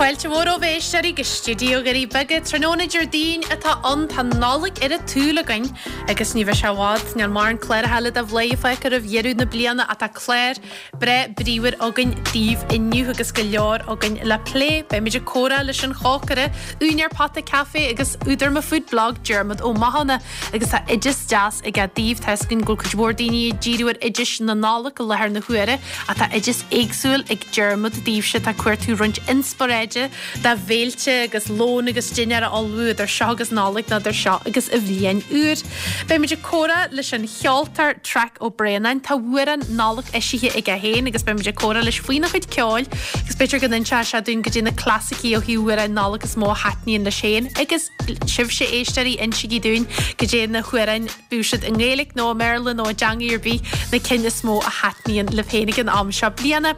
Fáilte mhór romhaibh a éisteoirí go stiúideo Dhoirí Beaga. Tráthnóna Déardaoin atá ann, tá an Nollaig ar an tsúil againn agus ní bheidh sé i bhfad, níl mórán cláracha eile de Bhladhaire fágtha roimh dheireadh na bliana ach tá clár breá bríomhar againn daoibh inniu agus go leor againn le plé. Beimid ag comhrá leis an chócaire, úinéir Pota Café agus údar mo Food Blog, Diarmuid Ó Mathúna. Agus tá oideas deas aige daoibh. Tá 'fhios againn go bhfuil cuid mhór daoine ag díriú ar oidis na Nollag i láthair na huaire ach tá oideas éagsúil ag Diarmuid daoibhse atá ag cuartú roinnt inspioráide do bhéilte agus lón agus dinnéar a ullmhú idir seo agus Nollaig nó idir seo agus an bhliain úr. Beimid ag comhrá leis an cheoltóir Traic Ó Braonáin. Tá amhrán Nollag eisithe aige féin agus beimid ag comhrá leis faoina chuid ceoil agus b'fhéidir go n-inseoidh sé dúinn goidé na clasaicí ó thaobh amhráin Nollag is mó a thaitníonn leis féin agus Sibhse, a éisteoirí, insígí dúinn goidé na hamhráin, bíodh siad i nGaeilge nó i mBéarla nó i dteangaidh ar bith, na cinn is mó a thaitníonn libh féin ag an am seo bliana.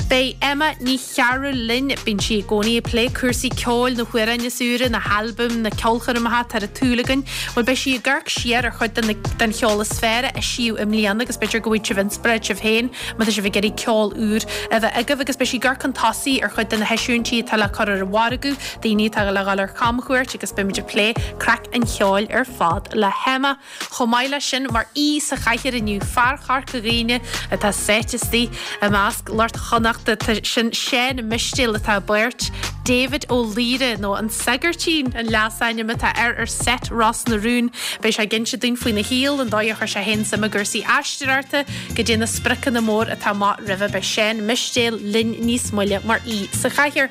Beidh Emma Ní Chearúil linn. Bíonn sí i gcónaí ag plé cúrsaí ceoil, na hamhráin is úire, na halbaim, na ceolchoirmeacha atá ar an tsúil againn. Bhuel, beidh sí ag amharc siar ar chuid den cheol is fearr a eisíodh i mbliana agus b'fhéidir go bhfaighidh sibh inspioráid sibh féin má tá sibh ag iarraidh ceol úr a bheith agaibh agus beidh sí ag amharc chun tosaigh ar chuid de na heisiúintí atá le cur ar an mhargadh. daoine atá le dhul ar chamchuairt agus beimid ag plé craic an cheoil ar fad le hEmma. Chomh maith leis sin, mar aoi sa chathaoir inniu, fear Chorca Dhuibhne atá sáite istigh i measc lucht Chonnachta, tá sin Seán Mistéil atá i bpáirt David Ó Laoire, nó an Sagairtín an leasainm atá air ar seit Ros na Rún. Beidh sé ag inse dúinn faoina shaol, an dóigh a chuir sé féin suim i gcúrsaí aisteoireachta, goidé na spriocanna mór atá amach roimhe. Beidh Seán Mistéil linn níos moille mar aoi sa chathaoir.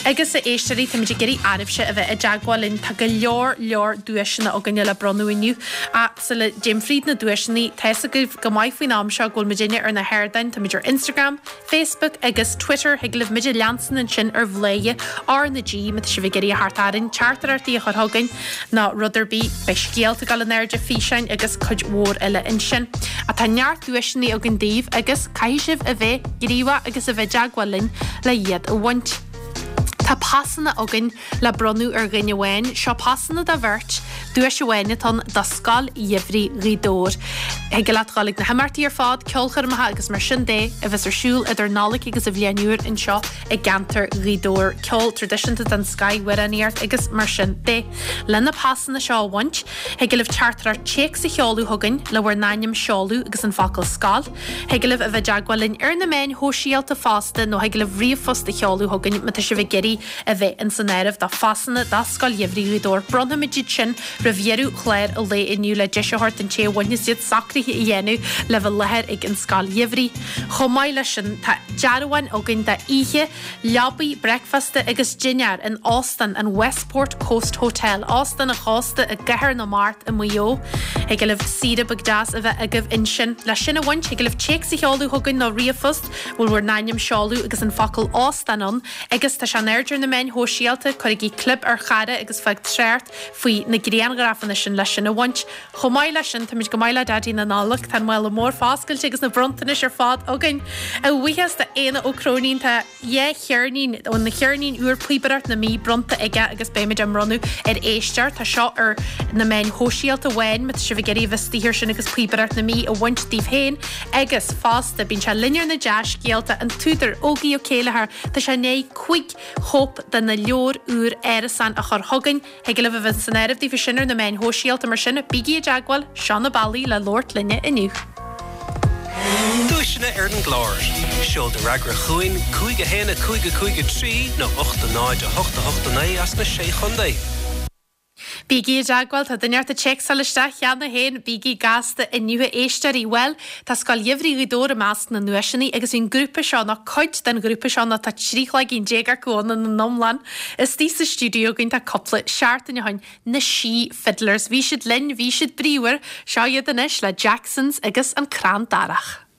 Agus a éisteoirí, táimid ag iarraidh oraibhse a bheith i dteagmháil linn. Tá go leor, leor duaiseanna againne le bronnadh inniu. Ach sula dtéim fríd na duaiseanna, tá fhios agaibh go maith faoin am seo go bhfuil muidinne ar na hardáin, táimid ar Instagram, Facebook agus Twitter, thig libh muid a leanstan ansin ar Bhladhaire R na G má tá sibh ag iarraidh a theacht orainn, teachtaireachtaí a chur chugainn nó rud ar bith. Beidh scéalta ag dul in airde, físeáin agus cuid mhór eile ansin. Ach tá neart duaiseanna againn daoibh agus caithfidh sibh a bheith gníomhach agus a bheith i dteagmháil linn le iad a bhaint. Tá pasanna againn le bronnadh ar dhuine amháin. Seo pasanna do bheirt, duais amháin atá ann do Scoil Gheimhridh Ghaoth Dobhair. Thig leat dhul ag na himeachtaí ar fad, ceolchoirmeacha agus mar sin de, a bheas ar siúl idir Nollaig agus an Bhliain Úr anseo i gceantar Ghaoth Dobhair. Ceol traidisiúnta den scoith, amhránaíocht agus mar sin de. Le na pasanna seo a bhaint, thig libh teachtaireacht téacs a sheoladh chugainn le bhur n-ainm, seoladh agus an focal 'scoil'. Thig libh a bheith i dteagmháil linn ar na meáin shóisialta fosta nó thig libh ríomhphost a sheoladh chugainn má tá sibh ag iarraidh a bheith ins an áireamh do phasanna do Scoil Gheimhridh Ghaoth Dobhair. Bronnfaimid iad sin roimh dheireadh chlár an lae inniu le deis a thabhairt don té a bhainfeas iad socruithe a dhéanamh le bheith i láthair ag an Scoil Gheimhridh. Chomh maith leis sin tá dearbháin againn d'oíche leabaidh, bricfeasta agus dinnéar in Óstán an Westport Coast Hotel, Óstán an Chósta i gCathair na Mart i Maigh Eo. Thig libh saoire beag deas a bheith agaibh ansin. Le sin a bhaint, thig libh téacs a sheoladh chugainn nó ríomhphost, a bhfuil bhur n-ainm, seoladh agus an focal 'óstán' ann agus tá sé in airde ar na meáin shóisialta, cuirigí clib ar chara agus fág trácht faoi na grianghrafanna sin le sin a bhaint. Chomh maith leis sin, táimid go maith le Daidí na Nollag, tá an mála mór foscailte agus na bronntanais ar fad againn. A bhuíochas do Éanna Ó Cróinín, tá dhá cheirnín óna cheirnín úr Píobaireacht na Mí bronnta aige agus beimid á mbronnadh ar éisteoir. Tá seo ar na meáin shóisialta amháin má tá sibh ag iarraidh a bheith istigh air sin agus Píobaireacht na Mí a bhaint daoibh féin. Agus fosta, bíonn sé linn ar na dea-scéalta, an t-údar Ógie Ó Céilleachair, tá sé i ndiaidh 5 chóip de na leabhair úr Árasán a chur chugainn. Thig libh a bheith san áireamh daofa sin ar na meáin shóisialta mar sin bígí i dteagmháil, seo na bealaí le labhairt linne inniu. Duaiseanna ar an gclár. Seol do fhreagra chugainn, 5 1 5 5 3 nó 8 0 8 8 9 as na Sé Chontae. Bígí i dteagmháil, tá duine ort ag téacsáil isteach cheana féin, bígí gasta inniu a éisteoirí. Bhuel, tá Scoil Gheimhridh Ghaoth Dobhair i measc na nduaiseanna agus bhí an grúpa seo, nó cuid den ghrúpa seo, nó tá 13 chloigín acu ann ina n-iomlán, Istigh sa stiúideo againn tá cúpla seachtain ó shin, na Sí Fiddlers. Bhí siad linn, bhí siad bríomhar. Seo iad anois le Jacksons agus an Crann Darach.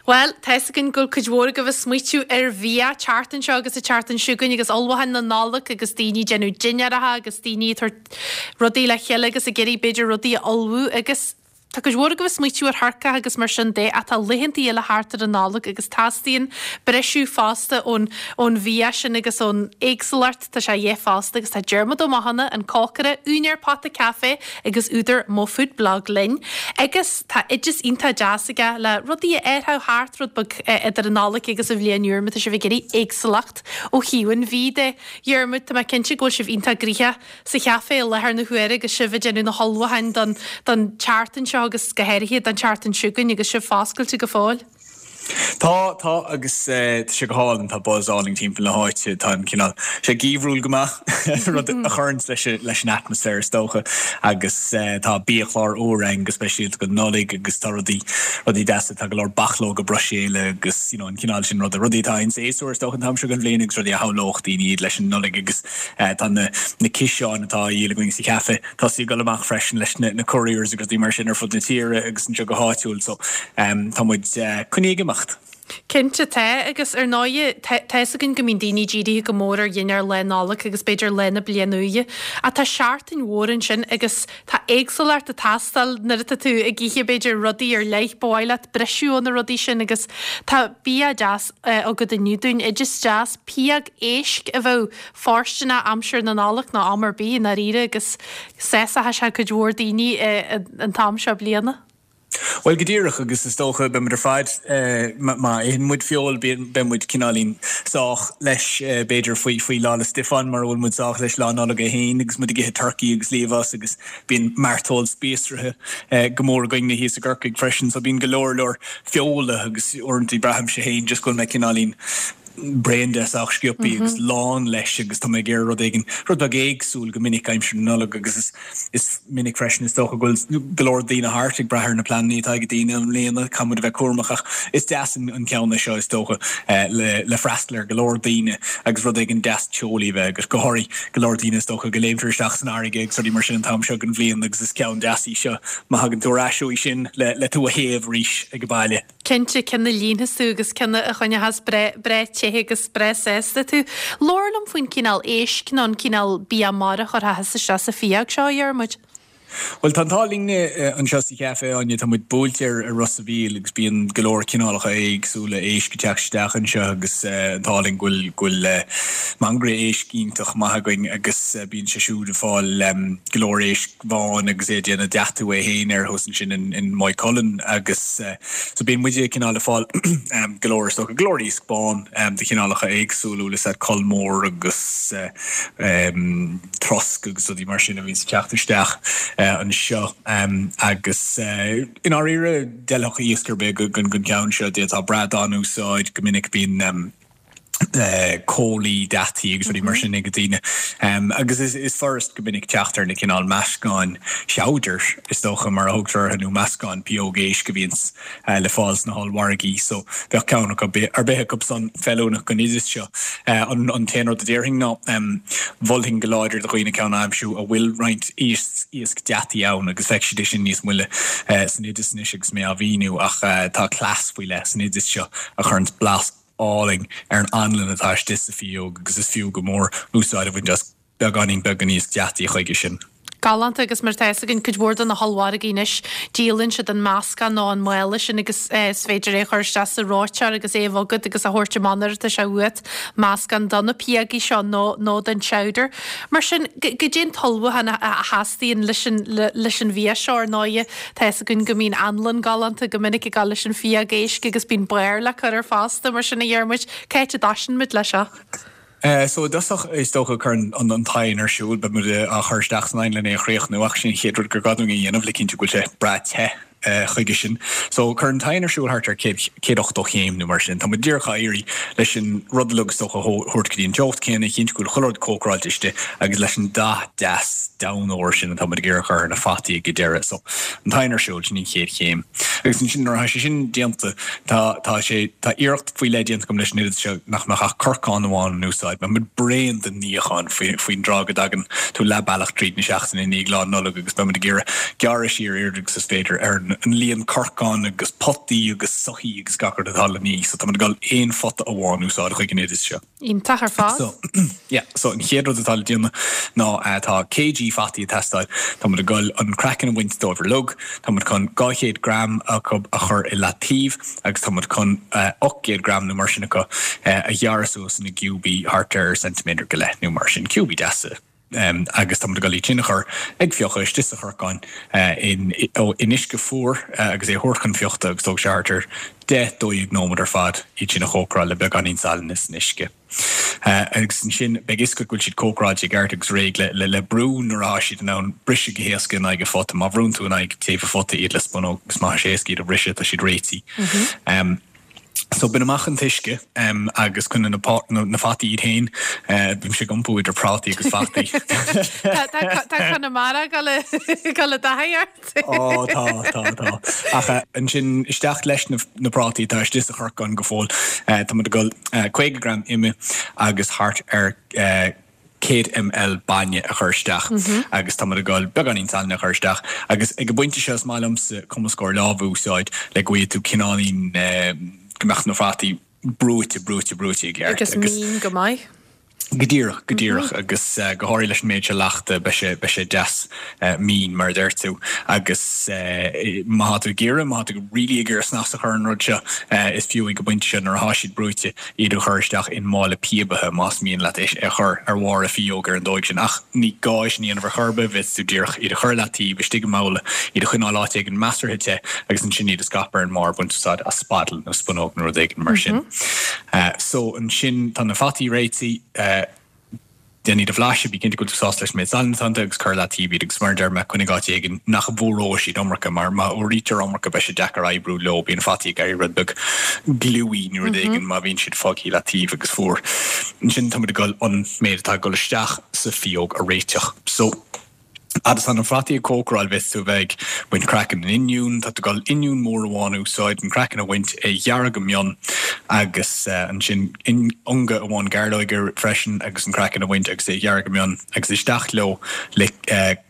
Bhuel, tá fhios againn go bhfuil cuid mhór agaibh ag smaoitiú ar bhia, an tseachtain seo agus an tseachtain seo chugainn agus ullmhúcháin na Nollag agus daoine ag déanamh dinnéaracha agus daoine ag tabhairt rudaí le chéile agus ag iarraidh b'fhéidir rudaí a ullmhú agus tá cuid mhór agaibh ag smaoitiú ar thurcach agus mar sin de ach tá laethanta eile thart ar an Nollaig agus teastaíonn briseadh fosta ón ón bhia sin agus ón éagsúlacht, tá sé a dhíth fosta agus tá Diarmuid Ó Mathúna, an cócaire, úinéir Pota Café agus údar Mo Food Blog linn agus tá oideas iontach deas aige le rudaí a fhearfadh thart rud beag idir an Nollaig agus an Bhliain Úr má tá sibh ag iarraidh éagsúlacht ó thaobh an bhídh de. Dhiarmuid, tá mé cinnte go bhfuil sibh iontach gnoitheach sa chaife i láthair na huaire agus sibh ag déanamh na hullmhúcháin don don tseachtain seo agus go háirithe don tseachtain seo chugainn agus sibh foscailte go fóill. Tá, tá agus tá sé go hálainn, tá buzz álainn timpeall na háite, tá an cineál, sé geimhriúil go maith, rud a chuireanns leis, leis an atmaisféar is dócha agus tá biachlár úr againn go speisialta don Nollaig agus tá rudaí, rudaí deasa, tá go leor bachlóga Bruiséile agus you know an cineál sin ruda, rudaí atá in séasúr is dócha an t-am seo den bhliain agus rudaí a shamhlódh daoine iad leis an Nollaig agus tá na, na ciseáin atá á dhíol againn sa chaife. Tosaithe ag dul amach freisin leis na couriers agus rudaí mar sin ar fud na tíre agus anseo go háitiúil so tá muid coinnithe ag imeacht. Cinnte tá, agus ar ndóighe tá fhios againn go mbíonn daoine dírithe go mór ar dhinnéar Lá Nollag agus b'fhéidir Lá na Bliana Úire ach tá seachtain mhór ansin agus tá éagsúlacht ag teastáil nuair atá tú ag ithe b'fhéidir rudaí ar leith, ba mhaith leat briseadh ó na rudaí sin agus tá bia deas agat inniu dúinn, oideas deas, pióg éisc a bheadh fóirsteanach aimsir na Nollag nó am ar bith i ndáiríre agus sásóidh sé cuid mhór daoine an t-am seo bliana. Bhuel, go díreach, agus is dócha, beidh muid ar fad, má itheann muid feoil, beidh muid cineáilín sách leis, b'fhéidir, faoi, faoi Lá 'le Stiofáin, mar a bhfuil muid sách leis Lá Nollag é féin, agus muid ag ithe turcaí agus liamhás agus bíonn mairteoil spíosraithe go mór againne thíos i gCorcaigh freisin, so bíonn go leor leor feola agus uaireanta braithimse féin just go bhfuil mé cineáilín bréan de sách sciobthaí agus lán leis agus tá mé ag iarraidh rud éigin, rud beag éagsúil go minic aimsir na Nollag agus is is minic freisin is dócha go bhfuil go leor daoine thart ag brath ar na pleananna atá ag daoine i mbliana, caithfidh muid a bheith cúramach ach is deas an an ceann é seo is dócha le le freastal ar go leor daoine agus rud éigin deas teolaí a bheith agat, go háirithe go leor daoine is dócha go léimtear isteach san fharraige agus rudaí mar sin an t-am seo den bhliain agus is ceann deas í seo má thagann tú ar ais uaidh sin le le tú a théamh arís ag an baile. Cinnte, ceann a líonfas tú agus ceann a choinneochas breá te agus breá sásta tú. Labhair liom faoin cineál éisc nó an cineál bia mara a chuirfeá thusa isteach sa phióg seo, a Dhiarmuid. Bhuel, tá an t-ádh linne anseo sa chaife, Áine, tá muid buailte ar Ros a' Mhíl agus bíonn go leor cineálacha éagsúla éisc ag teacht isteach anseo agus an t-ádh linn go bhfuil go bhfuil mangaire éisc iontach maith againn agus bíonn sé siúd ag fáil go leor éisc bháin agus é ag déanamh deatú é féin air thuas ansin in Maigh Cuilinn agus so bíonn muide cineál ag fáil go leor is dócha, go leor iasc bán de chineálacha éagsúla, bhfuil fhios a'd, coll mór agus trosc agus rudaí mar sin a bhíonns ag teacht isteach anseo agus i ndáiríre d'fheilfeadh iasc ar bith don cheann seo, d'fhéadfá bradán a úsáid go minic bíonn comhlaí deataí agus rudaí mar sin ag daoine. Agus is furast go minic teacht ar na cineál meascáin chowder, is dócha, mar a thugtar orthu, nó meascáin pióg éisc a bhíonns le fáil sna hollmhargaí. So bheadh ceann acu, ar bith acu san feiliúnach don oideas seo. An t-aon rud a déarfainn ná, mholfainn go láidir do dhaoine ceann a aimsiú a bhfuil roinnt iasc deataí ann agus feicfidh siad é sin níos moille san oideas anois agus mé á mhíniú ach tá cleas faoi leith san oideas seo a chuireanns blas álainn ar an anlann atá istigh sa phióg agus is fiú go mór úsáid a bhaint as beagáinín beag den iasc deataí chuige sin. Galánta agus mar atá fhios againn cuid mhór de na hollmhargaí anois díolann siad an meascán nó an mála sin agus is féidir é a chur isteach sa reoiteoir agus é a bhogadh agus a thabhairt amach nuair atá sé uait, meascán do na piógaí seo nó nó don chowder. Mar sin, goidé an t-ullmhúchán a theastaíonn leis an leis an bhia seo ar ndóighe. Tá fhios againn go mbíonn anlann galánta go minic ag dul leis an phióg éisc agus bíonn barr le cur air fosta, mar sin a Dhiarmuid, cá háit a dtoisíonn muid leis seo? So i dtosach is dócha cuir an t-oigheann ar siúl, beidh muid á chur isteach san oigheann lena é a chríochnú ach sin an chéad rud gur gá dúinn a dhéanamh le cinntiú go bhfuil sé breá te chuige sin. So cuir an t-oigheann ar siúl thart ar 180 chéim nó mar sin. Tá muid díreach á iarraidh leis an rud uilig is dócha a thabhairt go dtí an teocht céanna, a chinntiú go bhfuil chuile rud cócaráilte istigh agus leis an dath deas donn óir sin atá muid ag iarraidh a chur ar na fataí ag an deireadh. So, an t-oigheann ar siúl, sin an chéad chéim. Agus ansin nuair atá sé sin déanta, tá, tá sé, tá iarracht faoi leith déanta agam leis an oideas seo nach mbeadh ach corcán amháin in úsáid. Beidh muid bréan den níochán faoi, faoin dtráth go dtagann tú leath bealach tríd na seachtaine i ndiaidh Lá Nollag agus beidh muid ag iarraidh gearradh siar oiread agus is féidir ar an. an líon corcán agus potaí agus soithí agus gach rud atá le ní. So tá muid ag dul aon phota amháin a úsáid chuig an oideas seo. Iontach ar fad. So, yeah, so an chéad rud atá le déanamh ná tá kg fataí ag teastáil. Tá muid ag dul an craiceann a bhaint dóibh uilig. Tá muid chun 200 gram acu a chur i leataobh agus tá muid chun 800 gram nó mar sin acu a ghearradh suas ina gciúbaí thart ar ceintiméadar go leith nó mar sin, ciúbaí deasa. Agus tá muid ag dul iad sin a chur ag fiuchadh istigh sa chorcán in uisce fuar agus é a thabhairt chun fiuchta agus tógfaidh sé thart ar 10, 12 nóiméad ar fad iad sin a chócaráil le beagáinín salainn san uisce. Agus ansin beidh fhios agat go bhfuil siad cócaráilte i gceart agus réidh le brú nuair atá siad in ann briseadh go héasca in aghaidh an phota. Má bhrúnn tú in aghaidh taobh an phota iad le spunóg is má tá sé éasca iad a bhriseadh tá siad réitithe. So bain amach an t-uisce agus coinnigh na na fataí iad féin. Bímse ag iompú idir prátaí agus fataí. Tá Conamara ag dul i dtaithí ort. Ó tá, tá, tá. Ach ansin isteach leis na prátaí atá istigh sa chorcán go fóill. Tá muid ag dul 50 gram ime agus thart ar 100 ml bainne a chur isteach agus tá muid ag dul beagáinín salainn a chur isteach agus ag an bpointe seo is maith liomsa cumascóir láimhe a úsáid le go bhfaighidh tú cineáilín go mbeadh na fataí brúite, brúite, brúite i gceart. Agus mín go maith. Go díreach, go díreach agus go háirithe leis an méid seo leachta beidh sé, beidh sé deas mín mar a deir tú agus má tá tú ag iarraidh, má tá tú really ag iarraidh snas a chur ar an rud seo is fiú ag an bpointe seo nuair atá siad brúite iad a chur isteach i mála píobaithe más mian leat é a chur ar bharr a phíóg ar an dóigh sin. Ach ní gá é sin a dhéanamh ar chor ar bith, bhféadfadh tú díreach iad a chur i leataobh istigh i mbabhla, iad a choinneáil áit éigin measartha te agus ansin iad a scaipeadh ar an mbarr, baint úsáid as spaddle nó spunóg nó rud éigin mar sin. So ansin tá na fataí réitithe. Déan iad a bhlaiseadh, bí cinnte go bhfuil tú sásta leis an méid salainn atá iontu agus cuir i leataobh iad agus mar a deir mé, coinnigh áit éigin nach bhfuaróidh siad iomarca mar má fhuaraítear iomarca beidh sé deacair oibriú leo, bíonn fataí ag éirí rud beag gluey nó rud éigin má bhíonn siad fágtha i leataobh agus fuar. Ansin tá muid ag dul an méid atá ag dul isteach sa phíóg a réiteach. So. Fhad is tá na fataí ag cócaráil bhféadfadh tú a bheith ag baint craiceann an oinniúin. Tá tú ag dul oinniún mór amháin a úsáid, an craiceann a bhaint, é a ghearradh go mion agus ansin ionga amháin gairleoige freisin agus an craiceann a bhaint agus é a ghearradh go mion agus isteach leo le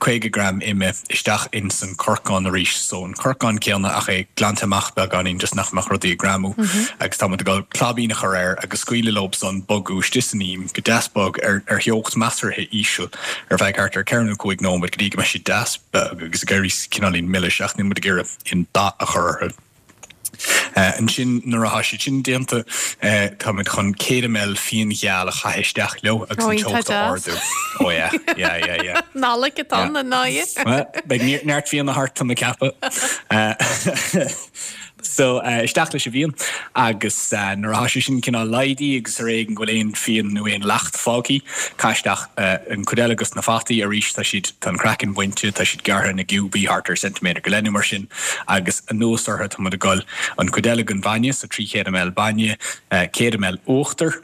50 gram ime isteach ins an corcán arís. So an corcán céanna ach é glanta amach beagáinín just nach mbeadh rudaí ag greamú agus tá muid ag dul claibín a chur air agus scaoileadh leo san bogadh istigh san im go deas bog ar theocht measartha íseal. ar feadh thart ar 4 nó 5 nóiméad go dtí go mbeidh siad deas bog agus ag éirí cineáilín milis ach níl muid ag iarraidh aon dath a chur orthu. Ansin nuair atá siad sin déanta tá muid chun 100 ml fíon gheal a chaitheamh isteach leo agus an teocht a ardú. Oh yeah, yeah, yeah, yeah. Nollaig atá ann, an ndóigh. Beidh neart fíona thart tá mé ag ceapadh. So, isteach leis an bhfíon agus nuair atá sé sin cineál laghdaithe agus ar éigean go bhfuil aon fhíon nó aon leacht fágtha, caith isteach an chuid eile dos na fataí arís, tá siad, tá an craiceann bainte, tá siad gearrtha ina gciúbaí thart ar ceintiméadar go leith nó mar sin agus anuas orthu tá muid ag dul an chuid eile den bhainne, so 300 ml bainne, 100 ml uachtar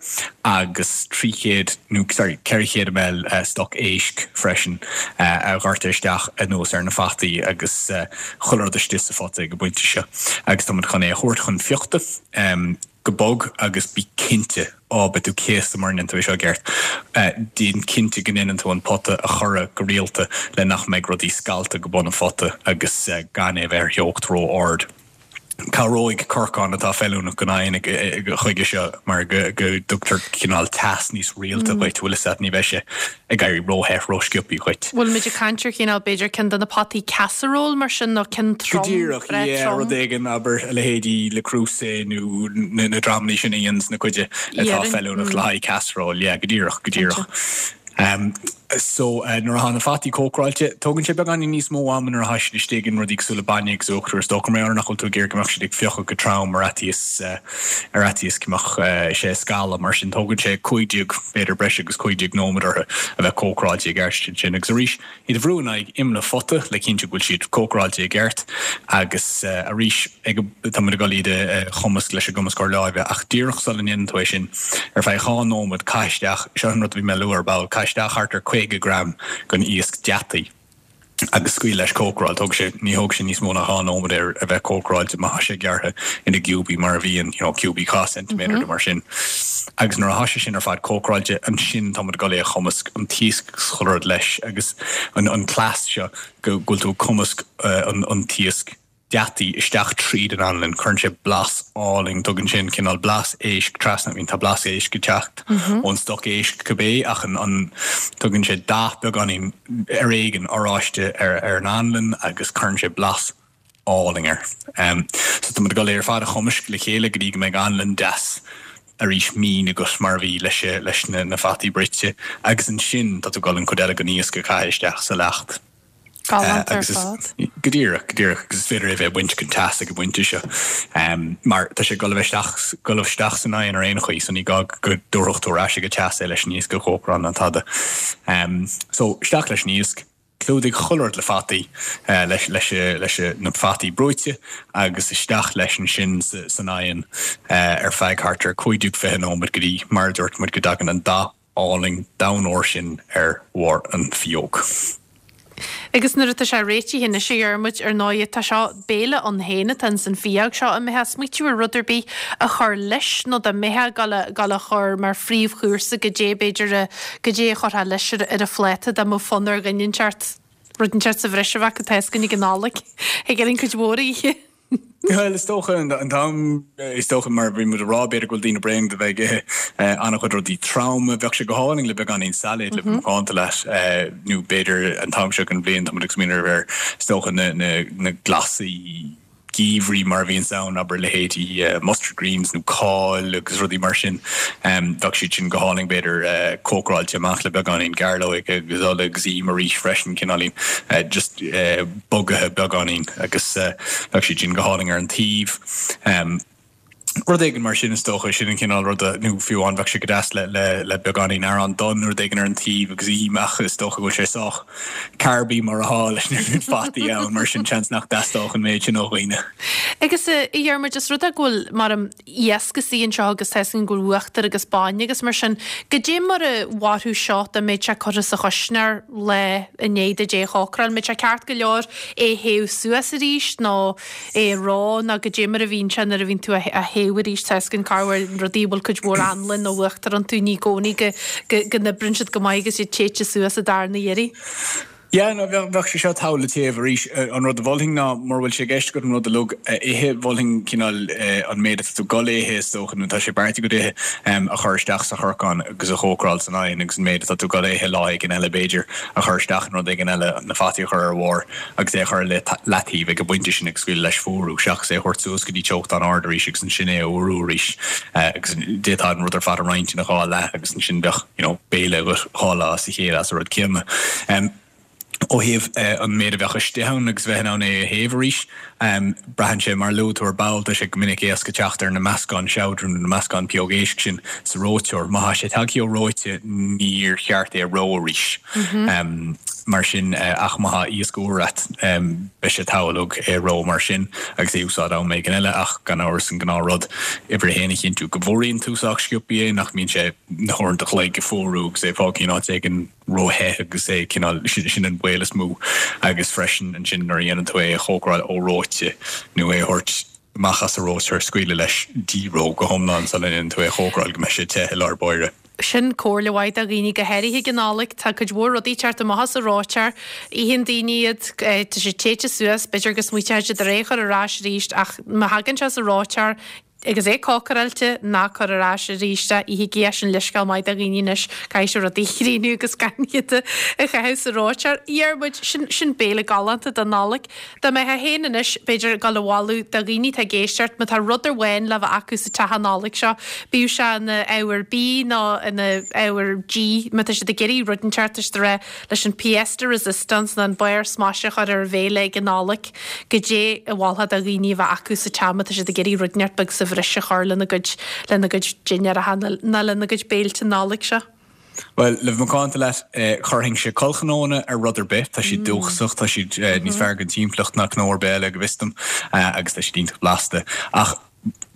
agus 300 nó sorry 400 ml stoc éisc freisin a dhoirteadh isteach anuas ar na fataí agus chuile rud istigh sa phota ag an bpointe seo agus tá muid chun é a thabhairt chun fiuchta go bog agus bí cinnte, á, beidh tú céasta mura ndéanann tú é seo i gceart, déan cinnte go ndéanann tú an pota a chorradh go rialta le nach mbeidh rudaí scallta go bun an phota agus gan é a bheith ar theocht ró-ard. Cabhróidh corcán atá feiliúnach don oigheann chuige seo mar go dtugtar cineál teas níos rialta dhuit, bhfuil fhios a't, ní bheidh sé ag éirí róthe rósciobthaí dhuit. Bhfuil muid ag caint ar chineál, b'fhéidir, ceann de na potaí casserole mar sin nó ceann trom, Go díreach, breá yeah, trom? rud éigin, abair, a leithéidí Le Creuset nó na dramalaí sin a dhéananns na cuide atá feiliúnach le haghaidh casserole, yeah, go díreach, go díreach. So, nuair atá na fataí cócaráilte, tógann sé beagáinín níos mó ama nuair atá siad istigh in rudaí cosúil le bainne agus uachtar is dócha, mar gheall ar nach bhfuil tú ag iarraidh go mbeadh siad ag fiuchadh go trom ar fhaitíos, ar fhaitíos go mbeadh sé ag scalladh. Mar sin, tógann sé 15, b'fhéidir breis agus 15 nóiméad orthu a bheith cócaráilte i gceart ansin. Agus arís, iad a bhrú in aghaidh imeall an phota le cinntiú go bhfuil siad cócaráilte i gceart agus arís ag tá muid ag dul iad a chumasc leis an gcumascóir láimhe ach díreach sula ndéanann tú é sin ar feadh 2 nóiméad caith isteach, seo an rud a bhí mé a lua ar ball, caith isteach thart ar 50 gram den iasc deataigh agus scaoil leis cócaráil. Tógfaidh sé, ní thógfaidh sé níos mó ná 2 nóiméad air a bheith cócaráilte má tá sé gearrtha ina gciúbaí mar a bhíonn, you know, ciúbaí 2 ceintiméadar nó mar sin. Agus nuair atá sé sin ar fad cócaráilte, ansin tá muid ag dul é a chumasc, an t-iasc agus chuile rud leis agus an cleas seo go bhfuil tú ag cumasc an t-iasc. deataí isteach tríd an anlann, cuireann sé blas álainn, tugann sé an cineál blas éisc trasna, I mean tá blas éisc ag teacht ón stoc éisc cibé ach an, an, tugann sé dath beagáinín ar éigean oráiste ar, ar an anlann agus cuireann sé blas álainn air. So tá muid ag dul é ar fad a chumaisc le chéile go dtí go mbeidh anlann deas arís mín agat mar a bhí leis, leis na, na fataí bruite agus ansin tá tú ag dul an chuid eile den iasc a chaitheamh isteach sa leacht. Galánta ar fad. Go díreach, go díreach, agus is féidir é a bheith ag baint den teas ag an bpointe seo. Mar tá sé ag dul a bheith isteach, dul isteach san oigheann ar aon chaoi, so ní gá go dtabharfadh tú ar ais ag an teas é leis an iasc a chócaráil ná tada. So, isteach leis an iasc, clúdaigh chuile rud le fataí, leis, leis, leis na fataí brúite agus isteach leis ansin san oigheann ar feadh thart ar 15, 20 nóiméad go dtí, mar a dúirt muid, go dtagann an dath álainn donn óir sin ar bharr an phióg. Agus nuair atá sé réitithe anois, a Dhiarmuid, ar ndóighe, tá seo béile ann féin atá ins an phióg seo. An mbeifeá ag smaoitiú ar rud ar bith a chur leis nó dá mbeifeá ag dul a, dul a chur mar phríomhchúrsa goidé b'fhéidir a, goidé a chuirfeá leis ar, ar an phláta dá mbeadh fonn ar dhuine inteacht, rud inteacht sa bhreis a bheadh acu tá fhios againn ag an Nollaig. Thig orainn cuid mhór a ithe. Bhuel, is dócha an t-am, is dócha mar a bhí muid a rá, b'fhéidir go bhfuil daoine bréan de bheith ag ithe an-chuid rudaí troma. Bheadh sé go hálainn le beagáinín sailéid le bheith macánta leat nó b'fhéidir an t-am seo den bhliain tá muid ag smaoineamh ar, is dócha, na, na, na glasaí geimhridh mar a bhíonns ann, abair leithéidí mustard greens nó cál agus rudaí mar sin. Bheadh siad sin go hálainn b'fhéidir cócaráilte amach le beagáinín gairleoige agus ola agus im arís freisin, cineáilín just. bogaithe beagáinín agus bheadh siad sin go hálainn ar an taobh. Rud éigin mar sin is dócha, sin an cineál ruda, nó fiú amháin bheadh sé go deas le le le beagáinín arán donn nó rud éigin ar an taobh agus im ach is dócha go bhfuil sé sách carby mar atá leis na fataí ann mar sin seans nach dteastódh an méid sin ó dhaoine. Agus a Dhiarmuid, is rud é go bhfuil mar an iasc istigh anseo agus tá fhios againn go bhfuil uachtar agus bainne agus mar sin. Goidé mar a mhairfeadh seo dá mbeadh sé curtha sa chuisneoir lá i ndiaidh duit é a chócaráil? An mbeadh sé ceart go leor é a théamh suas arís nó é a reo nó goidé mar a bhíonn sé nuair a bhíonn tú á théamh arís? Tá fhios againn corruair rudaí a bhfuil cuid mhór anlainn nó uachtar iontu ní i gcónaí go n-oibríonn siad go maith agus iad téite suas an darna iarraidh. Yeah, no, bheadh, bheadh sé seo togha le téamh arís. An rud a mholfainn ná, mura bhfuil sé i gceist agat an rud uilig a ithe, mholfainn cineál an méid atá tú ag dul a ithe, is dócha, nó tá sé beartaithe agat a ithe, a chur isteach sa chorcán agus a chócaráil san oigheann agus an méid atá tú ag dul a ithe lá éigin eile, b'fhéidir, a chur isteach in rud éigin eile, na fataí a chur ar a bharr agus é a chur ar leataobh ag an bpointe sin agus scaoileadh leis fuarú, seachas é a thabhairt suas go dtí teocht an-ard arís agus ansin é a fhuarú arís agus d'fhéadfá an rud ar fad a roinnt ina dhá leath agus ansin bheadh. you know, béile agat 2 lá as a chéile as an rud céanna. Ó thaobh an méid a bheadh istigh ann agus bheith in ann é a théamh arís, braitheann sé, mar a luaigh tú ar ball, tá sé go minic éasca teacht ar na meascáin seabhdrainn nó na meascáin pióg éisc sin sa reoiteoir. Má tá sé tagtha ó reoite níor cheart é a reo arís. Mar sin, ach má tá iasc úr a't, beidh sé togha uilig é a reo mar sin agus é a úsáid am éigin eile ach gan amhras an gnáth rud, uimhir a haon a chinntiú go bhfuaraíonn tú sách sciobtha é, nach mbíonn sé na huaireanta an chloig ag fuarú agus é fágtha in áit éigin ró-the agus é cineál, sin an baol is mó agus freisin ansin nuair a dhéanann tú é a chócaráil ó reoite nó é a thabhairt amach as an reoiteoir, scaoileadh leis dí-reo go hiomlán sula ndéanann tú é a chócaráil go mbeidh sé te i lár báire. Sin comhairle mhaith do dhaoine, go háirithe ag an Nollaig. Tá cuid mhór rudaí ag teacht amach as an reoiteoir. Itheann daoine iad, tá siad téite suas, b'fhéidir go smaoiteoidh siad ar é a chur ar ais arís ach má thagann sé as an reoiteoir, Agus é cócaráilte, ná cuir ar ais arís é, ithigí é, sin leithscéal maith do dhaoine anois, caithfidh sibh rudaí a chríochnú agus gan iad a chaitheamh sa reoiteoir. A Dhiarmuid, sin, sin béile galánta don Nollaig. Dá mbeifeá féin anois, b'fhéidir, ag dul a mholadh do dhaoine atá ag éisteacht, má tá rud amháin le bheith acu sa teach an Nollaig seo, bíodh sé ina ábhar bídh nó ina ábhar dí, má tá siad ag iarraidh rud inteacht, tá siad ag rá, leis an pièce de résistance nó an barr smaise a chur ar an bhéile ag an Nollaig, goidé a mholfá do dhaoine a bheith acu sa teach má tá siad ag iarraidh rud inteacht beag sa bhreis a chur lena gcuid, lena gcuid dinnéaracha nó lena gcuid béilte Nollag seo. Bhuel, le bheith macánta leat, chuirfinnse corrchnónna ar rud ar bith. Tá siad dúchasach, tá siad níos fearr don timpeallacht ná cnó ar bith eile, go bhfios dom, agus tá siad iontach blasta. Ach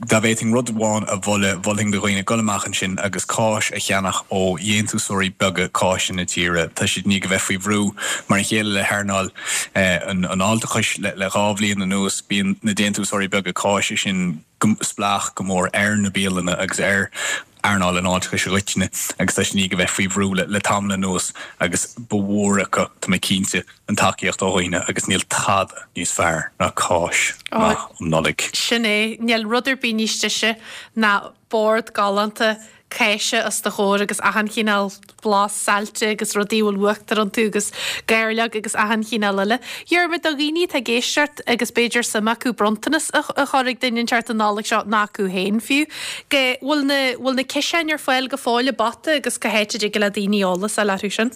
Dá bhféadfainn rud amháin a mholadh, mholfainn do dhaoine dul amach ansin agus cáis a cheannach ó dhéantúsóirí beaga cáise na tíre. Tá siad i ndiaidh a bheith faoi bhrú, mar a chéile le hearnáil an fháilteachais le 2 bhliain anuas. Bíonn na déantúsóirí beaga cáise sin spleách go mór ar na bialanna agus ar. earnáil an fháilteachais i gcoitinne agus tá siad i ndiaidh a bheith faoi bhrú le tamall anuas agus ba mhór acu, tá mé cinnte, an tacaíocht ó dhaoine agus níl tada níos fearr ná cáis maith um Nollaig. Sin é, níl rud ar bith níos deise ná bord galánta cáise os do chomhair agus achan chineál blas saillte agus rudaí a bhfuil uachtar iontu agus gairleog agus achan chineál eile. Dhiarmuid, do dhaoine atá ag éisteacht agus b'fhéidir suim acu bronntanas a chur ag duine inteacht an Nollaig seo, nó acu féin fiú, go bhfuil na, bhfuil na ciseáin ar fáil go fóill i bPota agus cá háit a dtig le daoine eolas a fháil orthu sin?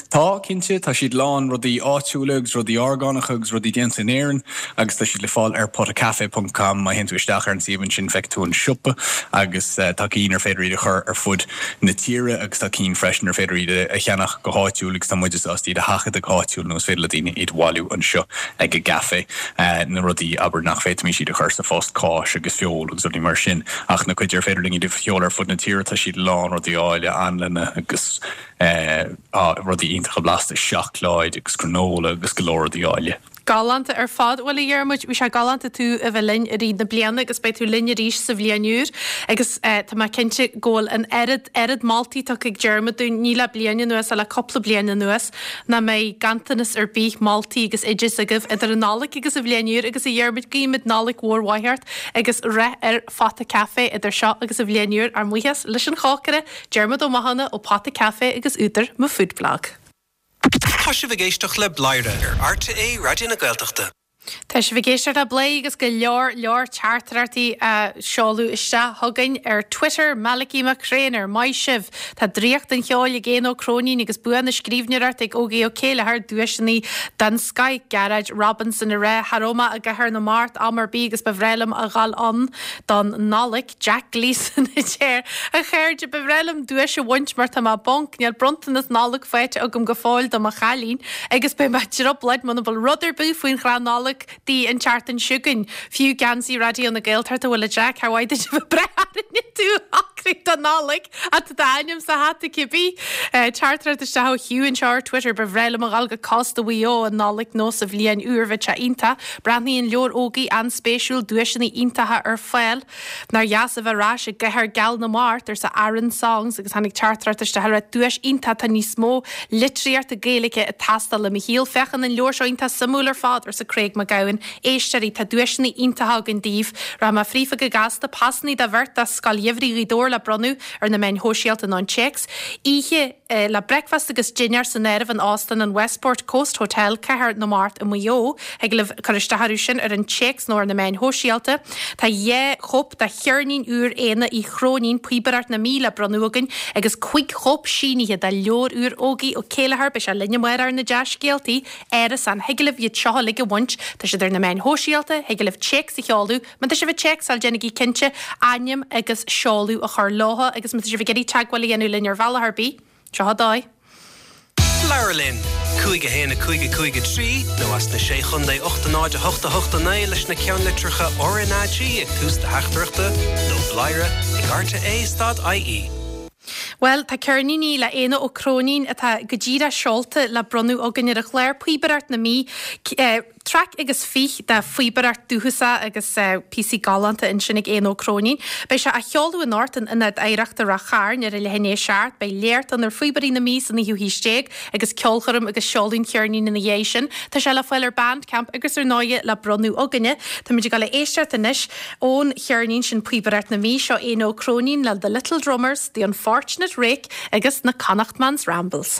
Tá, cinnte. Tá siad lán rudaí áitiúla agus rudaí orgánacha agus rudaí déanta in Éirinn agus tá siad le fáil ar potacafe ponc com. Má théann tú isteach ar an suíomh ansin feicfidh tú an siopa agus tá cinn ar féidir iad a chur ar fud na tíre agus tá cinn freisin ar féidir iad a cheannach go háitiúil agus tá muide sásta iad a sheachadadh go háitiúil nó is féidir le daoine iad a bhailiú anseo ag an gcaifé. Na rudaí, abair, nach bhféadfaimis iad a chur sa phost, cáis agus feoil agus rudaí mar sin ach na cuid ar féidir linn iad a sheoladh ar fud na tíre tá siad lán rudaí áille, anlanna agus. rudaí iontacha blasta, seacláid agus granola agus go leor rudaí áille. Galánta ar fad. Bhuel, a Dhiarmuid, bhí sé galánta tú a bheith linn i rith na bliana agus beidh tú linn arís sa bhliain úr agus tá mé cinnte go bhfuil an oiread, oiread moltaí tugtha ag Diarmuid dúinn, ní le bliain anuas ach le cúpla bliain anuas, nach mbeidh ganntanas ar bith moltaí agus oideas agaibh idir an Nollaig agus an bhliain úr agus a Dhiarmuid, guímid Nollaig mhór mhaith ort agus rath ar Phota Café idir seo agus an bhliain úr. Ár mbuíochas leis an chócaire Diarmuid Ó Mathúna ó Pota Café agus údar Mo Food Blog. Tá sibh ag éisteacht le Bladhaire ar RTÉ Raidió na Gaeltachta. Tá sibh ag éisteacht le Bladhaire agus go leor leor teachtaireachtaí á seoladh isteach chugainn ar Twitter, Malachy Mac Thréinir, maith sibh! Tá draíocht an cheoil ag Éanna Ó Cróinín agus bua na scríbhneoireachta ag Ógie Ó Céilleachair, duaiseanna den scoith, Gearóid Robinson ag rá, cha raibh mé i gCathair na Mart am ar bith agus ba bhreá liom a dhul ann don Nollaig. Jack Gleeson a deir, A chairde, ba bhreá liom duais a bhaint mar tá mé bonk, níl bronntanas Nollag faighte agam go fóill do mo chailín agus beidh mé i dtrioblóid muna bhfuil rud ar bith faoin chrann Nollag di an tseachtain seo chugainn. Fiú geansaí Raidió na Gaeltachta bhuel a Jack, char mhaith duit a bheith ag brath orainne tú a shocrú don Nollaig ach tá d'ainm sa hata cibé. Teachtaireacht isteach ó Hugh anseo ar Twitter, ba bhreá liom a dhul go cósta Mhaigh Eo an Nollaig nó sa bhliain úr, bheadh sé iontach. Breathnaíonn leabhar Ógie an-spéisiúil, duaiseanna iontacha ar fáil. Nár dheas a bheith ar ais i gcathair geal na Mart, arsa Aaron Songs agus tháinig teachtaireacht isteach ag rá duais iontach, tá níos mó litríochta Gaeilge ag teastáil i mo shaol. Féachann an leabhar seo iontach suimiúil ar fad, arsa Craig Mac Gabhann. Éisteoirí, tá duaiseanna iontacha againn daoibh. Rachaidh mé fríofa go gasta, pasannaí do bheirt do Scoil Gheimhridh Ghaoth Dobhair le bronnadh ar na meáin shóisialta nó an téacs. Oíche. le bricfeasta agus dinnéar san áireamh in Óstán an Westport Coast Hotel, Cathair na Mart i Maigh Eo. Thig libh cur isteach orthu sin ar an téacs nó ar na meáin shóisialta. Tá 2 chóip de cheirnín úr Éanna Uí Chróinín, Píobaireacht na Mí le bronnadh againn agus 5 chóip sínithe de leabhar úr Ógie Ó Céilleachair, beidh sé linn amárach ar na dea-scéaltaí, Árasán. Thig libh iad seo uilig a bhaint. Tá siad ar na meáin shóisialta, thig libh téacs a sheoladh. Má tá sibh ag téacsáil, déanaigí cinnte ainm agus seoladh a chur leo agus má tá sibh ag iarraidh teagmháil a dhéanamh linn ar bhealach ar bith, seo an dóigh. Labhair linn! 5 1 5 5 3 nó as na Sé Chontae 8 0 8 8 9 leis na ceannlitreacha RnaG ag tús do theachtaireachta nó bladhaire ag rte stad ie. Bhuel, tá ceirníní le Éanna Ó Cróinín atá go díreach seolta le bronnadh againn ar an chlár, Píobaireacht na Mí. Traic agus fich de phíobaireacht dúchasach agus píosaí galánta ansin ag Éanna Ó Cróinín. Beidh sé á sheoladh anocht in Ionad Oidhreachta Ráth Chairn ar a leath i ndiaidh a 7. Beidh léacht ann ar phíobairí na Mí sa naoú haois déag agus ceolchoirm agus seoladh an cheirnín ina dhiaidh sin. Tá sé le fáil ar Bandcamp agus ar ndóighe le bronnadh againne. Táimid ag dul a éisteacht anois ón cheirnín sin Píobaireacht na Mí. Seo Éanna Ó Cróinín le The Little Drummers, The Unfortunate Rake agus na Connachtman's Rambles.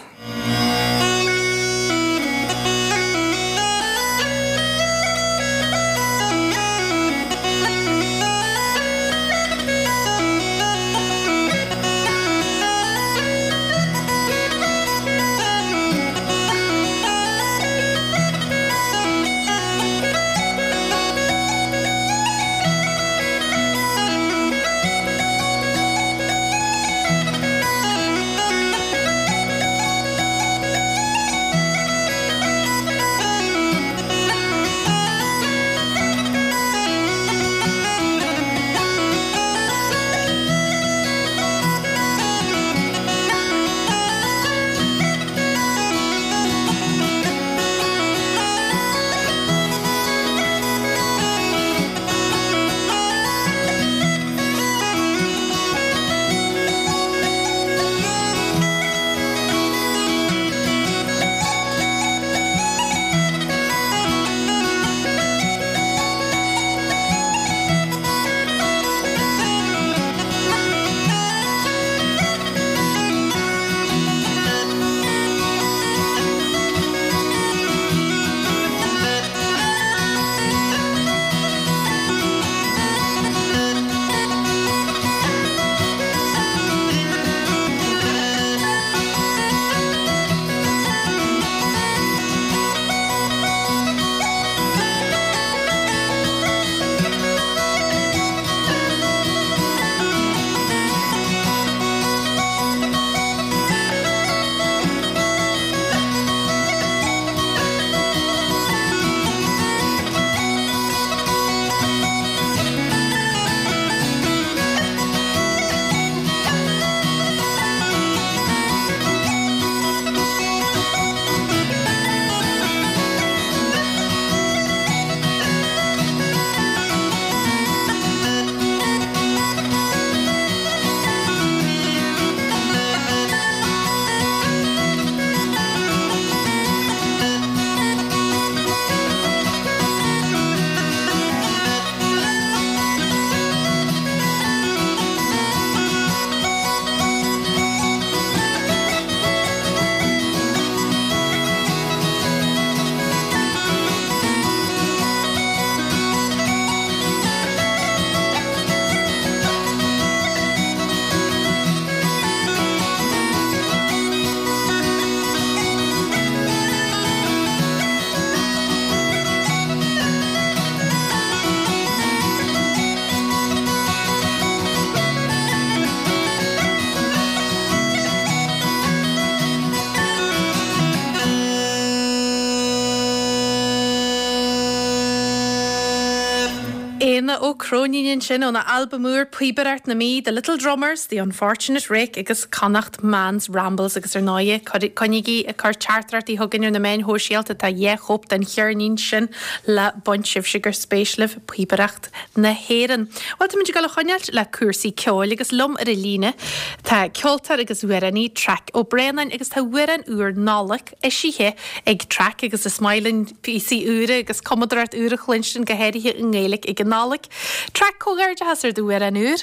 Éanna Ó Cróinín ansin óna albam úr Píobaireacht na Mí, The Little Drummers, The Unfortunate Rake agus Connacht Man's Rambles agus ar ndóighe coinnígí ag cur teachtaireachtaí chugainn ar na meáin shóisialta, tá 2 chóip den cheirnín sin le baint sibhse gur spéis libh píobaireacht na hÉireann. Bhuel táimid ag dul a choinneáilt le cúrsaí ceoil agus liom ar an líne tá ceoltóir agus amhránaí Traic Ó Braonáin agus tá amhrán úr Nollag eisithe ag Traic agus is maith linn píosaí úra agus cumadóireacht úr a chluinstin, go háirithe i nGaeilge ag an Nollaig. Traic, comhghairdeachas ar d'amhrán úr!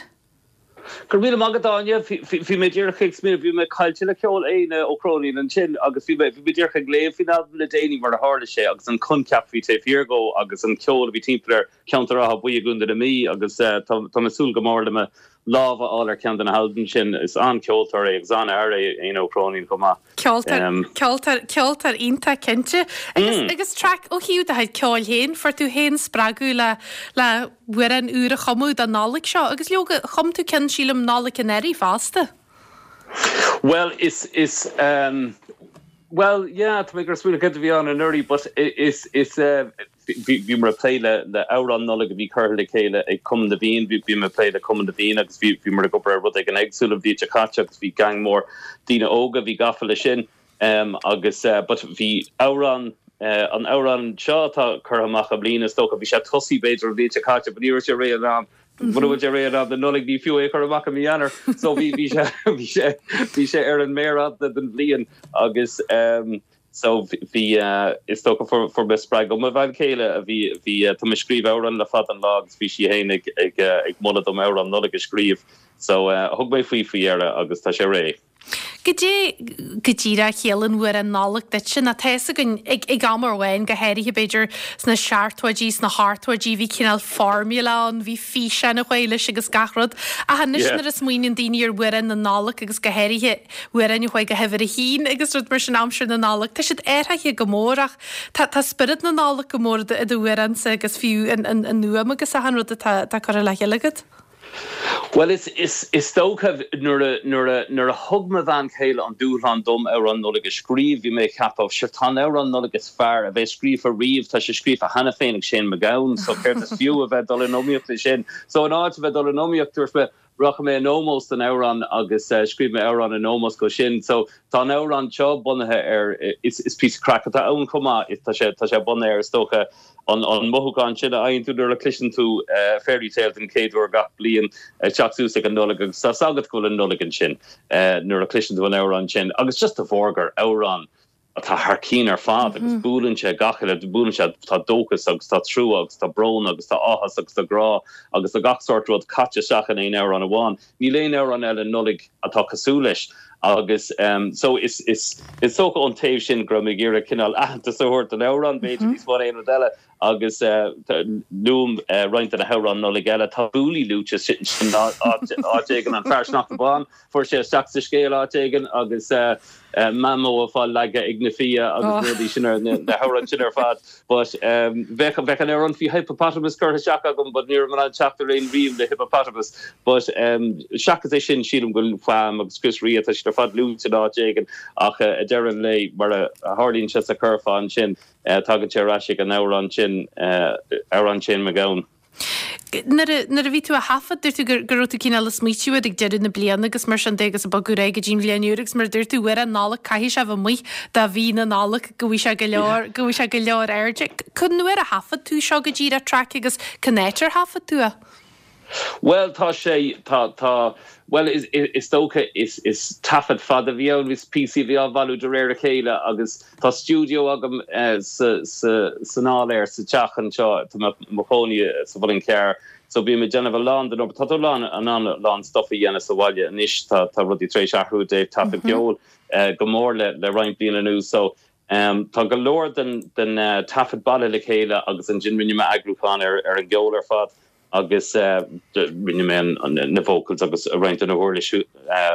Go raibh míle maith agat, Áine. Bhí mé díreach ag smaoineamh, bhí mé caillte le ceol Éanna Ó Cróinín ansin agus bhí mé, bhí mé díreach ag léamh faoin albam le déanaí mar a tharla sé agus an coincheap a bhí taobh thiar dhó agus an ceol a bhí timpeall ar cheantar Átha Buí i gContae na Mí agus tá mé ag súil go mór le mo lámh a fháil ar cheann de na halbaim sin. Is an-cheoltóir é agus an-fhear é Éanna Ó Cróinín chomh maith. Ceoltóir, ceoltóir, ceoltóir iontach cinnte. Agus, agus Traic, ó thaobh do chuid ceoil féin, fuair tú féin spreagadh le, le hamhrán úr a chumadh don Nollaig seo agus leoga, chum tú ceann sílim Nollaig anuraidh fosta. Bhuel, is, is, bhuel, yeah, tá mé ag smaoineamh céard a bhí ann anuraidh but is, is, Bhíomar ag plé le amhrán Nollag a bhí curtha le chéile ag Cumann na bhFiann. Bhí mé ag plé le Cumann na bhFiann agus bhíomar ag obair ar rud éigin éagsúil an bhliain seo caite agus bhí gang mór daoine óga a bhí gafa leis sin agus but bhí amhrán, an amhrán seo atá curtha amach i mbliana is dócha, bhí sé tosaithe b'fhéidir an bhliain seo caite but ní raibh sé réidh in am, mura bhfuil sé réidh in am don Nollaig ní fiú é a chur amach i mí Eanáir. So bhí, bhí sé, bhí sé, bhí sé ar an méar fhada den bhliain agus. So bhí, is dócha fuair fuair mé spreagadh ó mo bhean chéile a bhí, bhí, tá mé ag scríobh amhrán le fada an lá agus bhí sí féin ag, ag, ag moladh dom amhrán Nollag a scríobh. So thug mé faoi faoi dheireadh agus tá sé réidh. Goidé go díreach a chiallaíonn amhrán Nollag duitse, nó tá fhios againn ag, ag am amháin, go háirithe b'fhéidir sna seachtóidí, sna hochtóidí, bhí cineál formula ann, bhí físeán a chuaigh leis agus gach rud. Ach anois nuair a smaoiníonn daoine ar amhráin na Nollag agus go háirithe amhráin a chuaigh go huimhir a haon agus rud mar sin aimsir na Nollag, tá siad athraithe go mór ach tá tá spiorad na Nollag go mór i d'amhránsa agus fiú an an an fhuaim agus achan rud atá atá curtha le chéile agat. Bhuel is is is dócha nuair a nuair a nuair a thug mo bhean chéile an dúshlán dom amhrán Nollag a scríobh bhí mé ag ceapadh sure tá an amhrán Nollag is fearr a bheas scríofa riamh tá sé scríofa cheana féin ag Shane MacGowan so céard is fiú a bheith ag dul in iomaíocht leis sin so in áit a bheith ag dul in iomaíocht dúirt mé Rachaidh mé in ómós don amhrán agus scríobh mé amhrán in ómós dó sin. So tá an amhrán seo bunaithe ar, is píosa craic atá ann chomh maith, tá sé, tá sé bunaithe ar is dócha an an mothúchán sin a fhaigheann tú nuair a chloiseann tú Fairy Tale den chéad uair gach bliain ag teacht suas ag an Nollaig agus tá's agat go bhfuil an Nollaig ansin nuair a chloiseann tú an amhrán sin agus just de bharr gur amhrán atá thar cinn ar fad agus buaileann sé gach uile, buaileann sé, tá dóchas agus tá trua agus tá brón agus tá áthas agus tá grá agus tá gach sórt rud caite isteach in aon amhrán amháin. Níl aon amhrán eile Nollaig atá cosúil leis agus so is, is, is dócha ón taobh sin go raibh mé ag iarraidh cineál aitheantas a thabhairt don amhrán b'fhéidir níos mó ná aon rud eile agus luaim roinnt de na hamhráin Nollag eile. Tá Booley luaite sin áit éigin, an fear sneachta bán, fuair sé isteach sa scéal áit éigin agus Mamó ag fáil leagtha ag na fia agus rudaí sin ar na hamhráin sin ar fad. But bheadh bheadh an amhrán faoi hippopotamus curtha isteach agam but ní raibh mé in ann teacht ar aon rím le hippopotamus. But seachas é sin sílim go bhfuil Wham agus Chris Rea tá siad ar fad luaite in áit éigin ach ag deireadh an lae mar a tharlaíonn sé sa churfá ansin Tagann sé ar ais ag an amhrán sin, amhrán Shane MacGowan. Nuair a, nuair a bhí tú á thaifead, dúirt tú go, go raibh tú cineál ag smaoitiú air ag deireadh na bliana agus mar sin de agus ag bogadh ar aghaidh go dtí an bhliain úr agus mar a dúirt tú, amhrán Nollag, caithfidh sé a bheith amuigh do mhí na Nollag go bhfaighidh sé go leor, go bhfaighidh sé go leor airde. Cén uair a thaifead tú seo go díreach, Traic, agus cén áit ar thaifead tú é? Bhuel, tá sé, tá, tá, bhuel, is, is dócha, is, is taifead fada a bhí ann, is píosaí a bhí á bhailiú de réir a chéile agus tá stiúideo agam sa, sa, san áiléar sa teach anseo, tá mé i mo chónaí sa Mhuileann Cearr, so bím ag déanamh a lán den obair, tá tú lán, in ann a lán stuff a dhéanamh sa bhaile anois, tá, tá rudaí tar éis athrú i dtaobh taifead ceoil go mór le, le roinnt bliain anuas, so tá go leor den, den taifead bailithe le chéile agus ansin rinne mé eagrúchán ar, ar an gceol ar fad. agus rinne mé na vocals agus roinnt de na huirlisí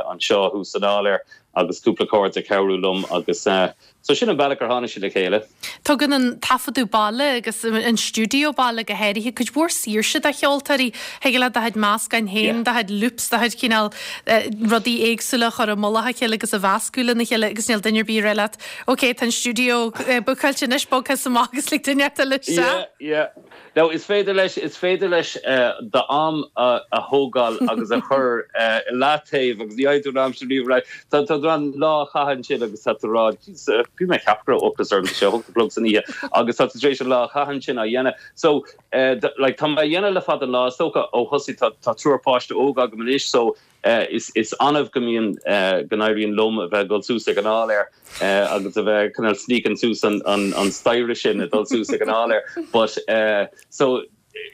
anseo thuas san áiléar. agus cúpla cairde ag cabhrú liom agus so sin an bealach ar tháinig sé le chéile. Tugann an taifeadadh baile agus an stiúideo baile go háirithe cuid mhór saoirse do cheoltóirí. Thig leat do chuid meascáin féin, do chuid loops, do chuid cineál rudaí éagsúla a chur i mullach a chéile agus a mheascadh lena chéile agus níl duine ar bith ag rá leat ok tá an stiúideo bookáilte anois, bog thusa amach agus lig duine eile isteach. Yeah, yeah. Now is féidir leis, is féidir leis d'am a thógáil agus a chur i leataobh agus ní fhaigheann tú an am sin riamh ar ais. Tá tú in ann lá a chaitheamh ansin agus tá tú ag rá, jeez, bhí mé ag ceapadh go raibh ocras orm, tá sé a hocht a chlog san oíche agus tá tú tar éis an lá a chaitheamh ansin á dhéanamh. So, like, tá mé á dhéanamh le fada an lá, is dócha ó thosaigh, tá, tá triúr páiste óg agam anois so, Is annamh go mbíonn, go n-éiríonn liom a bheith ag dul suas ag an áiléar agus a bheith cineál sneaking suas an staighre sin ag dul suas ag an áiléar. But so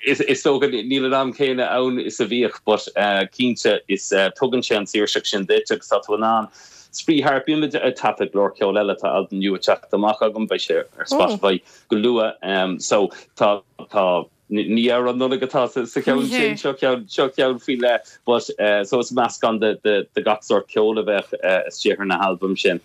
is dócha níl an am céanna ann is a bhíodh but cinnte is tugann sé an saoirseacht sin duit agus tá tú in ann spraoi thart. Bímid ag taifead go leor ceoil eile, tá albam nua ag teacht amach agam, beidh sé ar Spotify go luath. So tá, tá. Ní amhrán Nollag atá sa cheann sin, seo ceann, seo ceann faoi leith but so is meascán de de gach sórt ceoil a bheadh istigh ar na halbaim sin.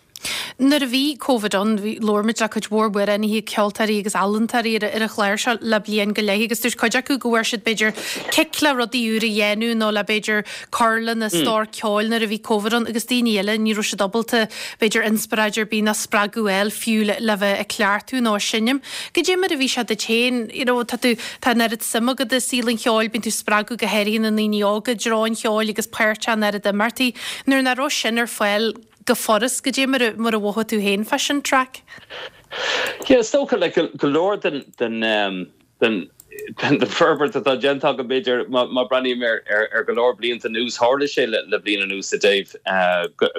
Nuair a bhí Covid ann, bhí, labhair muid le cuid mhór amhránaithe, ceoltóirí agus ealaíontóirí ar ar an chlár seo le bliain go leith agus dúirt cuid acu go bhfuair siad b'fhéidir cic le rudaí úr a dhéanamh nó le b'fhéidir cur lena stór ceoil nuair a bhí Covid ann agus daoine eile ní raibh siad ábalta b'fhéidir inspioráid ar bith ná spreagadh a fháil fiú le bheith ag cleachtadh nó ag seinm. Goidé mar a bhí sé duit féin, you know, tá tú, tá an oiread suim agat i saol an cheoil, bíonn tú ag spreagadh go háirithe na ndaoine óga i dtreo an cheoil agus páirteach in oiread imeachtaí. Nuair nach raibh sin ar fáil go furast, goidé mar a, mar a mhothaigh tú féin fá sin, Traic? Yeah, is dócha, like, go leor den, den, den, den forbairt atá déanta agam, b'fhéidir, má breathnaím ar go leor blianta anuas, tharla sé le bliain anuas i dtaobh,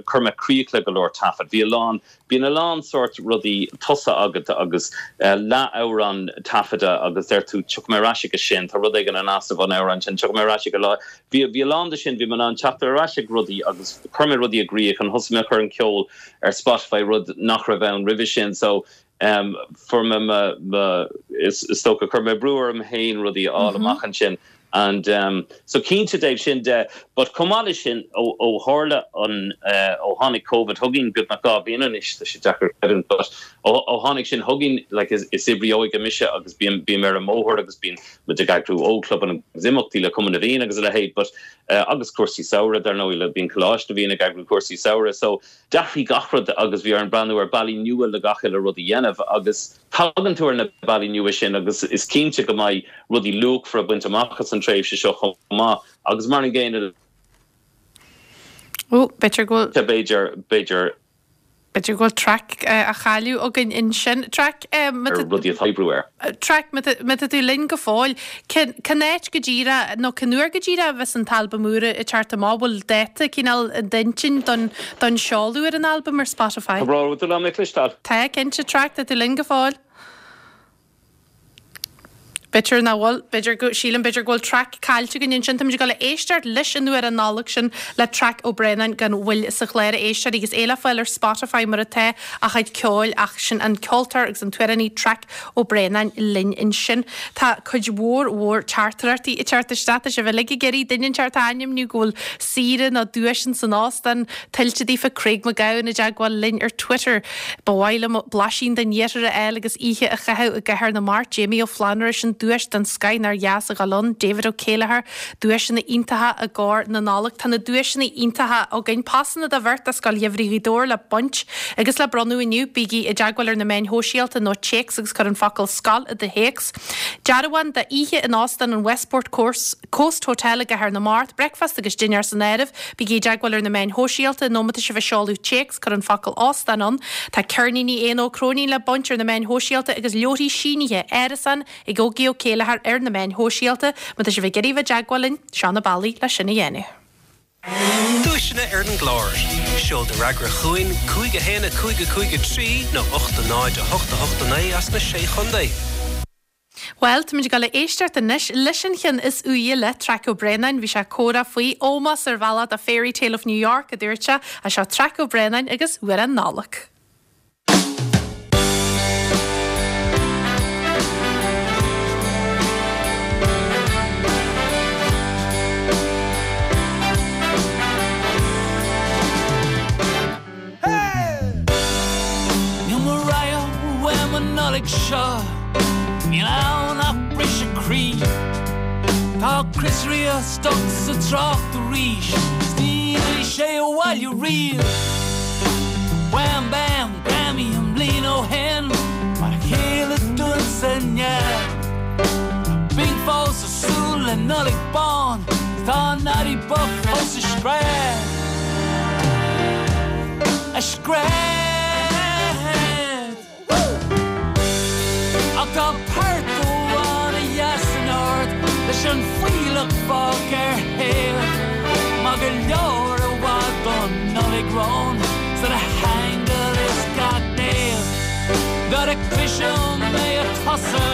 chuir mé críoch le go leor taifead. Bhí a lán, bíonn a lán sórt rudaí tosaithe agat agus leath-amhrán taifeadta agus deir tú tiocfaidh mé ar ais aige sin, tá rud éigin in easnamh ón amhrán sin, tiocfaidh mé ar ais ag an lá. Bhí, bhí a lán de sin, bhí mé in ann teacht ar ais ag rudaí agus chuir mé rudaí i gcrích and thosaigh mé a chur an ceol ar Spotify, rud nach raibh ann roimhe sin. So, Fuair mé mo, is dócha, chuir mé brú orm féin rudaí a fháil amach ansin and so cinnte i dtaobh sin de but chomh maith leis sin ó tharla an, ó tháinig Covid chugainn beagnach 2 bhliain anois, tá sé deacair creidiúint but ó tháinig sin chugainn like is oibrí óige mise agus bím, bím ar an mbóthar agus bíonn muid ag eagrú ógchlubanna agus imeachtaí le Cumann na bhFiann agus a leithéid but agus cúrsaí samhraidh dar ndóigh le bíonn Coláiste na bhFiann ag eagrú cúrsaí samhraidh so D'athraigh gach rud agus bhí orainn breathnú ar bealaí nua le gach uile rud a dhéanamh agus tagann tú ar na bealaí nua sin agus is cinnte go mbeidh rudaí luachmhara bainte amach as an tréimhse seo chomh maith agus mar an gcéanna le Ó, b'fhéidir go bhfuil. b'fhéidir, b'fhéidir. B'fhéidir go bhfuil Traic á chailleadh againn ansin. Traic, má tá. ar rudaí atá oibriú air. Traic, má tá tú linn go fóill, cén áit go díreach nó cén uair go díreach a bheas an t-albam úr ag teacht amach? Bhfuil dáta cineál i d'intinn don don seoladh ar an albam ar Spotify? Tá brón orm, an bhfuil mé le cloisteáil? Tá, cinnte, Traic, tá tú linn go fóill? B'fhéidir nach bhfuil, b'fhéidir go, sílim b'fhéidir go bhfuil Traic caillte againn ansin. Táimid ag dul a éisteacht leis an amhrán Nollag sin le Traic Ó Braonáin gan mhoill sa chlár a éisteoirí agus é le fáil ar Spotify mar atá a chuid ceoil ach sin an ceoltóir agus an t-amhránaí Traic Ó Braonáin linn ansin. Tá cuid mhór mhór teachtaireachtaí ag teacht isteach. Tá sibh uilig ag iarraidh duine inteacht a ainmniú go bhfuil saoire nó duais ins an óstán tuillte daofa. Craig Mac Gabhann i dteagmháil linn ar Twitter. Ba mhaith liom blaisín den iarthar a fháil agus oíche a chaitheamh i gCathair na Mart. Jamie Ó Flannúra sin duais den scoith nár dheas a dhul ann. David Ó Céileachair Duaiseanna iontacha i gcomhair na Nollag. Tá na duaiseanna iontacha againn. Pasanna do bheirt do Scoil Gheimhridh Ghaoth Dobhair le baint agus le bronnadh inniu. Bígí i dteagmháil ar na meáin shóisialta nó téacs agus cuir an focal 'scoil' i do théacs. Dearbhán d'oíche in Óstán an Westport Coast Hotel i gCathair na Mart. Bricfeasta agus dinnéar san áireamh. Bígí i dteagmháil ar na meáin shóisialta nó má tá sibh ag seoladh téacs, cuir an focal 'óstán' ann. Tá ceirníní Éanna Ó Cróinín le baint ar na meáin shóisialta agus leabharthaí sínithe, Árasán, Ag Ógie Ó Céileachair ar na meáin shóisialta, má tá sibh ag iarraidh bheith i dteagmháil linn, seo na bealaí le sin a dhéanamh. Duaiseanna ar an gclár. Seol do fhreagra chugainn, 5 1 5 5 3 nó 8 0 8 8 9 as na Sé Chontae. Bhuel, táimid ag dul a éisteacht anois leis an cheann is úire le Traic Ó Braonáin. Bhí sé ag comhrá faoi ómós ar bhealach do Fairy Tale of New York, a dúirt sé. Seo Traic Ó Braonáin agus Amhrán Nollag. Tá Chris Rea stuck sa trácht arís 's ní rachaidh sé abhaile riamh. Wham Bam Grammy an bhliain ó shin, mar a chéile dúinn sa neamh. Tá Bing fós ag súil le Nollaig bán, 's tá Noddy bocht fós ag scread. Ag scread. Ach tá port amháin a dheas an-ard leis an fuílleach fágtha ar thaobh. Maith go leor i bhfad don Nollaig romhainn 's do na haingil is gach naomh. Nuair a chloisim é ag tosú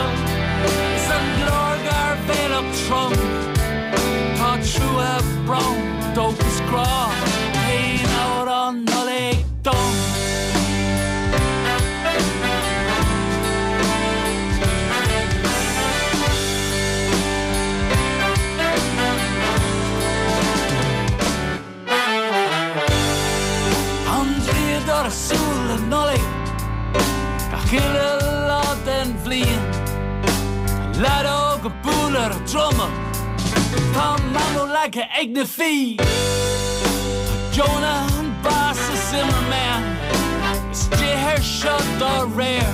is an glór gairbhéalach trom, tá trua, brón, dóchas, grá, t-aon amhrán Nollag dom. An draíodóir ag súil le Nollaig gach uile lá den bhliain. Tá leaid óg ag bualadh ar an druma, tá Mamó leagtha ag na fiaigh. Tá Jonah an Boss is Zimmerman istigh air seo dá réir.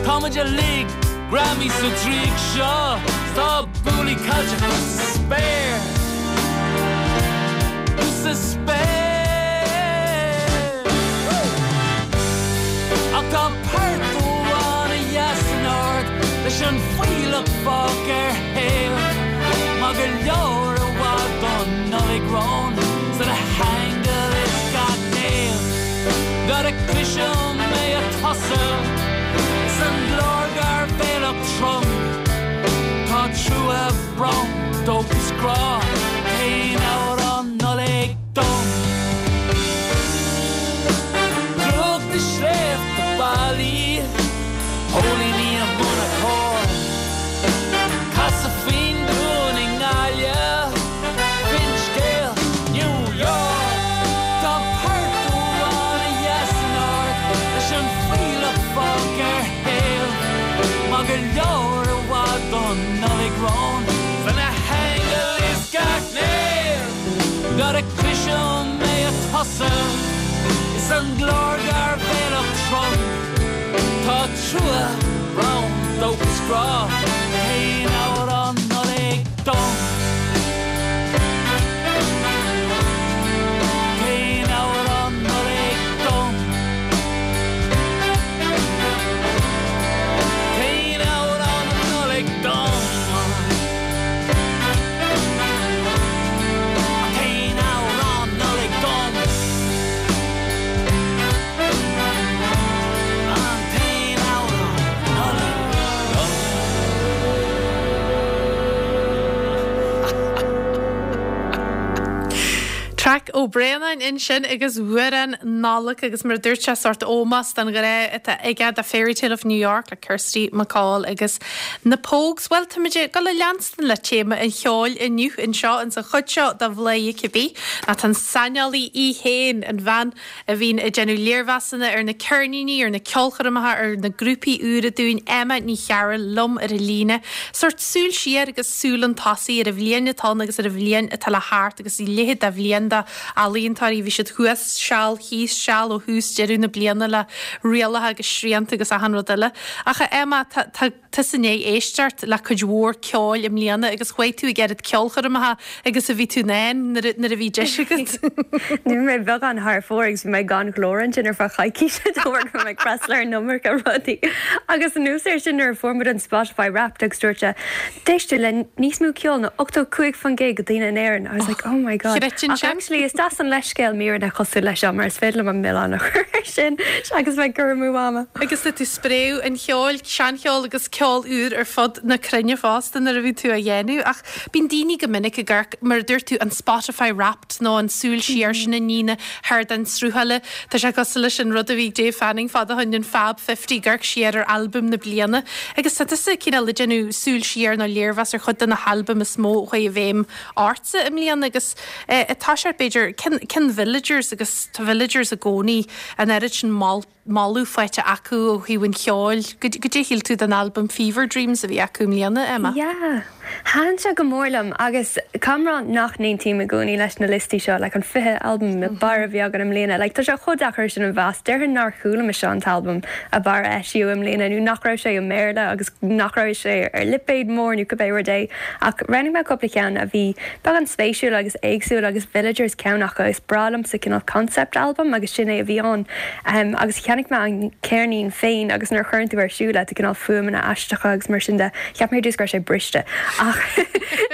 Tá muid uilig greamaithe sa draíocht seo, 's tá buailí caillte thuas sa spéir. Thuas sa spéir. Ach tá port amháin a dheas an-ard leis an fuílleach fágtha ar thaobh. Maith go leor i bhfad don Nollaig romhainn 's do na haingil is gach naomh. Nuair a chloisim é ag tosú is an glór gairbhéalach trom, tá trua, brón, dóchas, grá, t-aon amhrán Nollag dom. Drúcht na sléibhte ballaí, póilíní i mbun a cóir, Casadh faoin dún i nGaillimh, Finscéal New York. Tá port amháin a dheas an-ard leis an fuílleach fágtha ar thaobh. Maith go leor i bhfad don Nollaig romhainn 's do na haingil is gach naomh. Nuair a chloisim é ag tosú is an glór gairbhéalach trom, tá trua, brón, dóchas, grá, t-aon amhrán Nollag dom. T-aon amhrán Nollag dom. T-aon amhrán Nollag dom. An t-aon amhrán Nollag dom. An t-aon amhrán Nollag dom. Traic Ó Braonáin ansin agus Amhrán Nollag agus mar a dúirt sé sórt ómós don ghrá atá aige do Fairytale of New York le Kirsty MacColl agus na Pogues. Bhuel, táimid ag dul a leanstan le téama an cheoil inniu anseo ins an chuid seo de Bhladhaire Cibé. Ná tá an saineolaí í féin, an bhean a bhíonn ag déanamh léirmheasanna ar na ceirníní, ar na ceolchoirmeacha, ar na grúpaí úra dúinn, Emma Ní Chearúil liom ar an líne. Sórt súil siar agus súil chun tosaigh ar an bhliain atá ann agus ar an bhliain atá le theacht agus a leithéid de bhliain d'ealaíontóirí. Bhí siad thuas seal, thíos seal ó thús deireadh na bliana le rialacha agus srianta agus achan rud eile. Ach a Emma, tá, tá. tusa i ndiaidh éisteacht le cuid mhór ceoil i mbliana agus chuaigh tú ag oiread ceolchoirmeacha agus a bhí tú in ann nuair a bhí deis agat. Bhí mé beagán thar fóir agus bhí mé gan ghlór ansin ar feadh coicíse de bharr go raibh mé ag freastal ar an iomarca rudaí. Agus anuas air sin nuair a fuair muid an Spotify Wrapped agus dúirt sé, D'éist tú le níos mó ceoil ná 85% de daoine in Éirinn. I was like, oh my God. Ach actually is deas an leithscéal míreanna cosúil leis seo mar is féidir liom an milleán a chur air sin agus bheith ag cur amú ama. Agus tá tú ag spréadh an cheoil, seancheol agus ceol úr ar fud na cruinne fosta nuair a bhíonn tú á dhéanamh. Ach bíonn daoine go minic ag amharc, mar a dúirt tú, an Spotify Wrapped nó an súil siar sin i ndiaidh na hardáin sruthála. Tá sé cosúil leis an rud a bhí ag Dave Fanning fad ó shin, an Fab 50, ag amharc siar ar albaim na bliana. Agus tá tusa cineál ag déanamh súil siar nó léirmheas ar chuid de na halbaim is mó a chuaigh i bhfeidhm ortsa i mbliana agus tá sé b'fhéidir, cén Villagers agus tá Villagers i gcónaí an oiread sin moladh faighte acu ó thaobh an cheoil. Goidé a shíl tú den albam Fever Dreams a bhí acu i mbliana, Emma? Yeah. Thaitin sé go mór liom agus caithfidh mé a rá nach n-aontaím i gcónaí leis na liostaí seo, like an 20 albam ab fhearr a bhí againn i mbliana, like tá sé chomh deacair sin a mheas, déarfainn nár chuala mise an t-albam ab fhearr a eisíodh i mbliana nó nach raibh sé i mBéarla agus nach raibh sé ar lipéad mór nó cibé rud é ach roghnaigh mé cúpla ceann a bhí beagán spéisiúil agus éagsúil agus Villagers ceann acu, is breá liomsa cineál concept album agus sin é a bhí ann agus cheannaigh mé an ceirnín féin agus nuair a chuireann tú ar siúl é tá cineál fuaimeanna aisteacha agus mar sin de. Cheap mé ar dtús go raibh sé briste ach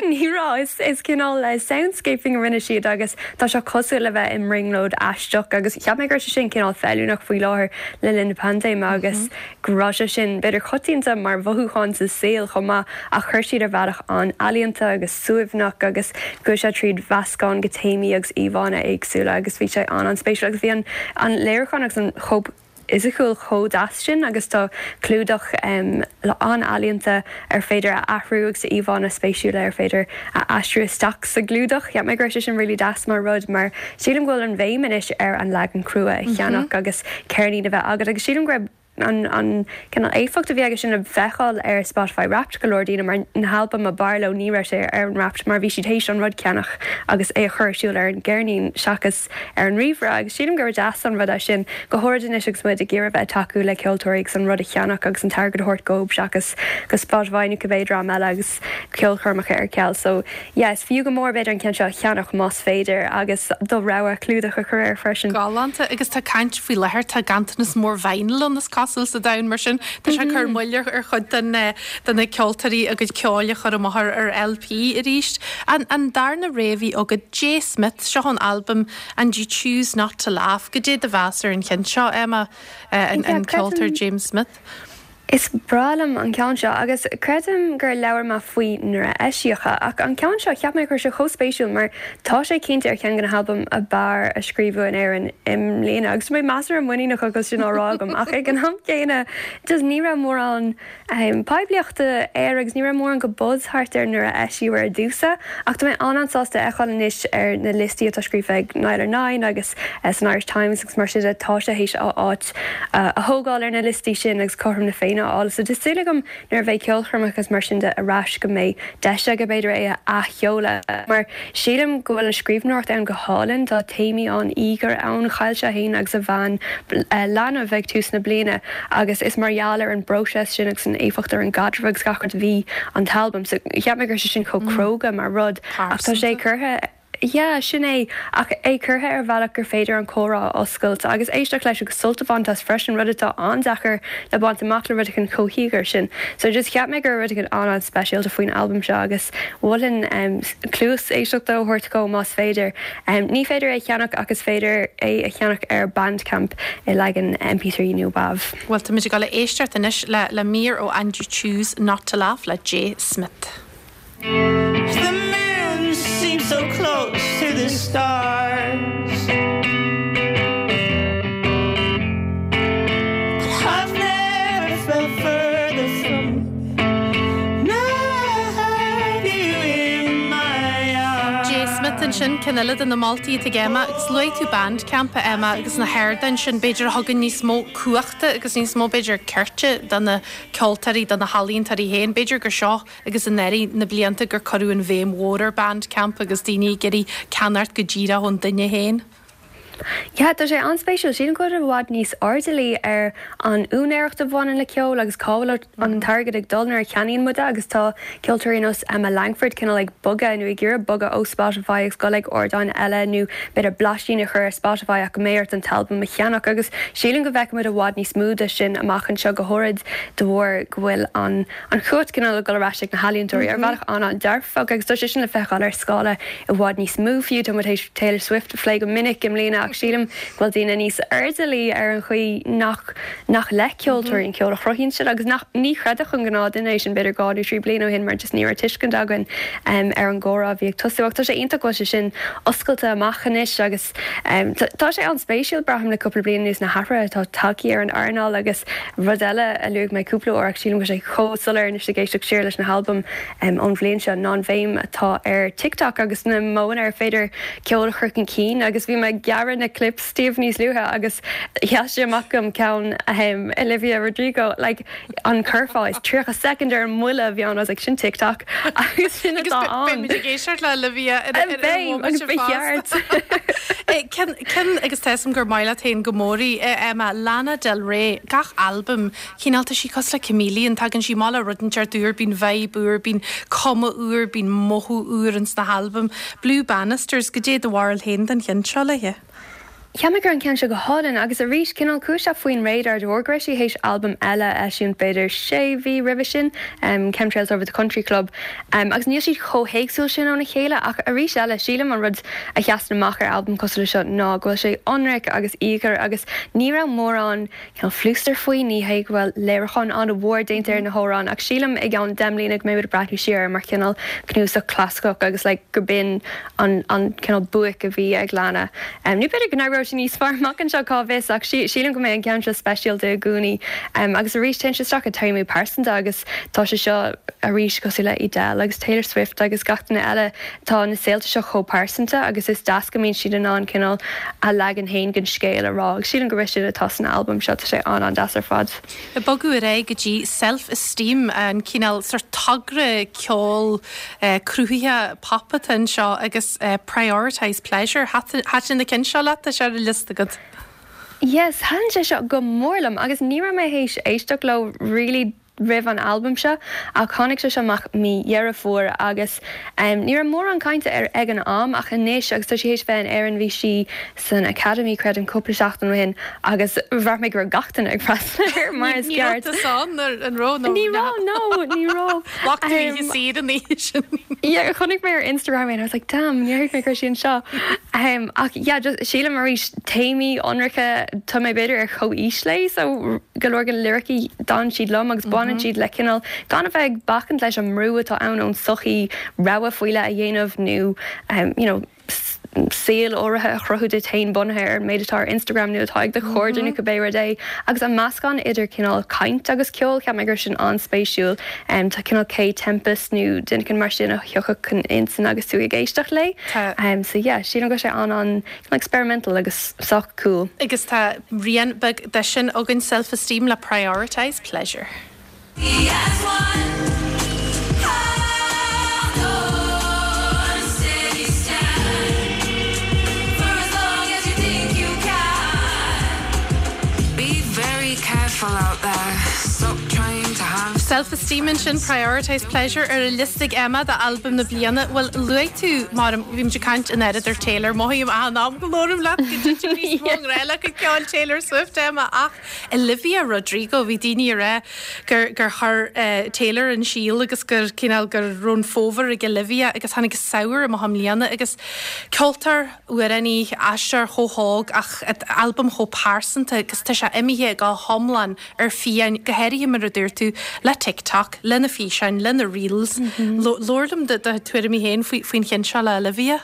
ní raibh. Is cineál soundscaping a rinne siad agus tá sé cosúil le bheith i mbrionglóid aisteach agus cheap mé go raibh sé sin cineál feiliúnach faoi láthair le linn na paindéime agus go raibh sé sin b'fhéidir coitianta mar mhothúchán sa saol chomh maith ach chuir siad ar bhealach an-ealaíonta agus suaimhneach agus chuaigh sé tríd mheascán de théamaí agus íomhánna éagsúla agus bhí sé an-an-spéisiúil agus bhí an léiriúchán agus an chóip fhisiciúil chomh deas sin agus tá clúdach an-ealaíonta ar féidir a athrú agus íomhánna spéisiúla ar féidir a aistriú isteach sa gclúdach. Cheap mé go raibh sé sin really deas mar rud mar sílim go bhfuil an bhéim anois ar an leagan crua a cheannach agus ceirnín a bheith agat agus sílim go raibh an an cineál éifeacht a bhí aige sin le feiceáil ar Spotify Wrapped go leor daoine mar na halbaim ab fhearr leo ní raibh sé ar an Wrapped mar bhí siad théis an rud ceannach agus é a chur ar siúl ar an gceirnín seachas ar an ríomhaire agus sílim gur deas an rud é sin, go háirid anois agus muid ag iarraidh bheith ag tacú le ceoltóirí agus an rud a cheannach agus an t-airgead a thabhairt dóibh seachas go Spotify nó cibé dream eile agus ceolchoirmeacha ar ceal. So yeah, is fiú go mór b'fhéidir an ceann seo a cheannach más féidir agus do rogha clúdach a chur air freisin. Galánta agus tá caint faoi láthair, tá ganntanas mór vinyl ann is cosúil sa domhan mar sin tá sé ag cur moill ar chuid den de na ceoltóirí a gcuid ceoil a chur amach ar LP arís. An darna rogha a bhí agat, Jay Smith, seo an albam And You Choose Not To Laugh. Goidé do mheas ar an cheann seo, Emma, an ceoltóir James Smith? Is breá liom an ceann seo agus creidim gur labhair mé faoi nuair a eisíodh é ach an ceann seo cheap mé go raibh sé chomh spéisiúil mar tá sé cinnte ar cheann de na halbaim ab fhearr a scríobhadh in Éirinn i mbliana agus tá mé measartha muiníneach agus sin á rá agam ach ag an am céanna just ní raibh mórán poiblíochta air agus ní raibh mórán de buzz thart air nuair a eisíodh ar dtús é ach tá mé an-an-sásta a fheiceáil anois ar na liostaí atá scríofa ag Nialler9 agus san Irish Times agus mar sin de tá sé théis a áit a thógáil ar na liostaí sin agus cothrom na Féinne a fháil so tá súil agam nuair a bheidh ceolchoirmeacha agus mar sin de ar ais go mbeidh deis aige b'fhéidir é a athsheoladh mar Sílim go bhfuil an scríbhneoireacht ann go hálainn, tá téamaí an-íogair ann, chaill sé féin agus a bhean leanbh ag tús na bliana agus is mar gheall ar an bpróiseas sin agus an éifeacht ar an gcaidreamh agus gach rud a bhí an t-albam. So cheap mé go raibh sé sin chomh cróga mar rud ach tá sé curtha, yeah, sin é, ach é curtha ar bhealach gur féidir an comhrá a oscailt agus éisteacht leis agus sult a bhaint as freisin, rud atá an-deacair le baint amach le rud éigin chomh híogair sin. So just cheap mé go raibh rud éigin an-an-speisialta faoin albam seo agus. Mholfainn cluas éisteachta a thabhairt dhó más féidir. Ní féidir é a cheannach ach is féidir é a cheannach ar Bandcamp i leagan MP3 nó WAV. Bhuel, táimid ag dul a éisteacht anois le mír ó And You Choose Not To Laugh le Jay Smith. The moon seems so close to the stars But I've never felt further from Jay Smith ansin, ceann eile de na moltaí atá ag Emma, agus luaigh tú Bandcamp, a Emma, agus na hardáin sin, b'fhéidir, a thugann níos mó cumhachta agus níos mó, b'fhéidir, cirt do na ceoltóirí, do na healaíontóirí féin. B'fhéidir gur seo agus anuraidh na blianta gur cuireadh an bhéim mhór ar Bandcamp agus daoine ag iarraidh ceannacht go díreach ón duine féin. Yeah, tá sé an-spéisiúil. Sílim go bhfuil i bhfad níos airdeallaí ar an úinéireacht a bhaineann le ceol agus cá bhfuil an t-airgead ag dul nuair a cheannaíonn muid é agus tá ceoltóirí ar nós Emma Langford cineál ag bogadh nó ag iarraidh bogadh ó Spotify agus dul ag ardáin eile nó b'fhéidir blaisín a chur ar Spotify ach go mbeidh ort an t-albam a cheannach agus sílim go bhfeicfidh muid i bhfad níos mó de sin amach anseo go háirid de bharr go bhfuil an an chumhacht cineál ag dul ar ais ag na healaíontóirí ar bhealach an-an-dearfach agus tá sé sin le feiceáil ar scála i bhfad níos mó fiú. Tá muid théis Taylor Swift a phlé go minic i mbliana ach sílim go bhfuil daoine níos airdeallaí ar an chaoi nach nach le ceoltóirí an ceol a chruthaíonn siad agus nach ní chreidfeadh an gnáthduine é sin b'fhéidir 2 nó 3 bliana ó shin mar just ní raibh tuiscint againn ar an gcomhrá a bhí ag tosú ach tá sé iontach go bhfuil sé sin oscailte amach anois agus Tá sé an-spéisiúil, braithim, le cúpla bliain anuas na hathruithe atá tagtha ar an earnáil agus rud eile a luaigh mé cúpla uair ach sílim go bhfuil sé chomh soiléir anois ag éisteacht siar leis na halbaim ón bhliain seo ná an bhéim atá ar TikTok agus na modhanna ar féidir ceol a chur chun cinn agus bhí mé ag gearradh na. na clips daoibh níos luaithe agus sheas sé amach dom ceann ahem Olivia Rodrigo like an curfá is 30 soicind ar an mbuille a bhí ann I was like sin TikTok agus sin atá ann. Beimid ag éisteacht le Olivia ar an Beidh agus bhomaite ba cheart. fosta. Ceann ceann agus tá 'fhios a'm gur maith leat féin go mór í, Emma, Lana Del Rey, gach albam Cineál, tá sí cosúil le chameleon, tagann sí amach le rud inteacht úr, bíonn vibe úr, bíonn cuma úr, bíonn mothú úr ins na halbaim. Blue Banisters, goidé do bharúil féin den cheann seo léithe? Cheap mé go raibh an ceann seo go hálainn agus arís cineál chuaigh sé faoin radar de bharr go raibh sí théis albam eile a eisiúint b'fhéidir sé mhí roimhe sin, Chemtrails Over the Country Club, agus níl siad chomh héagsúil sin óna chéile ach arís eile sílim an rud a sheasann amach ar albam cosúil le seo ná go bhfuil sé ionraic agus íogair agus ní raibh mórán cineál flústar faoi, ní hé go bhfuil léiriúchán an-mhór déanta ar na hamhráin ach sílim i gceann 10 mbliana go mbeidh muid ag breathnú siar air mar chineál cnuasach clasaiceach agus like go b'in an an cineál buaic a bhí ag Lana. Nó b'fhéidir go n-éireoidh sí níos fearr amach anseo, cá bhfios, ach sílim go mbeidh an ceann seo speisialta i gcónaí. Agus arís téann sé isteach i téamaí pearsanta agus tá sé seo arís cosúil le Adele agus Taylor Swift agus gach duine eile, Tá na saolta seo chomh pearsanta agus is deas go mbíonn siad in ann cineál a leagan féin den scéal a rá agus sílim gurb é sin atá san albam seo, tá sé an-an-deas ar fad. Ag bogadh ar aghaidh go dtí Self Esteem, an cineál sórt togra ceoil cruthaithe pop atá anseo agus Prioritise Pleasure. Thaitin an ceann seo leat? Tá sé ar an liosta agat. Yes, thaitin sé seo go mór liom agus ní raibh mé théis éisteacht leo really roimh an albam seo ach tháinig sé seo amach mí Dheireadh Fómhair agus ní raibh mórán cainte air ag an am ach anois agus tá sí théis bheith in Éirinn bhí sí san Academy creidim cúpla seachtain ó shin agus bhraith mé go raibh gach duine ag freastal air mar is Ní raibh ceart. tusa ann ar an raibh nó Ní raibh no ní raibh. Ghlac tú oíche saor an oíche sin. Yeah chonaic mé ar Instagram é and I was like damn níor thuig mé go raibh sí anseo. Ach yeah just sílim arís téamaí ionraice tá mé b'fhéidir ar chomhaois léi so go leor de na liricí d'fhan siad liom agus baineann siad le cineál gan a bheith ag bacaint leis an mbrú atá ann ón tsochaí rogha faoi leith a dhéanamh nó you know saol áirithe a chruthú duit féin bunaithe ar an méid atá ar Instagram nó atá ag do chairde nó cibé rud é. Agus an meascán idir cineál caint agus ceol, cheap mé go raibh sin an-spéisiúil. Tá cineál Kae Tempest nó duine éicint mar sin a thiocfadh chun intinn agus tú ag éisteacht léi. Tá. So yeah, sílim go raibh sé an-an experimental agus sách cool. Agus tá rian beag de sin againn, Self Esteem le Prioritise Pleasure. Self Esteem ansin, Prioritise Pleasure ar an liosta ag Emma d'albam na bliana. Bhuel, luaigh tú, mar bhí muid ag caint an oiread ar Taylor, mothaím achan am go labhraím leat go dtitim níos mó i ngrá le cuid ceoil Taylor Swift, Emma, ach Olivia Rodrigo, bhí daoine ag rá gur gur chuir Taylor an síol agus gur cineál go raibh an fómhar ag Olivia agus tháinig an samhradh amach i mbliana agus ceoltóir, amhránaí, aisteoir chomh hóg ach albam chomh pearsanta agus tá sé imithe go hiomlán ar fiáin, go háirithe mar a dúirt tú, le TikTok, lena físeáin, lena reels. Labhair liom do tuairimí féin faoin cheann seo le Olivia.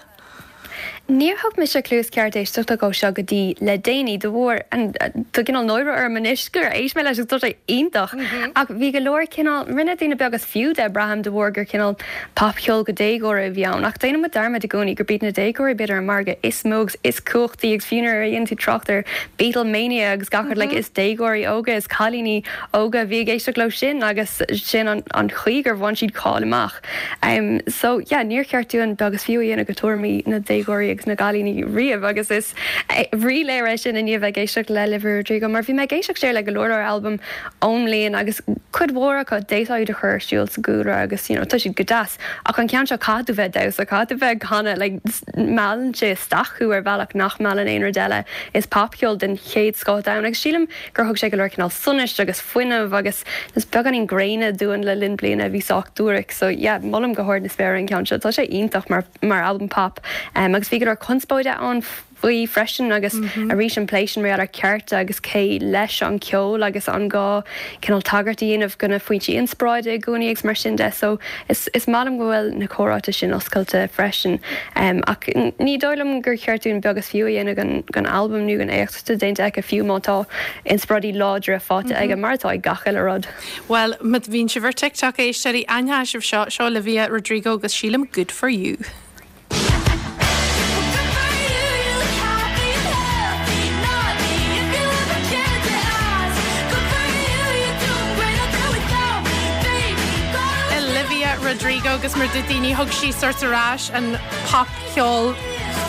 Níor thug mise cluas ceart éisteachta dhó seo go dtí le déanaí, de bharr, tá cineál náire orm anois gur éist mé leis agus tá sé iontach! Ach bhí go leor cineál, rinne daoine beag is fiú de, braithim, de bharr gur cineál popcheol do dhéagóirí a bhí ann. Ach déanann muid dearmad i gcónaí gurb iad na déagóirí b'fhéidir an margadh is mó agus is cumhachtaí agus fiú nuair a dhéanann tú trácht ar Beatlemania agus gach rud like is déagóirí óga, is cailíní óga a bhí ag éisteacht leo sin agus sin an chaoi gur bhain siad cáil amach. So yeah, níor cheart dúinn beag is fiú a dhéanamh de thuairimí na déagóirí agus na gcailíní riamh agus is ríléir é sin i ndiaidh bheith ag éisteacht le Olivia Rodrigo mar bhí mé ag éisteacht siar le go leor leor albam ón mbliain agus cuid mhór acu d'fhéadfá iad a chur ar siúl sa gcúlra agus you know tá siad go deas ach an ceann seo caithfidh tú bheith ag damhsa, caithfidh tú bheith ag canadh like meallann sé isteach thú ar bhealach nach meallann aon rud eile. Is popcheol den chéad scoth atá ann agus sílim gur thug sé go leor cineál sonais agus fuinneamh agus is beagáinín gréine dúinn le linn bliana a bhí sách duairc so yeah molaim go hard na spéire an ceann seo tá sé iontach mar mar albam pop um, agus bhí go leor conspóide ann faoi freisin agus arís an plé sin mar gheall ar cearta agus cé leis an ceol agus an gá cineál tagairt a dhéanamh do na foinsí inspioráide i gcónaí agus mar sin de so is is maith liom go bhfuil na comhráite sin oscailte freisin um, ach ní dóigh liom gur cheart dúinn beag is fiú a dhéanamh den den albam nó den éacht atá déanta aici fiú má tá inspioráidí láidre faighte aige mar atá ag gach uile rud. Bhuel, má bhíonn sibh ar TikTok, a éisteoirí, aithneoidh sibh seo, seo Olivia Rodrigo agus sílim Good For You. Rodrigo agus mar dúirt daoine thug sí sort ar ais an popcheol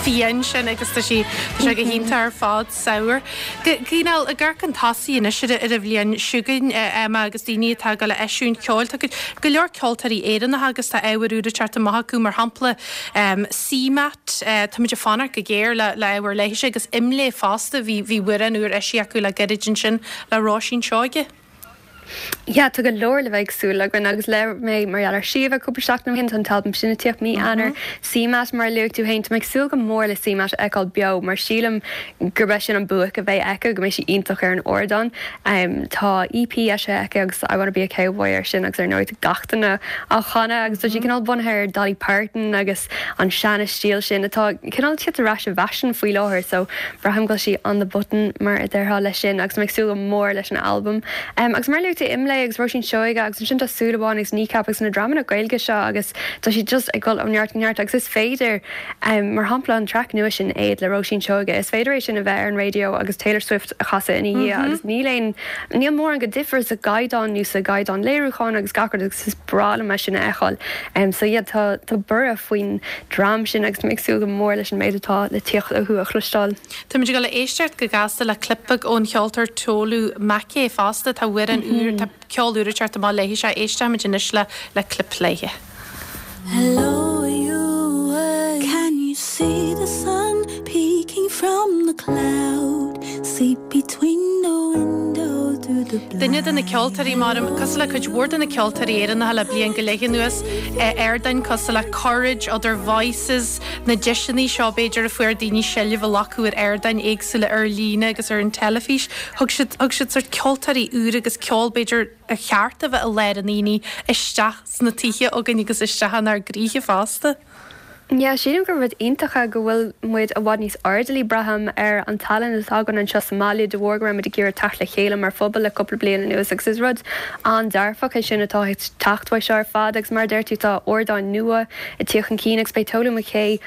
fiáin sin agus tá sí tá sé go hiontach ar fad Sour. Cineál ag amharc chun tosaigh anois ar an bhliain seo chugainn Emma agus daoine atá ag dul a eisiúint ceoil. Tá go leor ceoltóirí Éireannacha agus tá ábhar úr ag teacht amach acu mar shampla CMAT, táimid ag fanacht go géar le le ábhar léithise agus IMLÉ fosta bhí bhí amhrán úr eisithe acu le gairid ansin le Róisín Seoige. Yeah, tá go leor le bheith ag súil againn agus labhair mé mar gheall ar Síomha cúpla seachtain ó shin, tá an t-albam sin ag tíocht mí Eanáir. CMAT, mar a luaigh tú féin, tá mé ag súil go mór le CMAT a fheiceáil beo mar sílim gurb é sin an buaic a bheidh aici, go mbeidh sí iontach ar an ardán. Tá EP eisithe aici agus I Wanna Be a Cowboy air sin agus ar ndóigh tá gach duine á chanadh agus tá sí cineál bunaithe ar Dolly Parton agus an seana-stíl sin atá cineál ag tíocht ar ais i bhfaisean faoi láthair so Braithim go bhfuil sí on the button mar a déarfá leis sin agus mé ag súil go mór leis an albam. Agus mar a luaigh tú Imlé agus Róisín Seoige agus ansin tá Súil Amháin agus Kneecap agus na dreamanna Gaeilge seo agus tá siad just ag dul ó neart go neart agus is féidir, mar shampla an traic nua sin Éad le Róisín Seoige, is féidir é sin a bheith ar an raidió agus Taylor Swift a chasadh ina dhiaidh agus níl aon, níl mórán de dhifear sa gcaighdeán nó sa gcaighdeán léiriúcháin agus gach rud agus is breá liom é sin a fheiceáil. So yeah tá, tá borradh faoin dream sin agus tá mé ag súil go mór leis an méid atá le tíocht uathu a chloisteáil. Táimid ag dul a éisteacht go gasta le clip beag ón cheoltóir Tolu Makay fosta. Tá amhrán úr, tá ceol úr ag teacht amach léi seo. Éistfimid anois le le clip léi. Hello you Can you see the sun peeking from the cloud See between the window through the Duine de na ceoltóirí mar, cosúil le cuid mhór de na ceoltóirí Éireannacha le bliain go leith anuas, ardáin cosúil le Courage, Other Voices, na deiseanna seo b'fhéidir a fuair daoine seilbh a ghlacadh ar ardáin éagsúla ar líne agus ar an teilifís. Thug siad, thug siad sort ceoltóirí úra agus ceol b'fhéidir ar cheart a bheith i lár an aonaigh isteach sna tithe againn agus isteach inár gcroíthe fosta. Yeah, sílim gur rud iontach é go bhfuil muid i bhfad níos airdeallaí, braithim, ar an tallann atá againn anseo sa mbaile de bharr go raibh muid ag iarraidh teacht le chéile mar phobal le cúpla bliain anuas agus is rud an-dearfach é sin atá ag teacht uaidh seo ar fad agus mar a deir tú tá ardáin nua ag tíocht chun cinn agus beidh Tolu McKay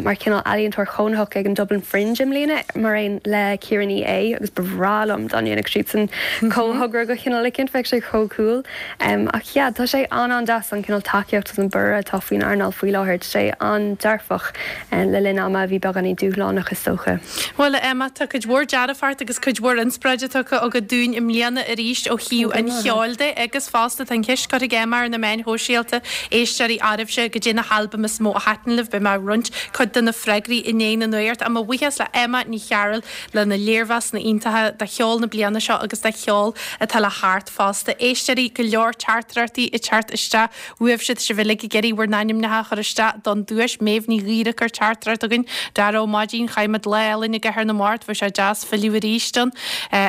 mar chineál ealaíontóir cónaitheach ag an Dublin Fringe i mbliana mar aon le Ciara Ní É agus ba bhreá liom dá ndéanfadh siadsan comhthogra de chineál eicínt, bheadh sé chomh cool. Ach yeah, tá sé an-an-deas an cineál tacaíocht agus an borradh atá faoin earnáil faoi láthair. Tá sé an-dearfach le linn ama a bhí beagáinín dúshlánach is dócha. Bhuel, a Emma, tá cuid mhór dearfacht agus cuid mhór inspioráide tugtha agat dúinn i mbliana arís ó thaobh an cheoil de agus fosta tá an cheist curtha ag Emma ar na meáin shóisialta, éisteoirí oraibhse, goidé na halbaim is mó a thaitin libh. Beidh mé ag roinnt cuid de na freagraí i ndiaidh na nuachta. Ach mo bhuíochas le Emma Ní Chearúil lena léirmheasanna iontacha de cheol na bliana seo agus de cheol atá le theacht fosta. Éisteoirí, go leor teachtaireachtaí ag teacht isteach uaibhse, tá sibh uilig ag iarraidh bhur n-ainmneacha a chur isteach don duais. Méabh Ní Ghaora ag cur teachtaireacht chugainn. Dara Ó Maidín, chaith muid lá álainn i gCathair na Mart, bheadh sé deas filleadh arís ann.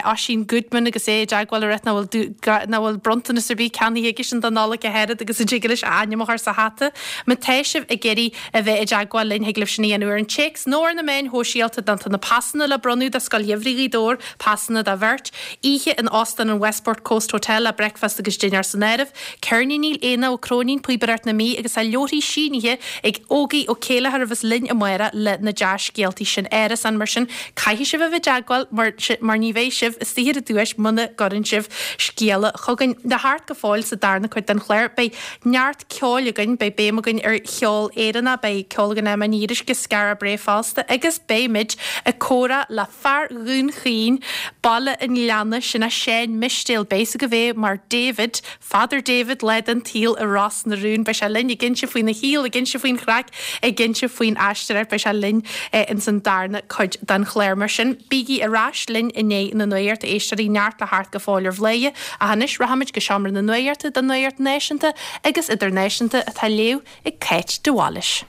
Oisín Goodman agus é i dteagmháil ag ráit nach bhfuil nach bhfuil bronntanas ar bith ceannaithe aigesean don Nollaig ach oiread agus an dtig leis a ainm a chur sa hata. Má tá sibh ag iarraidh a bheith i dteagmháil linn, thig libh sin a dhéanamh ar an téacs nó ar na meáin shóisialta. Tá na pasanna le bronnadh do Scoil Gheimhridh Ghaoth Dobhair, pasanna do bheirt, oíche in Óstán an Westport Coast Hotel le bricfeasta agus dinnéar san áireamh, ceirníní Éanna Ó Cróinín, Píobaireacht na Mí agus tá leabharthaí sínithe ag Ógie Ó Céilleachair a bheas linn amárach le na dea-scéaltaí sin. Árasán mar sin, caithfidh sibh a bheith i dteagmháil mar mar ní bheidh sibh istigh ar an duais muna gcuireann sibh scéala chugainn. Le theacht go fóill sa darna cuid den chlár, beidh neart ceoil againn, beidh béim againn ar cheol Éireannach, beidh ceol againn Emma Ní Fhíoruisce, Skara Brae fosta agus beimid ag comhrá le fear Dhún Chaoin, Baile an Ghleanna, sin é Seán Mistéil, beidh a fhios agaibh é mar David, Father David lá den tsaol i Ros na Rún. Beidh sé linn ag inse faoina shaol, ag inse faoin chraic, ag inse faoin aisteoireacht, beidh sé linn ins an darna cuid den chlár. Mar sin, bígí ar ais linn i ndiaidh na nuachta, a éisteoirí, neart le theacht go fóill ar Bhladhaire, ach anois rachaimid go seomra na nuachta don nuacht náisiúnta agus idirnáisiúnta atá á léamh ag Cáit de Bhailís.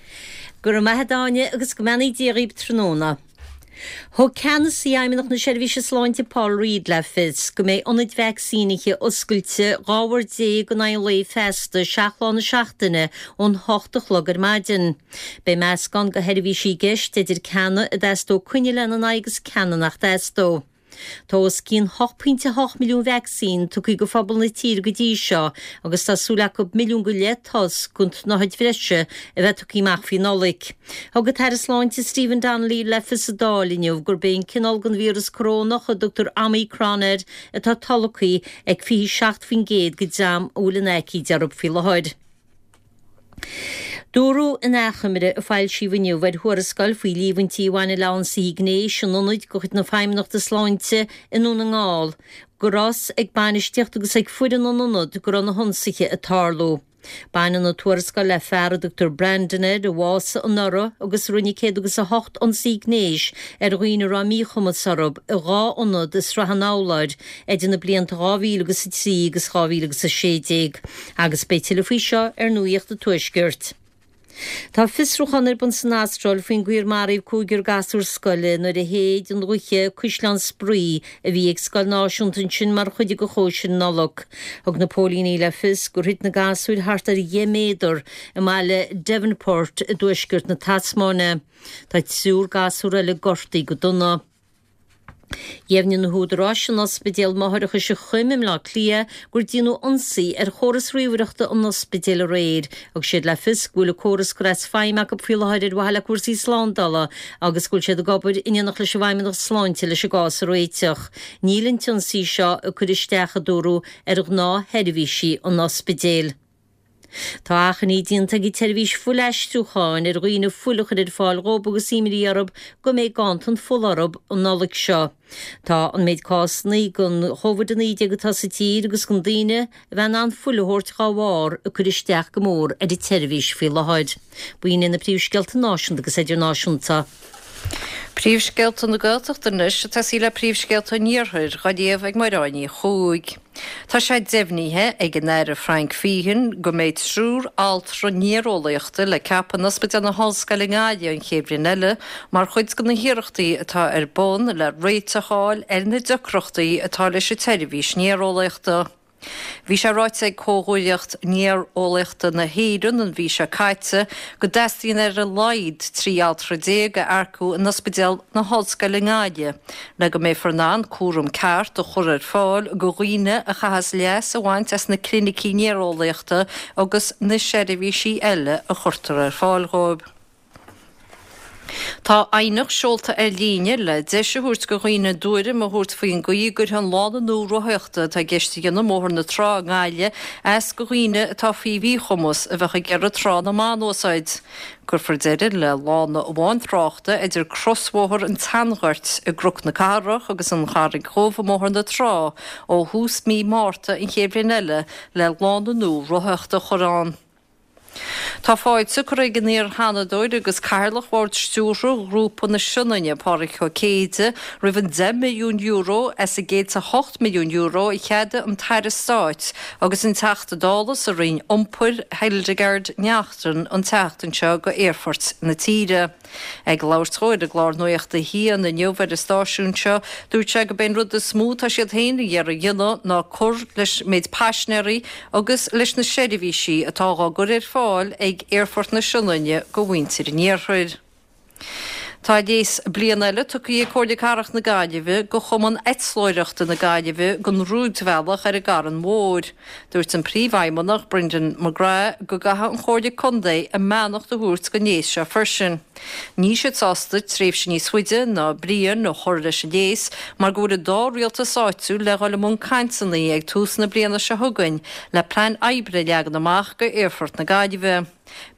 Go raibh maith a't a Áine agus go mbeannaí Dia dhaoib tráthnóna. Thug Ceannasaí Fheidhmeannacht na Seirbhíse Sláinte Paul Reid le fios go mbeidh ionaid vacsaínithe oscailte 12 uair in aghaidh an lae feasta, 7 lá na seachtaine, ón 8 a chlog ar maidin. Beidh meascán de sheirbhísí i gceist, idir ceanna a dteastódh coinne lena n-aghaidh agus ceanna nach dteastódh. Tá os cionn 8.8 milliún vacsaín tugtha go phobal na tíre go dtí seo agus tá súil acu milliún go leith dos den tsnáthaid bhreise a bheith tugtha amach faoi Nollaig. Thug an tAire Sláinte Stephen Donnelly le fios sa Dáil inniu gurb é an cineál den víreas corónach a dtugtar Omicron air atá tolgtha ag 27% den dream a bhfuil an aicíd orthu faoi láthair. Dúradh in achoimre a foilsíodh inniu ar thuarascáil faoi líomhaintí a bhaineann le hionsaithe gnéis in ionaid de chuid na Feidhmeannachta Sláinte i nDún na nGall go raibh a fhios ag bainistíocht agus ag foireann an ionaid go raibh na hionsaithe ag tarlú. Baineann an tuarascáil le fear a dtugtar Brandon air a bhásaigh anuraidh agus a rinne 108 ionsaí gnéis ar dhaoine a raibh míchumas orthu i dha ionad i Srath an Fhoghlair idir na blianta 2003 agus 2016 agus beidh tuilleadh faoi seo ar Nuacht an Tuaiscirt. Tá fiosrúchán ar bun san Astráil faoin gcaoi ar maraíodh cúigear gasúr scoile nuair a shéid an ghaoth caisleán spraoi a bhí ag scoil náisiúnta ansin mar chuid de chóisir Nollag. Thug na póilíní le fios gur thit na gasúir thart ar dheich méadar i mbaile Devonport i dtuaisceart na Tasmáine. Tá triúr gasúr eile gortaithe go dona. Dheimhnigh na húdaráis in Ospidéal Máithreachais an Choim i mBleá Cliath gur déanadh ionsaí ar chóras ríomhaireachta an ospidéil aréir. Thug siad le fios go bhfuil an córas curtha as feidhm acu faoi láthair ar mhaithe le cúrsaí slándála agus go bhfuil siad ag obair in éineacht leis an bhFeidhmeannacht Sláinte leis an gcás a réiteach. Níl an t-ionsaí seo ag cur isteach, a dúradh, ar ghnáthsheirbhísí an ospidéil. Tá achainí déanta ag an tseirbhís fuilaistriúcháin ar dhaoine fuil a chur ar fáil dhóibh agus imní orthu go mbeidh ganntan fola orthu an Nollaig seo. Tá an méid cásanna den Chóvid-19 atá sa tír agus gan daoine a bheith in ann fuil a thabhairt dhá bharr ag cur isteach go mór ar an tseirbhís faoi láthair. B'in iad na príomhscéalta náisiúnta agus idirnáisiúnta. Príomhscéalta na Gaeltachta anois ag tosaí le príomhscéalta an Iarthair, dhá léamh ag Máire Áine Ní Chuaig. Tá sé deimhnithe ag an Aire Frank Feighan go mbeidh triúr altra néareolaíochta le ceapadh in Ospidéal na hOllscoile i nGaillimh an chéad bhliain eile mar chuid de na hiarrachtaí atá ar bun le réiteach a fháil ar na deacrachtaí atá leis an tseirbhís néareolaíochta. Bhí sé ráite ag Comhghuaillíocht Néareolaíochta na hÉireann an mhí seo caite go dteastaíonn ar a laghad 13 altra a earcú in Ospidéal na hOllscoile i nGaillimh le go mbeifear in ann cúram ceart a chur ar fáil go dhaoine a chaithfeas leas a bhaint as na clinicí néareolaíochta agus na seirbhísí eile a chuirtear ar fáil dhóibh. Tá aighneacht seolta ar líne le deis a thabhairt go dhaoine a dtuairim a thabhairt faoin gcaoi a gcuirfidh an lána nua rothaíochta atá i gceist a dhéanamh i mBóthar na Trá i nGaillimh as go dhaoine atá faoi mhíchumas a bheadh ag iarraidh Trá na mBan a úsáid. Cuirfear deireadh le lána amháin tráchta idir crosbhóthar an tSeanghoirt i gCnoc na Cathrach agus an Charraig Dhubh i mBóthar na Trá ó thús mí Márta an chéad bhliain eile le lána nua rothaíochta a chur ann. Tá fáilte curtha ag an iar-Sheanadóir agus Cathaoirleach Bhord Stiúrtha Ghrúpa na Sionainne, Pádraig Ó Céide, roimh an €10 milliún as an €108 milliún a cheadaigh an tAire Stáit agus an Teachta Dála sa Roinn Iompair, Hildegarde Naughton an tseachtain seo go aerfoirt na tíre. Ag labhairt dhó ar an gclár Nuacht a hAon inniu ar an stáisiún seo, dúirt sé go b'é an rud is mó atá siad féin ag iarraidh a dhéanamh ná cur leis méid paisnéirí agus leis na seirbhísí atá dhá gcur ar fáil ag Aerfort na Sionainne go mhuintir an iarthair. Tá léas bliana eile tugtha ag Comhairle Cathrach na Gaillimhe go Chumann Eitleoireachta na Gaillimhe don rúidbhealach ar an gCarn Mhór. Dúirt an Príomhfheidhmeannach, Brendan McGrath, go gcaithfidh an Chomhairle Contae a mbeannacht a thabhairt don léas seo freisin. Níl siad sásta tréimhse níos faide ná bliain a chur leis an léas mar go bhfuil an dá rialtas áitiúil le dhul i mbun cainteanna ag tús na bliana seo chugainn le plean oibre a leagan amach go Aerfort na Gaillimhe.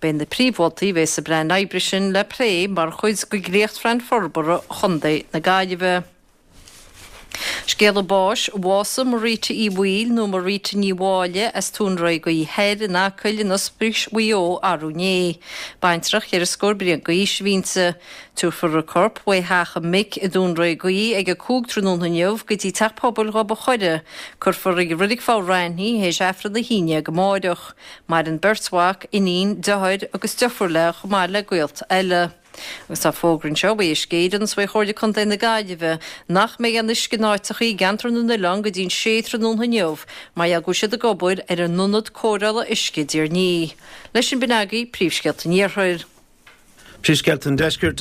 Beidh na príomh-mholtaí a bheidh sa bplean oibre sin le plé mar chuid de dhréachtphlean forbartha Chontae na Gaillimhe. Scéala báis, Bhásaigh Marita Uí Bhaoill nó Marita Ní Mháille as Tóin Réagaí Thoir in Acaill in Ospís Mhaigh Eo arú inné. Baintreach cheithre scór bliain d'aois a bhí inti. Tabharfar a corp uaidh theach a mic i dTóin Réagaí ag 5 tráthnóna inniu go dtí Teach Pobail Ghob a' Choire. Cuirfear i Reilig Fomh Raithin í théis Aifreann a hAon Déag amáireach. Maireann beirt mhac, iníon, deartháir agus deirfiúr léi chomh maith le gaolta eile. Agus tá fógra anseo uaidh Uisce Éireann is uaidh Chomhairle Contae na Gaillimhe nach mbeidh aon uisce in áiteachaí i gceantar na n-oileán go dtí'n sé tráthnóna inniu mar gheall go bhfuil siad ag obair ar a n-ionad cóireála uisce i dTír an Fhia. Leis sin b'in agaibh príomhscéalta an Iarthair. Príomhscéalta an Deiscirt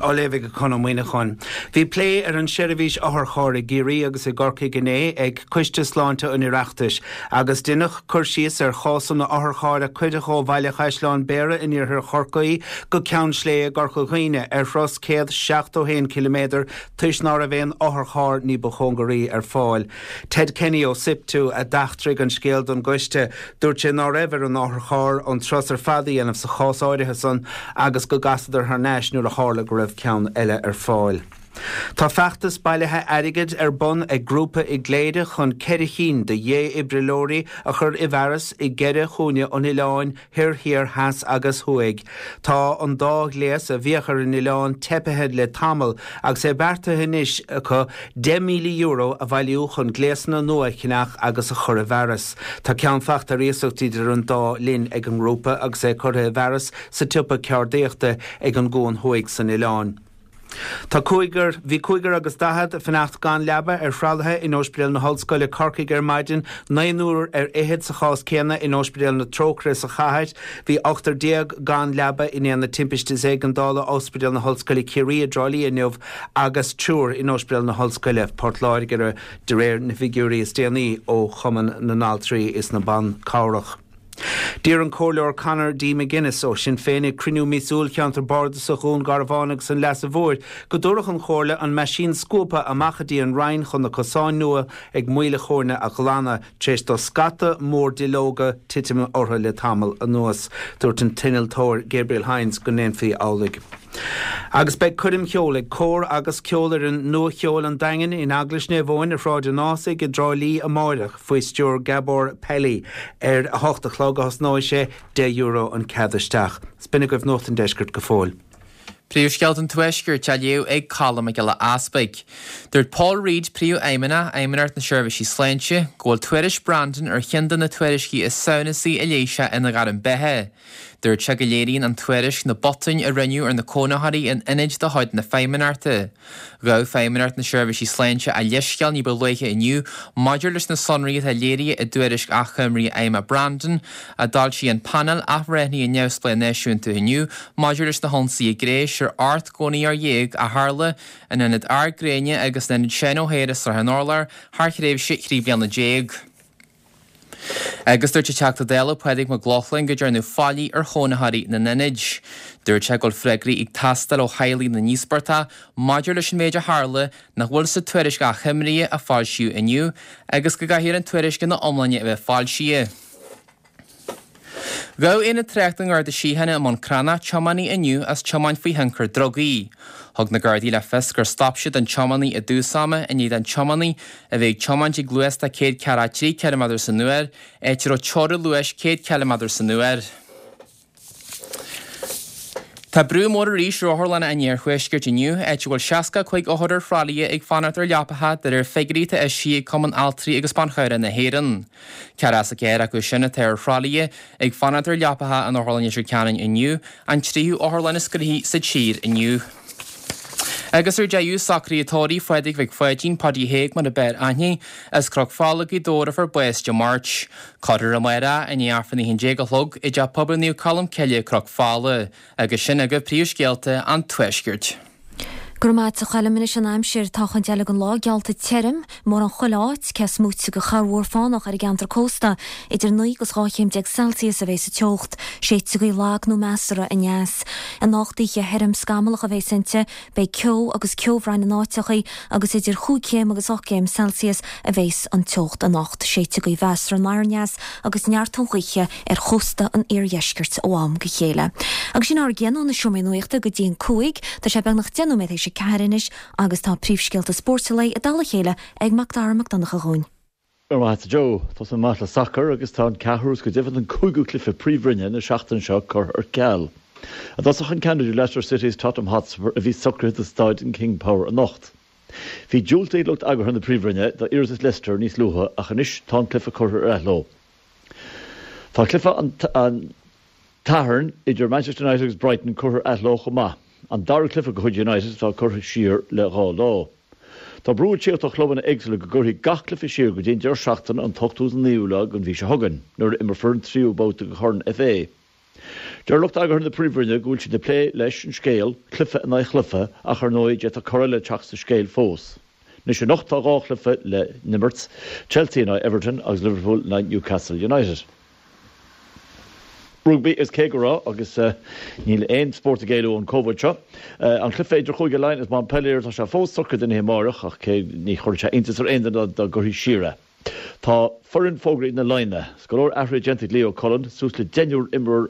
á léamh ag Conn Ó Muíneacháin. Bhí plé ar an seirbhís otharchairr i gCiarraí agus i gCorcaigh inné ag Coiste Sláinte an Oireachtais agus deineadh cur síos ar chásanna otharchairr a cuireadh ó Bhaile Chaisleáin Bhéarra in iarthar Chorcaí go Ceann Sléibhe i gCorca Dhuibhne ar thuras 171 ciliméadar toisc ná raibh aon otharcharr ní ba chóngaraí ar fáil. Ted Kenny ó SIPTU a d'eachtraigh an scéal don gcoiste. Dúirt sé ná raibh ar an otharcharr an turas ar fad a dhéanamh sa chás áirithe san agus go gcasadar thar n-ais nuair a tharla go raibh ceann eile ar fáil. Tá feachtas bailithe airgid ar bun ag grúpa i gCléire chun 4 chinn de dhé-fhibrileoirí a chur i bhfearas i gceithre chúinne an oileáin thoir, thiar, theas agus thuaidh. Tá an dá ghléas a bhíodh ar an oileán teipithe le tamall agus é beartaithe anois acu €10,000 a bhailiú chun gléasanna nua a cheannach agus a chur i bhfearas. Tá ceann fachta ar iasacht idir an dá linn ag an ngrúpa agus é curtha i bhfearas sa tsiopa ceardaíochta ag an gCuan Thuaidh san oileán. Tá cúigear, bhí cúigear agus 40 ag fanacht gan leaba ar thralaithe in Ospidéal na hOllscoile, Corcaigh ar maidin, naonúr ar fhichead sa chás céanna in Ospidéal na Trócaire sa chathair. Bhí ochtar gan leaba in Aonad Timpiste is Éigeandála Ospidéal na hOllscoile Ciarraí i dTrá Lí inniu agus triúr in Ospidéal na hOllscoile, Port Láirge, de réir na bhfigiúirí is déanaí ó Chumann na nAltraí is na Ban Cabhrach. D'iarr an Comhairleoir Conor D. McGuinness ó Shinn Féin ag cruinniú míosúil Cheantar Bardasach Dhún Garbhán agus an Leasa Mhóir go dtabharfadh an Chomhairle an meaisín scuabtha amach go dtí an Rinn chun na cosáin nua ag Maoil a' Chóirne a ghlanadh tar éis do scata mór duilleoga titim orthu le tamall anuas. Dúirt an t-innealtóir Gabriel Hynes go ndéanfaí amhlaidh. Agus beidh coirm cheoil ag Cór agus Ceolfhoireann Nua Cheoil an Daingin in Eaglais Naomh Eoin ar Shráid an Ásaigh i dTrá Lí amáireach faoi stiúir Gabor Pelli. Ar a hocht a chlog a thosnóidh sé, €10 an cead isteach. 'S b'in agaibh Nuacht an Deiscirt go fóill. Príomhscéalta an Tuaiscirt á léamh ag Colm Mac Giolla Easpaig. Dúirt Paul Reid, Príomhfheidhmeannach Fheidhmeannacht na Seirbhísí Sláinte, go bhfuil tuairisc Brandon ar cheann de na tuairiscí is samhnasaí a léigh sé ina ghairm beatha. Dúirt sé go léiríonn an tuairisc na botúin a rinneadh ar na cónaitheoirí in ionaid de chuid na Feidhmeannachta. Ghabh Feidhmeannacht na Seirbhísí Sláinte a leithscéal ní ba luaithe inniu maidir leis na sonraí atá léirithe i dtuairisc achoimre fheidhme Brandon, a d'fhoilsigh an Painéal Athbhreithnithe Neamhspleách Náisiúnta inniu maidir leis na hionsaithe gnéis ar 18 gcónaitheoir a tharla in Ionad Ard Gréine agus in Ionad Seán O'Hare i Srath an Urláir thar thréimhse 13 bliana. Agus dúirt an Teachta Dála Pádraig Mac Lochlainn go ndearnadh faillí ar chónaitheoirí na n-ionad. Dúirt sé go bhfuil freagraí ag teastáil ó theaghlaigh na n-íospartach maidir leis an méid a tharla nach bhfuil sa tuairisc achoimre a foilsíodh inniu agus go gcaithfear an tuairisc ina iomláine a bheith foilsithe. Ghabh Aonad Tráchta an Gharda Síochána i mBun Cranncha tiománaí inniu as tiomáint faoi thionchar drugaí. Thug na Gardaí le fios gur stop siad an tiománaí i dtús ama i ndiaidh don tiománaí a bheith ag tiomáint ag luas de 143 ciliméadar san uair, áit a raibh teorainn luais 100 ciliméadar san uair. Tá brú mór arís ar otharlanna an iarthuaiscirt inniu, áit a bhfuil 65 othar ar thralaithe ag fanacht ar leapacha de réir figiúirí atá eisithe ag Cumann Altraí agus Ban Chabhrach na hÉireann. 44 acu sin atá ar thralaithe ag fanacht ar leapacha in Otharlann Leitir Ceanainn inniu, an tríú otharlann is gnoithí sa tír inniu. Agus ar deireadh, socruithe tórraimh Phádraig Mhic Pháidín, Páidí Thaidhg mar a b'fhearr aithne, as Cnoc Fola, Gaoth Dobhair a fuair bás Dé Máirt. Cuirfear amárach i ndiaidh Aifreann a 11 a chlog i dTeach Pobail Naomh Colm Cille, Cnoc Fola. Agus sin agaibh príomhscéalta an Tuaiscirt. Go raibh maith a't a Choilm. Anois an aimsir. Tá an chuid eile den lá geallta tirim, mórán chuile áit, cé is móite de chorrmhúr fánach ar an gceantar cósta. Idir 9 agus 12 chéim Celsius a bheidh sa teocht. Séidfidh gaoth lag nó measartha aneas. Anocht oíche thirim scamallach a bheas inti. Beidh ceo agus ceobhráin in áiteachaí agus idir chúig chéim agus 8 gcéim Celsius a bheas an teocht anocht. Séidfidh gaoth mheasartha anoir aneas agus neart gaoithe ar chósta an iardheiscirt ó am go chéile. Agus sin ár gcion ó na seomraí nuachta go dtí an 5. Tá sé beagnach 10 nóiméad théis a 4 anois agus tá príomhscéalta spóirt an lae i dtoll a chéile ag Mac Dara Mac Donncha dhúinn. Go raibh maith a't a Joe. Tosóidh mé amach le sacar agus tá an ceathrú is go deimhin an cúigiú cluiche Príomhroinne na seachtaine seo curtha ar ceal. I dtosach an ceann idir Leicester City is Tottenham Hotspur a bhí socraithe do Staid an King Power anocht. Bhí diúltaithe ag lucht eagraithe na Príomhroinne d'iarratas Leicester níos luaithe ach anois tá an cluiche curtha ar athló. Tá cluiche an tSathairn idir Manchester United agus Brighton curtha ar athló chomh maith, an dara cluiche de chuid United atá curtha siar le dhá lá. Tá brú ag tíocht ó chlubanna éagsúla go gcuirfí gach cluiche siar go dtí an deireadh seachtaine an t-ochtú is an naoú lá den mhí seo chugainn, nuair a imreofar an tríú babhta de Chorn FA. Deir lucht eagraithe na Príomhroinne go bhfuil siad ag plé leis an scéal, cluiche in aghaidh chluiche, ach ar ndóigh d'fhéadfadh cor eile teacht sa scéal fós. Anois anocht tá 2 chluiche le n-imirt, Chelsea in aghaidh Everton agus Liverpool in aghaidh Newcastle United. Rugbaí is cé go raibh, agus níl aon spórt ag éalú ón Covid seo, an cluiche idir Chúige Laighean is Montpellier, tá sé fós socraithe don oíche amáireach ach cé ní chuirfeadh sé iontas ar aon duine dá gcuirfí siar é. Tá foireann fógraithe ag na Laighnigh. Is go leor athruithe déanta ag Leo Cullen, suas le deichniúr imreoir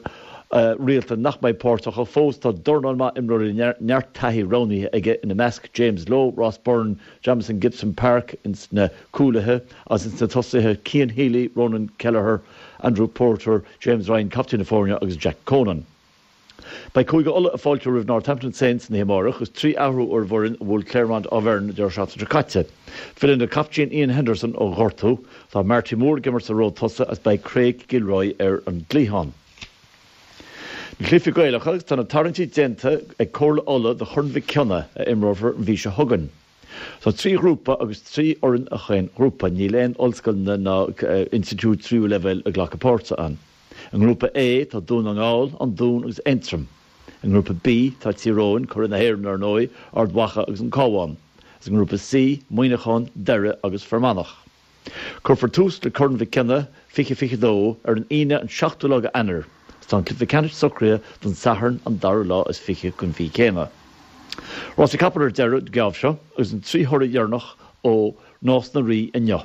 rialta nach mbeidh páirteach ach fós tá dornán maith imreoirí le neart taithí roghnaithe aige, ina measc James Lowe, Ross Byrne, Jamison Gibson-Park ins na cúlaithe agus ins na tosaithe Cian Healy, Ronan Kelleher, Andrew Porter, James Ryan, captaen na foirne, agus Jack Conan. Beidh Cúige Uladh ag fáiltiú roimh Northampton Saints an oíche amárach agus 3 athrú ar an bhfoireann a bhuail Clermont Auvergne an deireadh seachtaine seo caite. Filleann an captaen Iain Henderson ó ghortú, tá Marty Moore ag imirt sa ród tosaigh agus beidh Craig Gilroy ar an gcliathán. Na cluichí Gaelacha agus tá na tarraingtí déanta ag Comhairle Uladh do Chorn Mhic Cionnaith a imreofar an mhí seo chugainn. Tá 3 ghrúpa agus 3 fhoireann i chaon ghrúpa. Níl aon ollscoileanna ná institiúid tríú leibhéal ag glacadh páirte ann. I ngrúpa A tá Dún na nGall, An Dún agus Aontroim. I ngrúpa B tá Tír Eoghain, curaidh na hÉireann ar ndóigh, Ard Mhacha agus an Cabhán. Agus i ngrúpa C, Muineachán, Doire agus Fear Manach. Cuirfear tús le Corn Mhic Cionnaith 2022 ar an Aoine an 7ú lá d'Eanáir agus tá an cluiche ceannais socraithe don Satharn an dara lá is 20 den mhí céanna. Rásaí capall ar deireadh an geábh seo agus an 3 thoradh dheireanach ó Nás na Rí inniu.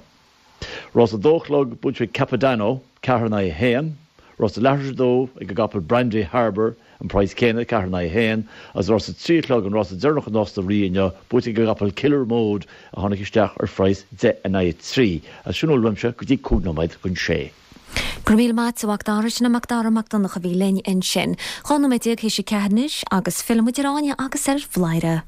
Rás a dó a chlog buaite ag Capodanno, 4 in aghaidh 1, Rás a leathuair tar éis a dó ag an gcapall Brandy Harbour, an praghas céanna, 4 in aghaidh 1, agus rás a trí a chlog, an rása deireanach i Nás na Rí inniu, buaite ag an gcapall Killer Mode a tháinig isteach ar phraghas 10 in aghaidh 3. Agus sin a bhfuil uaimse go dtí 5 nóiméad chun sé. Go raibh míle maith a't a Mhac Dara, sin é Mac Dara Mac Donncha a bhí linn ansin. 12 nóiméad théis a 4 anois agus fillfidh muid ar Áine agus ar Bhladhaire.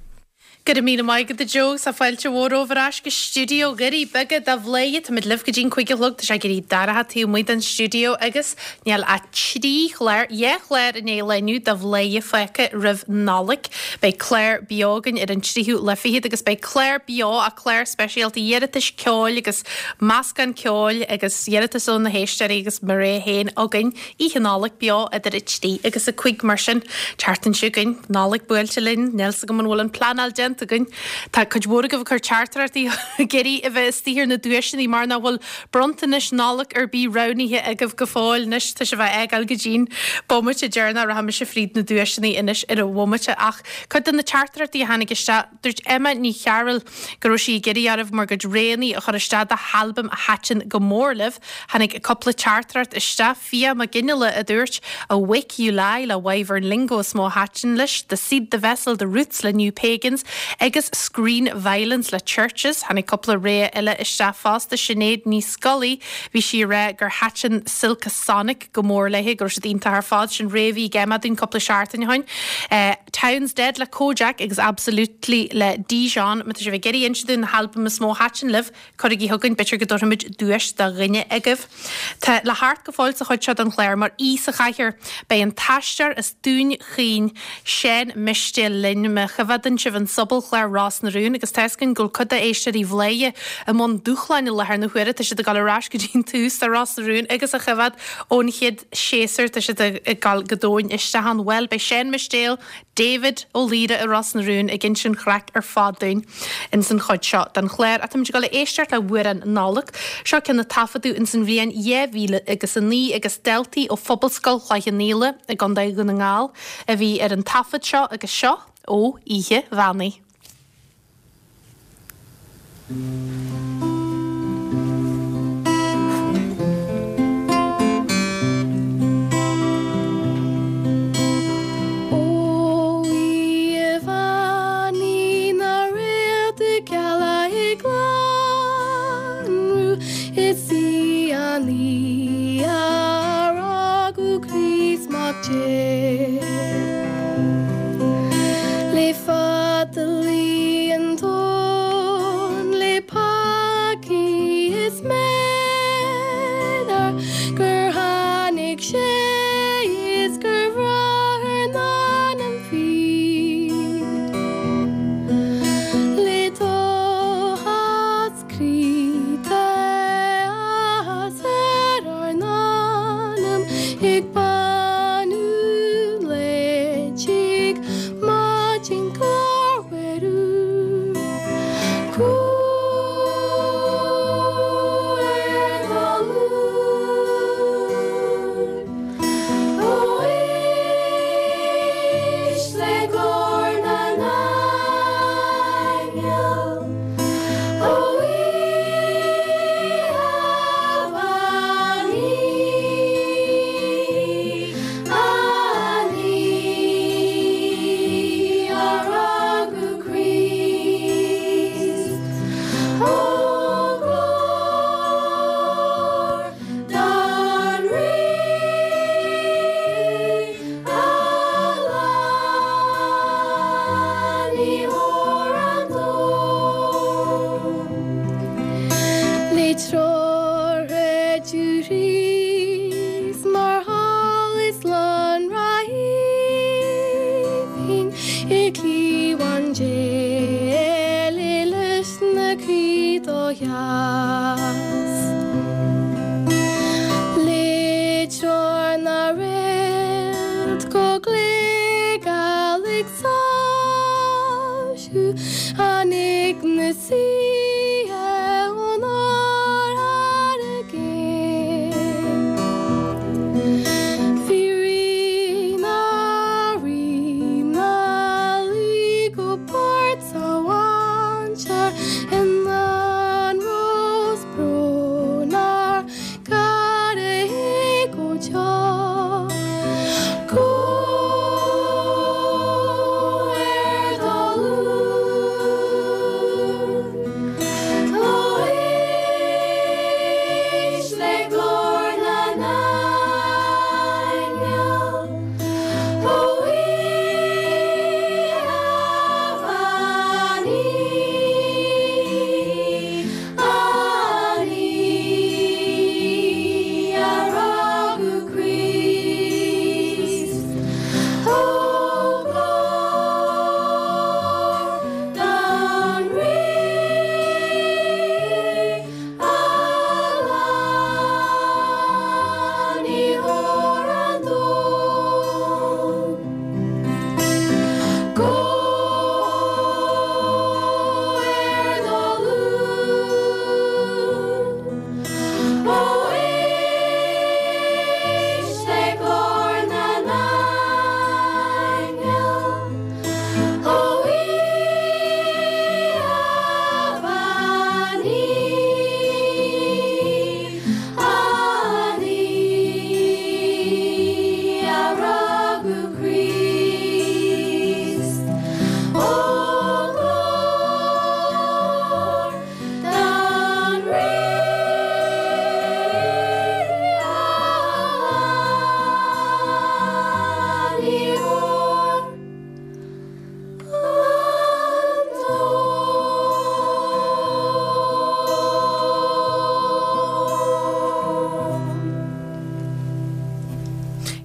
Go raibh míle maith agat a Joe agus tá fáilte mhór romhaibh ar ais go stiúideo Dhoirí Beaga do Bhladhaire. Táimid libh go dtí'n 5 a chlog. Tá sé ag éirí dorcha taobh amuigh den stiúideo agus níl ach trí chlár, dhá chlár i ndiaidh an lae inniu de Bhladhaire fágtha roimh Nollaig. Beidh clár beo againn ar an tríú lá fichead agus beidh clár beo ach clár speisialta iarratais ceoil agus meascán ceoil agus iarratais ó na héisteoirí agus mo rogha féin againn. Oíche Nollag beo idir 3 agus 5 mar sin. Tseachtain seo chugainn, Nollaig buailte linn, níl 's agam an bhfuil an pleanáil déanta againn. Tá cuid mhór agaibh ag cur teachtaireachtaí ag iarraidh a bheith istigh ar na duaiseanna mar nach bhfuil bronntanais Nollag ar bith roghnaithe agaibh go fóill. Anois tá sibh á fhágáil go dtí'n bomaite deireanach, rachaidh mise fríd na duaiseanna anois ar an bhomaite. Ach cuid de na teachtaireachtaí a tháinig isteach, Dúirt Emma Ní Chearúil go raibh sí ag iarraidh oraibh bhur gcuid roghanna a chur isteach do halbaim a thaitin go mór libh. Tháinig cúpla teachtaireacht isteach, Fiadh Mac Fhionnghaile a dúirt, Awake You Lie le Wyvern Lingo is mó a thaitin leis, The Seed The Vessel The Roots le New Pagans agus Screen Violence le Chvrches. Tháinig cúpla rogha eile isteach fosta, Sinéad Ní Scolaí, bhí sí ag rá gur thaitin Silk Sonic go mór léi, go raibh siad iontach ar fad. Sin rogha a bhí ag Emma dúinn cúpla seachtain ó shin. Town's Dead le Kojaque agus Absolutely le Dijon. Má tá sibh ag iarraidh inse dúinn na halbaim is mó a thaitin libh, cuirigí chugainn, b'fhéidir go dtabharfaimid duais do dhuine agaibh. Tá le theacht go fóill sa chuid seo den chlár mar aoi sa chathaoir. Beidh an t-aisteoir as Dún Chaoin, Seán Mistéil linn. Má choimheádann sibh an sobalchlár Ros na Rún agus tá fhios againn go bhfuil cuid d'éisteoirí Bhladhaire i mbun dúshláin i láthair na huaire, tá siad ag dul ar ais go dtí an tús de Ros na Rún agus á choimheád ón chéad séasúr, tá siad ag dul go domhain isteach ann. Bhuel, beidh Seán Mistéil, David Ó Laoire i Ros na Rún ag inse an chraic ar fad dúinn ins an chuid seo den chlár. Ach táimid ag dul a éisteacht le hamhrán Nollag. Seo ceann a taifeadadh ins an bhliain 2009 agus daltaí ó Phobalscoil Chloich Cheann Fhaola i gContae Dhún na nGall a bhí ar an taifead seo agus seo ó Oíche Mheánaí. Ó Oíche Mheánaí na réaltaí geala ag lonrú Is í an oíche a rugadh Críost Mac Dé. Le fada luí an tóin le. I gcliabhán Dé le leis na croí do sheas. Le treoir na réalt go glé-geal ag soilsiú Tháinig na saoithe ón oirthear i gcéin. Bhí rí na rí 'na luí go bord sa mhainséar ina anró 's brón ár gcara é go deo. Go ar do ghlúin, ó éist le glór na n-aingeal, ó oíche bheannaithe. An oíche a rugadh Críost, Ó glóir don Rí Lánaitheoir an domhain. Go ar do ghlúin, ó éist le glór na n-aingeal, ó oíche bheannaithe, an oíche a rugadh Críost. Ó glóir don Rí Lánaitheoir an domhain.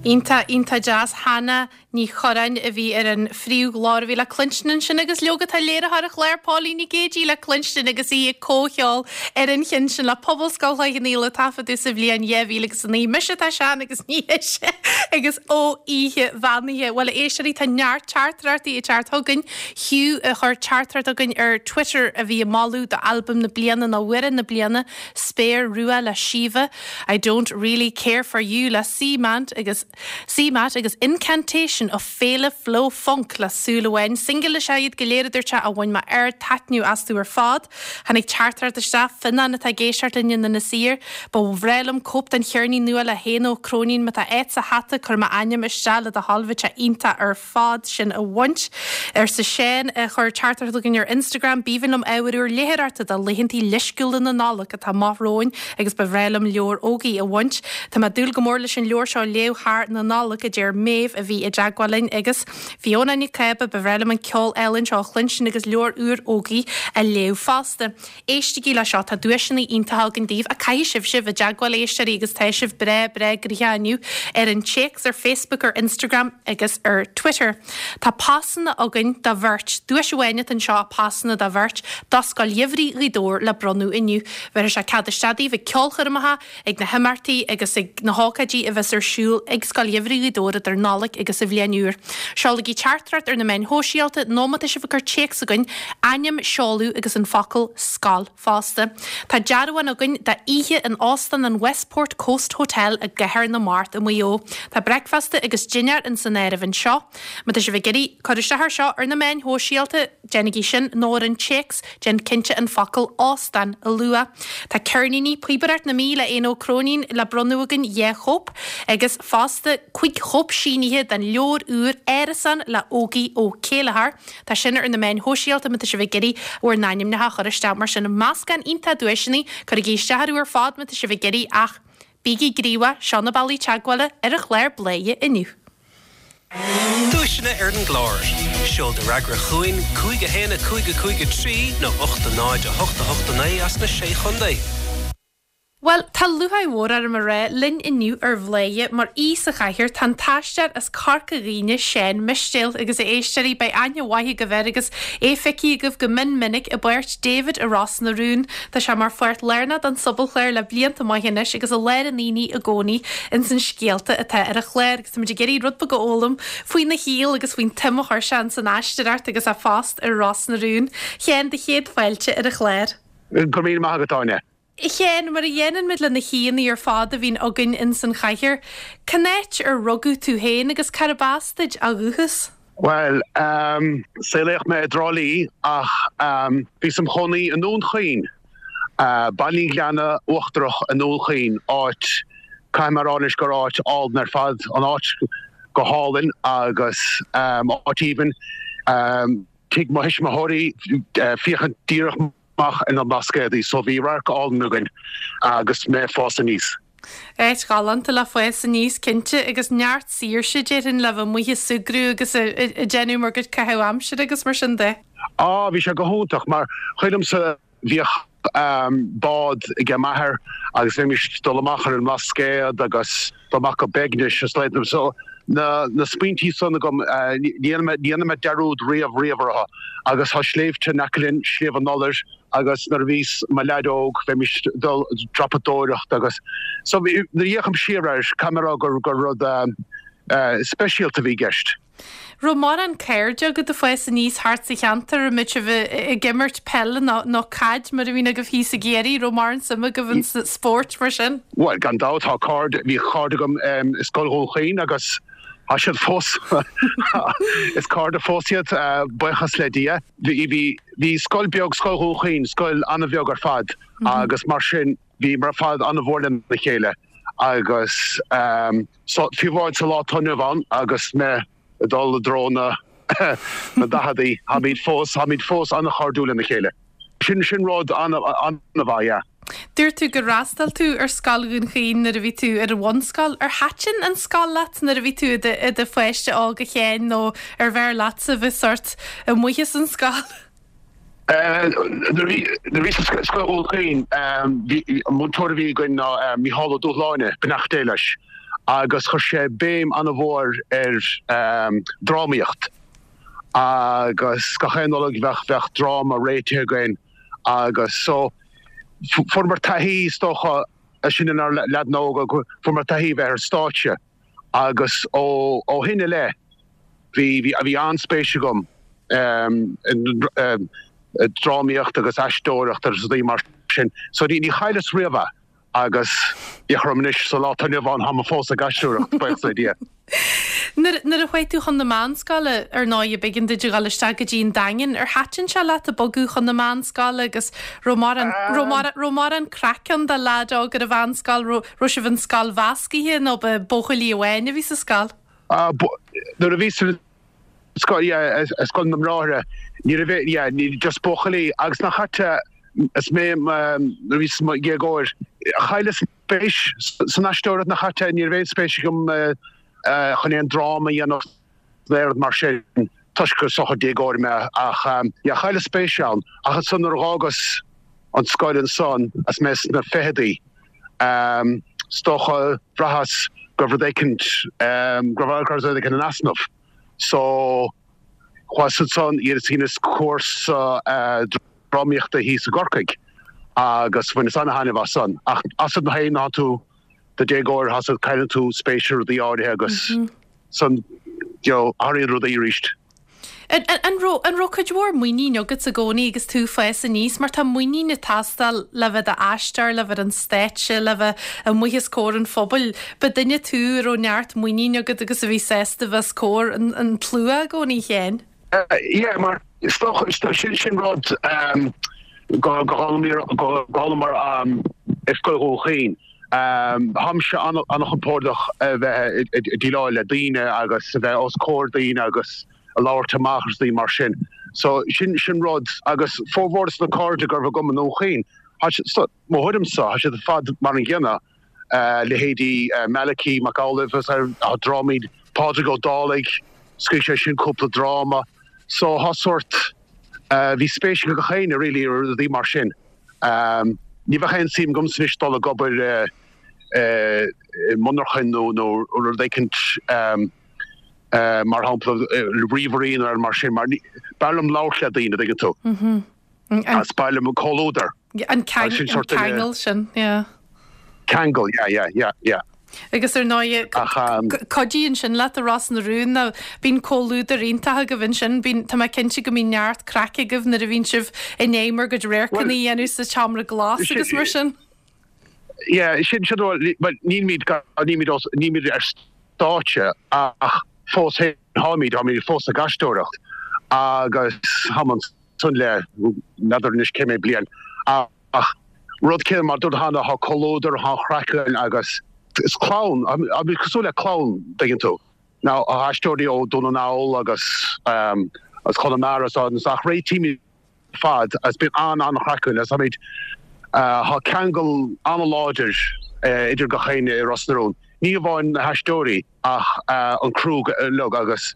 Iontach, iontach deas. Hannah Ní Churráin a bhí ar an phríomhghlór a bhí le cluinstin ansin agus leoga tá léiritheoir an chláir Póilín Nic Géidigh le cluinstin agus í ag comhcheol ar an cheann sin le Pobalscoil Chloich Cheann Fhaola a taifeadadh sa bhliain 2009. Mise atá sean agus ní hise agus ó oíche bheannaithe. Bhuel a éisteoirí tá neart teachtaireachtaí ag teacht chugainn. Hugh a chuir teachtaireacht chugainn ar Twitter a bhí ag moladh do albam na bliana nó amhrán na bliana Spéir Rua le Síomha, I Don't Really Care For You le C-Mant agus C-Matt agus Incantation of Féile Flow Funk le Súil Amháin. Singil is ea iad go léir a dúirt sé a bhain mé ard-taitneamh astu ar fad. Tháinig teachtaireacht isteach, Fionnán atá ag éisteacht linn in Inis Oírr. Ba bhreá liom cóip den cheirnín nua le hÉanna Ó Cróinín. Má tá áit sa hata, cuir m'ainm isteach le do thoil, bheadh sé iontach ar fad sin a bhaint. Arsa Seán a chuir teachtaireacht chugainn ar Instagram, B'aoibhinn liom ábhar úr léitheoireachta do laethantaí leisciúla na Nollag atá amach romhainn agus ba bhreá liom leabhar Ógie a bhaint. Tá mé ag dúil go mór leis an leabhar seo a léamh thar na Nollag, a deir Méabh a bhí i dteagmháil linn agus Fiona Nic Cába, ba bhreá liom an ceol álainn seo a chluinstin agus leabhar úr Ógie a léamh fosta. Éistigí le seo, tá duaiseanna iontacha againn daoibh, ach caithfidh sibhse bheith i dteagmháil, a éisteoirí, agus tá sibh breá, breá gnoitheach inniu ar an téacs, ar Facebook, ar Instagram agus ar Twitter. Tá pasanna againn do bheirt, duais amháin atá anseo, pasanna do bheirt, do Scoil Gheimhridh Ghaoth Dobhair le bronnadh inniu. Bhéarfaidh sé cead isteach daoibh ag ceolchoirmeacha, ag na himeachtaí agus ag na hócáidí a bheas ar siúl ag Scoil Gheimhridh Ghaoth Dobhair idir Nollaig agus an Bhliain Úr. Seolaigí teachtaireacht ar na meáin shóisialta nó má tá sibh ag cur téacs chugainn, ainm, seoladh agus an focal 'scoil' fosta. Tá dearbhán againn d'oíche in Óstán an Westport Coast Hotel i gCathair na Mart i Maigh Eo. Tá bricfeasta agus dinnéar ins an áireamh anseo. Má tá sibh ag iarraidh cur isteach air seo ar na meáin shóisialta, déanaigí sin, nó ar an téacs, déan cinnte an focal 'óstán' a lua. Tá ceirníní Píobaireacht na Mí le Éanna Ó Cróinín le bronnadh againn, 2 chóip, agus fosta 5 chóip sínithe den leabhar úr Árasán le Ógie Ó Céilleachair. Tá sin ar na meáin shóisialta má tá sibh ag iarraidh bhur n-ainmneacha a chur isteach mar sin. Meascán iontach duaiseanna, cuirigí isteach orthu ar fad má tá sibh ag iarraidh ach bígí gníomhach, seo na bealaí teagmhála ar an chlár Bladhaire inniu. Duaiseanna ar an gclár. Seol do fhreagra chugainn, 5 1 5 5 3 nó 8 0 8 8 9 as na Sé Chontae. Bhuel, tá lúcháir mhór orm a rá, linn inniu ar Bhladhaire mar aoi sa chathaoir tá an t-aisteoir as Corca Dhuibhne, Seán Mistéil, agus a éisteoirí, beidh aithne mhaith agaibh air agus é feicthe agaibh go mion minic i bpáirt David i Ros na Rún. Tá sé mar pháirt lárnach den sobalchlár le blianta maithe anois agus i lár an aonaigh i gcónaí ins an scéalta atá ar an chlár agus táimid ag iarraidh rud beag a fhoghlaim faoina shaol agus faoin tsuim a chuir sé ins an aisteoireacht agus a phost ar Ros na Rún. Sheáin, do chéad fáilte ar an chlár. Go raibh míle maith agat, Áine. A Sheáin, mar a dhéanann muid le na haíonna ar fad a bhíonn againn ins an chathaoir, cén áit ar rugadh tú féin agus cárb as duit ó dhúchas? Bhuel, saolaíodh mé i dTrá Lí ach bhíos im chónaí i nDún Chaoin, Baile an Ghleanna Uachtarach i nDún Chaoin, áit, caithfidh mé a rá anois gur áit álainn ar fad, an áit go hálainn agus áit aoibhinn. Tigh mo thuismitheoirí, féachaint díreach amach ar na Blascaodaí so bhí radharc álainn againn agus mé ag fás aníos. Áit ghalánta le fás aníos cinnte agus neart saoirse déarfainn le bheith amuigh ag súgradh agus ag déanamh bhur gcuid caitheamh aimsire agus mar sin de. Á bhí sé go hiontach mar chuimhin liomsa bhíodh bád ag m'athair agus bheimis ag dul amach ar an mBlascaod agus dul amach go Beignis is leithéid so na na smaointí san agam ní dhéanfaidh mé dearúd riamh riamh orthu agus tá sléibhte in aice linn, Sliabh an Iolair agus nuair a bhíos i mo leaid óg bheimis ag dul dreapadóireacht agus so nuair a fhéachaim siar air caithfidh mé a rá gur gur rud speisialta a bhí i gceist. Raibh mórán cairde agat ag fás aníos thart sa cheantar, an mbeadh sibh ag imirt peile nó caid mar a bhíonn agaibh thíos i gCiarraí, raibh mórán suime agaibh in spóirt mar sin? Bhuel, gan dabht, tá cairde, bhí cairde agam i Scoil Dhún Chaoin agus tá siad fós, is cairde fós iad, buíochas le Dia. Bhí, bhí, bhí scoil beag, Scoil Dhún Chaoin, scoil an-bheag ar fad agus mar sin bhíomar ar fad an-mhór lena chéile agus So, fiú amháin sa lá atá inniu ann agus mé ag dul i dtreo na na daicheadaí, táimid fós, táimid fós an-chairdiúil lena chéile. Sin, sin rud an-mhaith, yeah. Dúirt tú gur fhreastail tú ar Scoil Dhún Chaoin nuair a bhí tú ar an bhunscoil. Ar thaitin an scoil leat nuair a bhí tú i do pháiste óg a Sheáin nó arbh fhearr leatsa bheith sórt amuigh as an scoil? Nuair a bhíos i Scoil Dhún Chaoin, bhí an múinteoir a bhí againn ná Mícheál Ó Dúshláine, beannacht Dé leis, agus chuir sé béim an-mhór ar drámaíocht agus gach aon Nollaig bheadh bheadh dráma réitithe againn agus so fuaireamar taithí is dócha, sinn inár leaideanna óga, fuaireamar taithí a bheith ar stáitse. Agus ó shin i leith bhí bhí an-spéis agam i drámaíocht agus aisteoireacht agus rudaí mar sin. So ní chailleas riamh é agus féach orm anois sa lá atá inniu ann táim fós ag aisteoireacht, buíochas le Dia. Nuair a chuaigh tú chun na meánscoile, ar ndóigh, b'éigean duit a dhul isteach go dtí an Daingean. Ar thaitin sé leat ag bogadh chun na meánscoile agus raibh mórán, raibh mórán craic ann do leaid óg ar an mheánscoil? Raibh sibh in scoil mheascaithe nó ba buachaillí amháin a bhí sa scoil? Nuair a bhíos sa scoil, yeah, i scoil na mBráithre, ní raibh, yeah, ní, just buachaillí agus nach ait is mé, nuair a bhíos i mo dhéagóir, chailleas spéis san aisteoireacht nach ait, ní raibh aon spéis agam chun aon dráma a dhéanamh. Aon rud mar sin toisc gur is dócha déagóir mé ach yeah chailleas spéis ann ach ansan nuair a dh'fhágas an scoil ansan is mé sna ficheadaí is dócha bhraitheas go raibh rud éicint go raibh rud éicint in easnamh so chuas ansan dheineas cúrsa drámaíochta thíos i gCorcaigh agus bhaineas ana-thaitneamh as san ach as an féin ná tú do déagóir tá cailleann tú spéis i rudaí áirithe agus san you know athraíonn rudaí arís. An raibh, an raibh cuid mhór muinín agat i gcónaí agus tú ag fás aníos mar tá muinín ag teastáil le bheith i d'aisteoir, le bheith ar an stáitse, le bheith amuigh os comhair an phobail. Ba duine tú a raibh neart muinín agat agus a bhí sásta bheith os comhair an, an tslua i gcónaí a Sheáin. Yeah mar is dócha, sin, sin rud go, go d'fhoghlaimeamar i Scoil Dhún Chaoin. Táimse an-chompordach a bheith ag déileáil le daoine agus a bheith os comhair daoine agus a labhairt amach agus rudaí mar sin. So sin sin rud agus formhór de na cairde go raibh agam i nDún Chaoin, tá mo thuairimse, tá siad ar fad mar an gcéanna, leithéidí Malachy Mac Amhlaoibh agus tá drámaí Pádraig Ó Dálaigh, scríobh sé sin cúpla dráma. So tá sórt, bhí spéis ag gach éinne really i rudaí mar sin. Ní bheadh aon suim agamsa anois dul ag obair i monarchain nó nó rud éicint mar shampla ríomhairí nó mar sin mar b'fhearr liom labhairt le daoine, an dtuigeann tú. Is b'fhearr liom comhluadar. An ceangal sin, yeah. Ceangal, yeah, yeah, yeah, yeah. Agus ar ndóigh, cuidíonn sin leat i Ros na Rún, nó bíonn comhluadar iontach agaibh ansin, bíonn, tá mé cinnte go mbíonn neart craic agaibh nuair a bhíonn sibh i ndiaidh bhur gcuid radharcanna a dhéanamh sa tseomra glas agus mar sin. Yeah, sin, sin, bhuel, nílimid, nílimid, nílimid ar stáitse ach fós féin, táimid, táimid fós ag aisteoireacht agus táim ansan le, n'fheadar anois cé mhéad bliain ach rud céanna mar dúirt cheana, tá comhluadar, tá an chraic againn agus is clann, táimid cosúil le clann, dtuigeann tú. Now, tá aisteoirí ó Dún na nGall agus as Conamara is ach réitímid ar fad agus bíonn an-an-chraic againn agus táimid, tá ceangal an-láidir idir gach éinne i Ros na Rún, ní hamháin na haisteoirí ach an criú uilig agus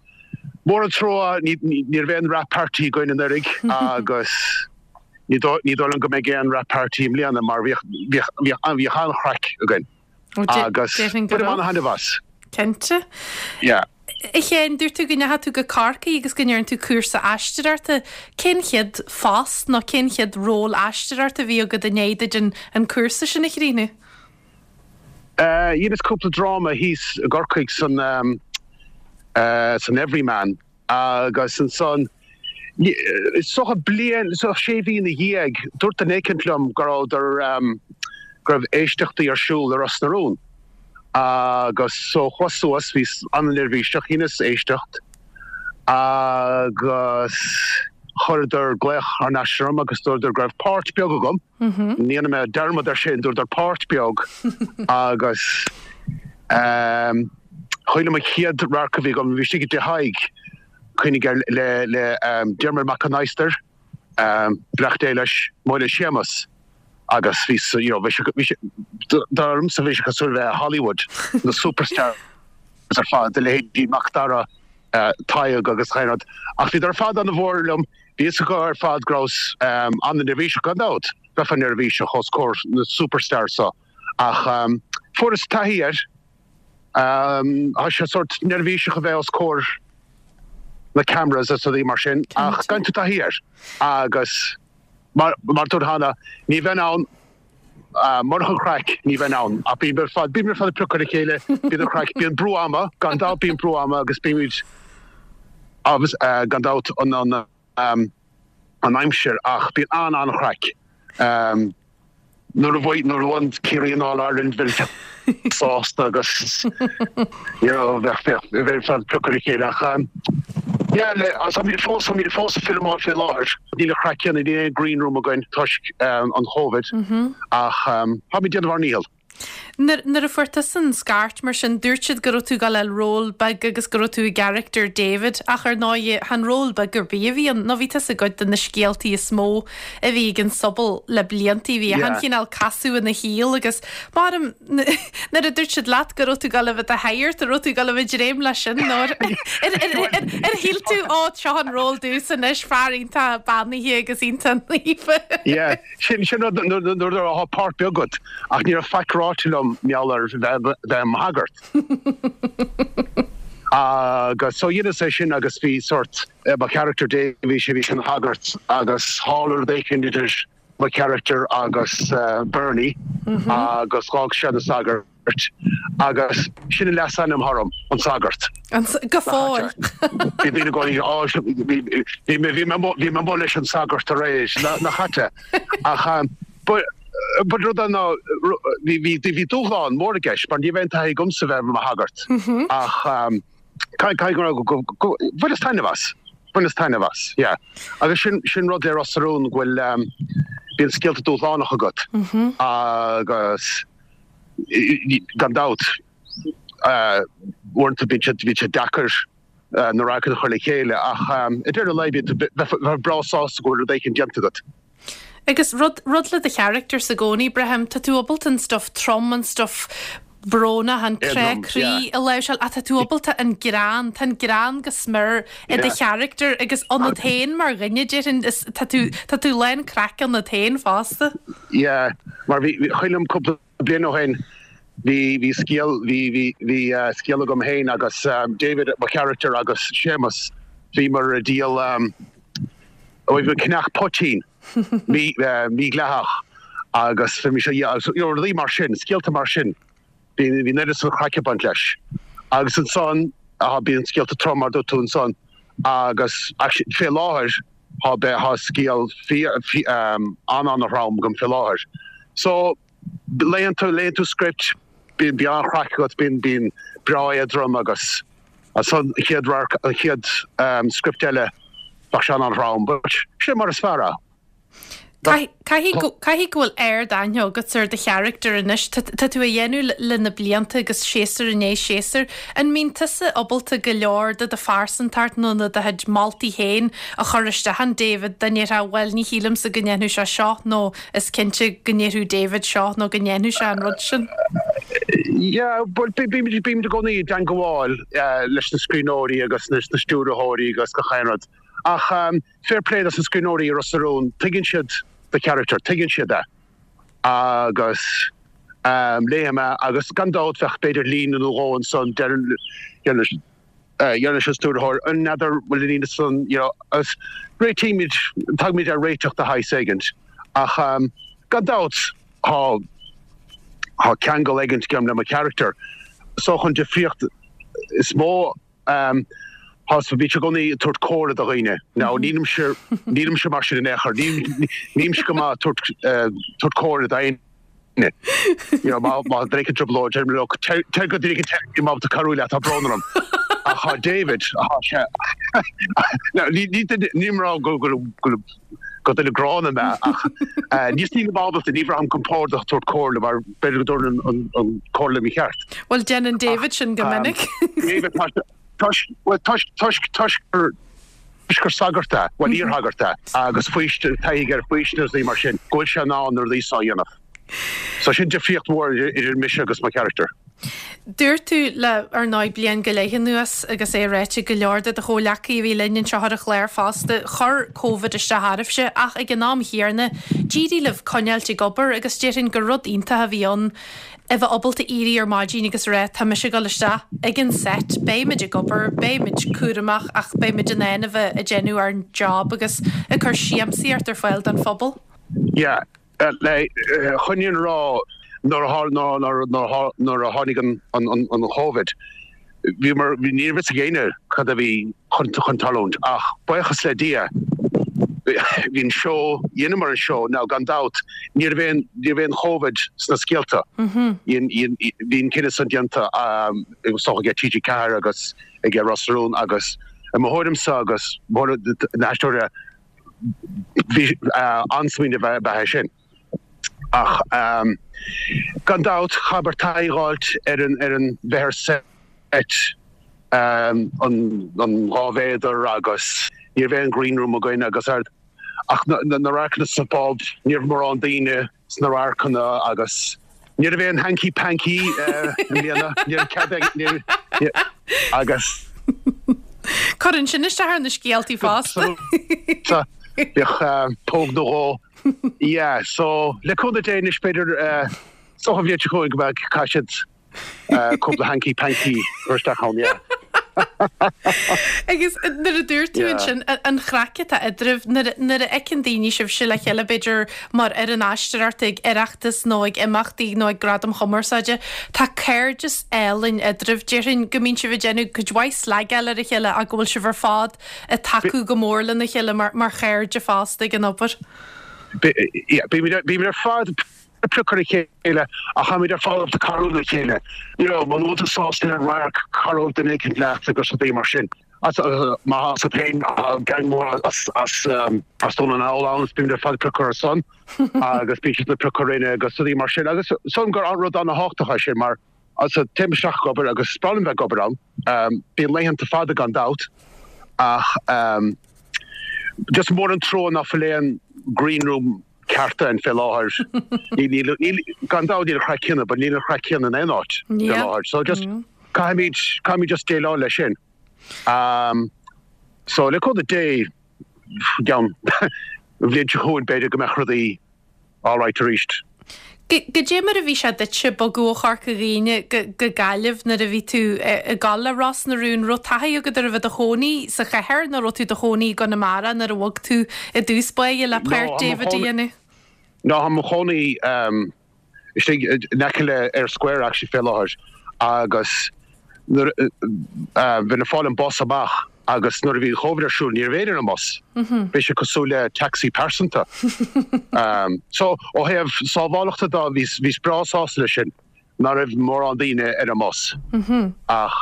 mór an trua ní raibh aon wrap party againn anuraidh agus ní dóigh liom go mbeidh aon wrap party i mbliana mar bhíodh bhíodh an-chraic againn agus bainim an-thaitneamh as. Cinnte. Yeah. A Sheáin, dúirt tú go ndeachaigh tú go Corcaigh agus go ndearna tú cúrsa aisteoireachta. Cén chéad phost nó cén chéad ról aisteoireachta a bhí agat i ndiaidh duit an cúrsa sin a chríochnú? Dheineas cúpla dráma thíos i gCorcaigh san san Everyman agus ansan is dócha bliain, is dócha sé mhí ina dhiaidh, dúirt duine éicint liom go rabhadar go raibh éisteachtaí ar siúl i Ros na Rún agus so chuas suas, bhíos an-neirbhíseach, dheineas éisteacht agus chuireadar glaoch thar n-ais orm agus dúradar go raibh páirt beag agam. Ní dhéanfaidh mé dearmad ar sin, dúradar páirt beag agus cuimhin liom an chéad radharc a bhí agam, bhí istigh i dTigh Thaidhg, cuimhnigh air, le le Diarmuid Mac an Adhastair, beannacht Dé leis, mo le Séamus agus bhí you know bhí sé bhí sé dar liomsa bhí sé cosúil le bheith i Hollywood, na superstars ar fad, a leithéidí Mac Dara, Tadhg agus chaon rud ach bhíodar ar fad an-mhór liom. Bhí fhios acu ar fad go rabhas an-neirbhíseach, gan dabht, bheifeá neirbhíseach os comhair na superstars so, ach fuaireas taithí air. Tá sé sórt neirbhíseach a bheith os comhair na cameras is rudaí mar sin, ach faigheann tú taithí air agus mar a dúirt cheana, ní bheinn ann murach an chraic, ní bheinn ann. Ach bíonn ar fad, bíonn ar fad ag piocadh ar a chéile, bíonn an chraic, bíonn brú ama, gan dabht bíonn brú ama agus bímid agus gan dabht an an aimsir ach bíonn an-an-chraic. Nuair a bhuaigh nuair a bhuann Ciarraí an All Ireland bheinn sásta agus you know bheadh bheadh bheinn ag piocadh ar a chéile ach yeah le agus táimid fós táimid fós ag filmeáil faoi láthair. Níl an chraic céanna níl aon green room againn toisc an Covid ach táimid ag déanamh ár ndícheall. Nuair a fuair tusa an scairt mar sin, dúirt siad go raibh tú ag dul a fháil ról beag agus go raibh tú i gcarachtar David ach ar ndóigh chan ról beag ar bith a bhí ann nó bhí tusa i gcuid de na scéaltaí is mó a bhí ag an sobal le bliantaí. Bhí achan chineál casadh ina shaol agus maram nuair a dúirt siad leat go raibh tú ag dul a bheith i do shagart, an raibh tú ag dul a bheith ag dréim leis sin nó ar shíl tú ó seo an ról domhsa anois, fear iontach beannaithe agus iontach naofa. Yeah. Sin sin rud nuair atá páirt beag agat ach ní raibh faic ráite liom mar gheall ar bheith i mo shagart. Agus so dheineas é sin agus bhí sort mo charachtar Davy sé bhí sé ina shagart agus tharla rud éicint idir mo charachtar agus Bernie agus dh'fhág sé na sagairt. Agus sin an leasainm orm, an Sagart. Go fóill. Bhí daoine i gcónaí, á, bhí mé, bhí mé amuigh leis an Sagart aréir, nach ait é. Ach, but, but rud é ná, bhí, bhí, bhí dúshlán mór i gceist, mar ní raibh aon taithí agamsa bheith i mo shagart. Ach, caithfidh go raibh, go, go, bhaineas taitneamh as. Bhaineas taitneamh as, yeah. Agus sin, sin rud le Ros na Rún, go bhfuil, bíonn scéalta dúshlánach agat. Agus. Gan dabht, uaireanta bíonn sé deacair na radharcanna a chur le chéile ach i ndeireadh an lae bíonn tú bheifeá breá sásta go bhfuil rud éicint déanta agat. Agus rud, rud le do characters i gcónaí, braithim, tá tú ábalta an stuff trom, an stuff. brónach, an crá croí a láimhseáil ach tá tú ábalta an greann, tá an greann go smior i do charachtar agus ionat féin mar dhuine, déarfainn, is tá tú, tá tú lán craic ionat féin fosta. Yeah, mar bhí, cuimhin liom cúpla bliain ó shin, bhí, bhí scéal, bhí, bhí, bhí scéal agam féin agus David, mo charachtar agus Séamus, bhíomar ag díol, bhí ag ceannach poitín. mídhleathach agus bhí mise you know rudaí mar sin, scéalta mar sin, bhí an oiread san craic ag baint leis. Agus ansan bíonn scéalta trom mar dúirt tú ansan agus actually fé láthair tá tá scéal an-an-throm agam fé láthair. So léann tú léann tú script, bíonn bíonn an-chraic agat, bíonn bíonn breá éadrom agus ansan an chéad radharc an chéad script eile bheadh sé an-an-throm but sin mar is fearr é. Caithfidh go caithfidh go bhfuil ard-aithne agat ar do charachtar anois. Tá tá tú á dhéanamh le na blianta agus séasúr i ndiaidh séasúir. An mbíonn tusa ábalta go leor de do phearsantacht nó na do chuid moltaí féin a chur isteach in David dá ndéarfá bhuel ní shílimse go ndéanfadh sé seo nó Is cinnte go ndéarfadh David seo nó go ndéanfadh sé an rud sin. Yeah, bhuel, bímid i gcónaí i dteangabháil leis na scríbhneoirí agus leis na stiúrthóirí agus gach aon rud. Ach fair play dos na scríbhneoirí i Ros na Rún, tuigeann siad do charachtar, tuigeann siad é. Agus léim é agus gan dabht bheadh b'fhéidir líne nó dhó ansan, deireann, Deir leis an stiúrthóir, an n'fheadar bhfuil an líne san, you know, agus réitímid, tagaimid ar réiteach de shaghas éigint. Ach gan dabht tá, tá ceangal éigint agam le mo charachtar. So an difríocht is mó, tá, bímse i gcónaí ag tabhairt comhairle do dhaoine. Now nílimse, nílimse mar sin in aon chor, nílimse go maith ag tabhairt, tabhairt comhairle d'aon. You know, má má duine éicint i dtrioblóid, deirim leo, téir téir go duine éicint nílim ábalta cabhrú leat, tá brón orm. Ach tá David, tá sé, now ní ní duine, nílim ag rá go go go go duine gránna mé ach eh just nílim ábalta, ní bhraithim compordach tabhairt comhairle mar b'fhéidir go dtabharfainn an an comhairle mícheart. Bhuel, déanann David sin go minic. David, tá sé, toisc, bhuel toisc, toisc, toisc gur, Toisc gur sagart é, bhuel iarshagart é, agus faoistin, taithí aige ar faoistin agus rudaí mar sin, go bhfuil sé in ann na rudaí seo a dhéanamh. So sin difríocht mhór idir mise agus mo charachtar. Dúirt tú le, ar ndóigh, bliain go leith anuas agus é ráite ag go leor de do chomhleacaí a bhí linn anseo ar an chlár fosta, chuir Covid isteach oraibhse ach ag an am chéanna d'éirigh libh coinneáilt ag obair agus déarfainn gur rud iontach a bhí ann a bheith ábalta éirí ar maidin agus a rá tá mise ag dul isteach ag an set, beidh muid ag obair, beidh muid cúramach ach beidh muid in ann a bheith ag déanamh ár job agus ag cur siamsaíocht ar fáil don phobal. Yeah, chun an fhírinne a rá nuair a nuair a tháinig an Covid, bhíomar, ní raibh fhios ag éinne cad a bhí chun chun tarlúint ach buíochas le Dia bhí an seó, dheineamar an seó, now gan dabht ní raibh aon, ní raibh aon Covid sna scéalta, bhí an cinneadh san déanta is dócha ag TG4 agus ag Ros na Rún agus i mo thuairimse agus mo na haisteoirí bhí an-smaoineamh ab ea é sin. Ach gan dabht chaithfear taithí a dh'fháilt ar an ar an bheith ar set an an 2 mhéadar agus ní raibh aon green room againn agus ar ach na na radharcanna sa phub ní raibh mórán daoine sna radharcanna agus ní raibh aon hanky panky i mbliana ní raibh cead ag ní agus Cuireann sin isteach ar na scéaltaí fosta. Bheadh póg nó dhó Yeah, so le cúnamh Dé anois b'fhéidir is dócha an bhliain seo chugainn go mbeidh caithfidh siad cúpla hanky panky a chur isteach ann, yeah. Agus nuair a dúirt tú ansin an chraic atá eadraibh, nuair a fheiceann daoine sibhse le chéile b'fhéidir mar fhoireann aisteoireachta ag Oireachtas nó ag imeachtaí nó ag Gradaim Chumarsáide, tá cairdeas álainn eadraibh. Déarfainn go mbíonn sibh ag déanamh cuid mhaith slagáil ar a chéile ach go bhfuil sibh ar fad ag tacú go mór lena chéile mar chairde fosta ag an obair. Bímid ar fad ag piocadh ar a chéile ach táimid ar fad ag cabhrú le chéile. You know, muna bhfuil tú sásta le radharc, cabhróidh duine éicint leat agus rudaí mar sin. Má tá féin, tá gang mór as as Dún na nGall ann, bímid ar fad ag piocadh ar a son agus bíonn siad ag piocadh orainne agus rudaí mar sin. Agus sílim gur rud an-thábhachtach é sin mar So, téim isteach ag obair agus is breá liom bheith ag obair ann. Bíonn laethanta fada gan dabht ach just mór an trua ná fuil aon green room. ceart ann fé láthair. Níl, níl, gan dabht níl an chraic céanna, but níl an chraic céanna in aon áit fé láthair. So just caithfimid, caithfimid just déileáil leis sin. Um, so le cúnamh Dé, gceann an bhliain seo chugainn b'fhéidir go mbeadh rudaí alright arís. Goidé mar a bhí sé duitse bogadh ó Chorca Dhuibhne go Gaillimh nuair a bhí tú ag gabháil le Ros na Rún? Raibh taithí agat ar a bheith i do chónaí sa chathair nó raibh tú i do chónaí i gConamara nuair a bhog tú i dtús báire le páirt David a dhéanamh? No, tá mo chónaí istigh in aice le Eyre Square actually fé láthair agus nuair a bheinn ag fáil an bus amach agus nuair a bhí an Covid ar siúl ní raibh éinne ar an mbus. Bhí sé cosúil le taxi pearsanta. So ó thaobh sábhálachta de bhíos bhíos breá sásta leis sin nach raibh mórán daoine ar an mbus. Ach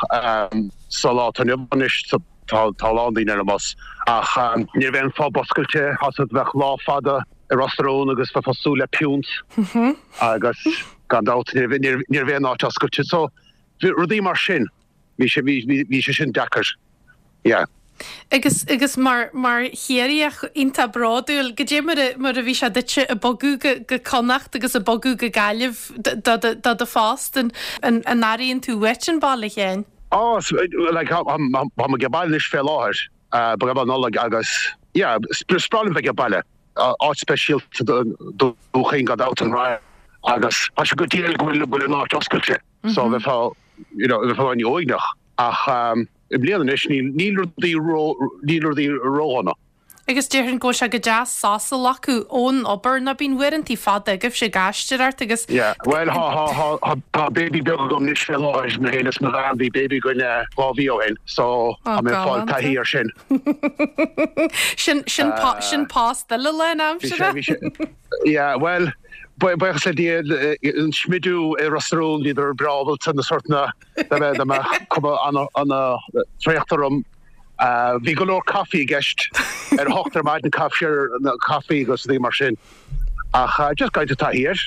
sa lá atá inniu anois tá tá a lán daoine ar an mbus. Ach ní raibh aon phub oscailte, tá a fhios agat bheadh lá fada i Ros na Rún agus bheifeá ag súil le piúnt agus gan dabht ní raibh ní raibh aon áit oscailte. So rudaí mar sin. Bhí sé, bhí, bhí, bhí sé sin deacair. Yeah. Agus, agus mar, mar Chiarraíoch iontach bródúil, goidé mar a, mar a bhí sé duitse ag bogadh go, go Connacht agus ag bogadh go Gaillimh do, do, do do phost, an, an, an airíonn tú uait an baile féin? Á, like, tá, tá, tá mé ag baile anois fé láthair, ba go Nollaig agus, yeah, is breá liom bheith ag baile. Áit speisialta do Dhún Chaoin gan dabht an Rinn agus tá sé go diail go bhfuil, go bhfuil an áit oscailte. So bheifeá, you know, bheifeá an-uaigneach. Ach i mbliana anois níl, níl rudaí ró, níl rudaí ródhona. Agus déarfainn go bhfuil sé go deas sos a ghlacadh ón obair, nó bíonn uaireantaí fada agaibhse ag aisteoireacht agus. Yeah, bhuel thá, thá, thá, thá, tá baby beag agam anois fé láthair, mé féin is mo bhean, bhí baby againn 2 mhí ó shin, so tá mé ag fáil taithí air sin. Sin, sin, sin post eile lánaimseartha. Bhí sé, bhí sé, yeah, bhuel, Buíochas le Dia, an smidiú i Ros na Rún, bhíodar breá ábalta na sortanna dá mbeadh cuma an-traochta orm. Bhí go leor caife i gceist ar a hocht ar maidin, caife caife agus rudaí mar sin. Ach just caithfidh tú taithí air.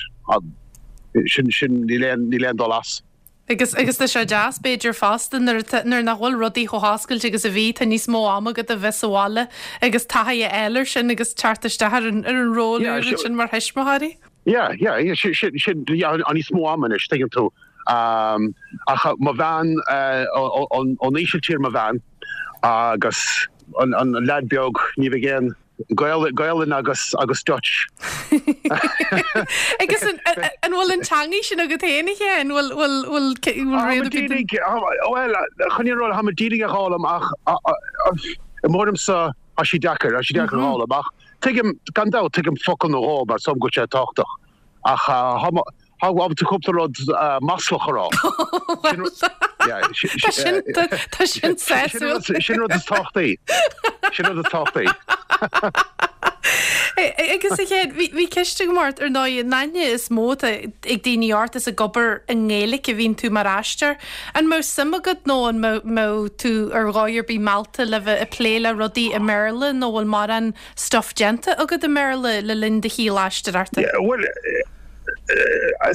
Sin, sin, níl aon, níl aon dul as. Agus, agus tá sé deas, b'fhéidir, fosta, nuair atá, nuair nach bhfuil rudaí chomh hoscailte agus a bhí, tá níos mó ama agat a bheith sa bhaile agus taithí a fháil air sin agus teacht isteach ar an, ar an ról úr ansin mar thuismitheoirí. Yeah, yeah, yeah, sin, sin, sin, yeah, tá níos mó ama anois, tuigeann tú. Ach mo bhean, ón Ísiltír mo bhean agus an, an leaid beag, ní bheidh aon, Gaolainn agus agus Dutch. Agus an an bhfuil an teangaidh sin agat féin a Sheáin? Bhfuil bhfuil bhfuil bhfuil rian ar bith den. Bhuel, chun an fhírinne a rá, tá mé díreach á fhoghlaim ach i m'thuairimse tá sí deacair, tá sí deacair a fhoghlaim ach tuigim, gan dabht, tuigim focal nó dhó mar is dóigh liom go bhfuil sé tábhachtach ach tá Tá ábalta cúpla rud maslach a rá. Tá sin tá sin sásúil. Sin rud is tábhachtaí. Sin rud is tábhachtaí. Agus a Sheáin, bhí ceist agam ort, ar ndóigh, an aithne is mó atá ag daoine ort is ag obair i nGaeilge a bhíonn tú mar aisteoir. An mbeadh suim agat nó an mbeadh tú ar dhóigh ar bith meallta le bheith ag plé le rudaí i mBéarla nó bhfuil mórán stuff déanta agat i mBéarla le linn do shaol aisteoireachta? Bhuel,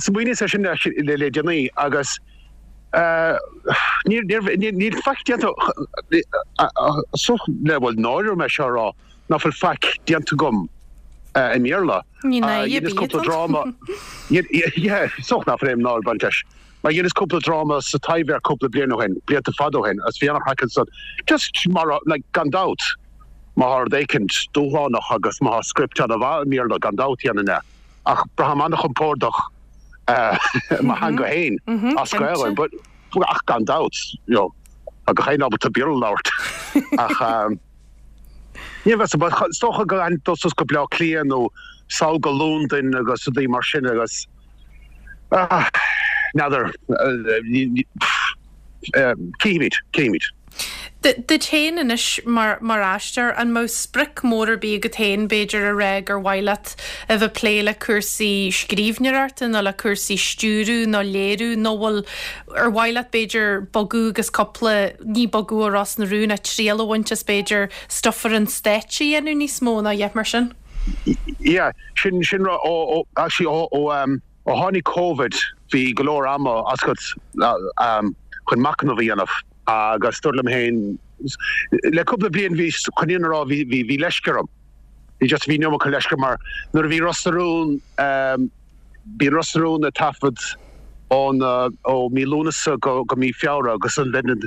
smaoiníos air sin le déanaí agus níl faic déanta, le bhuel náire orm é seo a rá, ná fuil faic déanta agam i mBéarla. Ní náire ar bith atá ann. Yeah, is dócha nach bhfuil aon náire ag baint leis. Mar dheineas cúpla dráma sa Taibhdhearc cúpla bliain ó shin, blianta fada ó shin, agus bhí an-chraic ansan. Just mar, like, gan dabht, má thá rud éicint dúshlánach agus má thá script an-mhaith i mBéarla, gan dabht dhéanfainn é. Ach braithim an-chompordach i mo theanga féin, as Gaelainn, but, ach gan dabht, you know, tá gach éinne ábalta Béarla a labhairt. Ach, ní bheas, but is dócha go gcaithfinn dul suas go Bleá Cliath nó sall go Londain agus rudaí mar sin agus, N'fheadar. Cífimid, cífimid. Duit féin anois mar aisteoir, an mbeadh sprioc mór ar bith agat féin, b'fhéidir, a rá gur mhaith leat a bheith ag plé le cúrsaí scríbhneoireachta nó le cúrsaí stiúradh nó léiriú nó bhfuil, ar mhaith leat b'fhéidir bogadh agus cúpla, ní bogadh ó Ros na Rún ach triail a bhaint as b'fhéidir stuff ar an stáitse a dhéanamh níos mó nó a dhath mar sin? Yeah, sin, sin rud, ó, ó, actually ó, ó, um, ó tháinig Covid bhí go leor ama agat um, chun machnamh a dhéanamh agus dúirt liom féin, le cúpla bliain bhí, chun an fhírinne a rá, bhí, bhí, bhí leisce orm. Bhí just, bhí an iomarca leisce mar nuair a bhí Ros na Rún, bíonn Ros na Rún ag taifead ón, ó mí Lúnasa go, go mí Feabhra agus ansin bheinn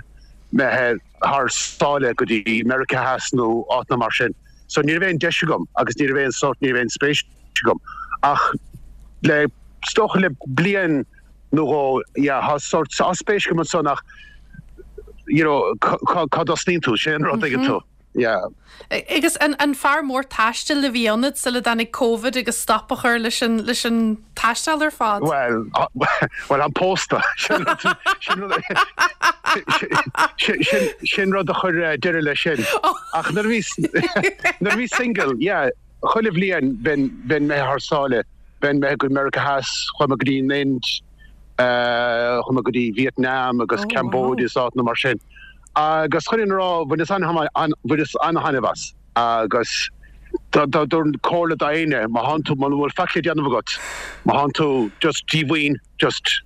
imithe thar sáile go dtí Meiriceá Theas nó áiteanna mar sin. So ní raibh aon deis agam agus ní raibh aon sórt, ní raibh aon spéis agam. Ach le, is dócha le bliain nó dhó, yeah, tá sórt, tá spéis agam ansan ach, you know, cá, cá dtosnaíonn tú, sin an rud, tuigeann tú. Yeah. Agus an, an fear mór taistil a bhí ionat sula dtáinig Covid agus stop a chur leis an, leis an taisteal ar fad? Bhuel, bhuel, táim pósta. Sin rud, sin rud, sin, sin rud a chuir deireadh leis sin. Ach nuair a bhí, nuair a bhí single, yeah, chuile bhliain bheinn, bheinn imithe thar sáile, bheinn imithe go Meiriceá Theas, chuaigh mé go dtí an Ind, chuaigh mé go dtí Vietnam agus Cambodia is áiteanna mar sin. Agus chun an fhírinne a rá, bhaineas bhaineas an-thaitneamh as. Agus thabharfainn comhairle d'éinne, má thánn tú, muna bhfuil faic le déanamh agat, má thánn tú just díomhaoin, just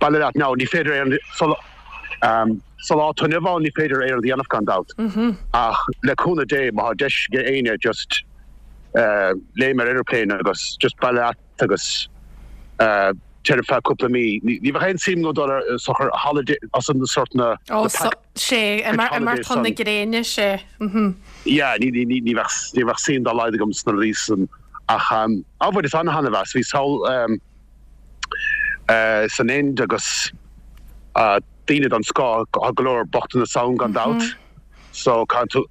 bailigh leat now, ní féidir aon, sa lá atá inniu ann ní féidir aon rud a dhéanamh gan dabht. Ach le cúnamh Dé, má thá deis ag éinne just léim ar aeroplane agus just bailigh leat agus téir ar feadh cúpla mí. Ní bheadh aon suim agam dul ar sochar holiday as an sort na Ó, sé, imeacht chun na gréine, sé. Yeah, ní bheadh ní bheadh suim dá laghad agam sna rudaí san ach á bhaineas an-thaitneamh as. Bhíos thall san Ind agus daoine den scoth, tá go leor bochtanas ann gan dabht so caithfidh tú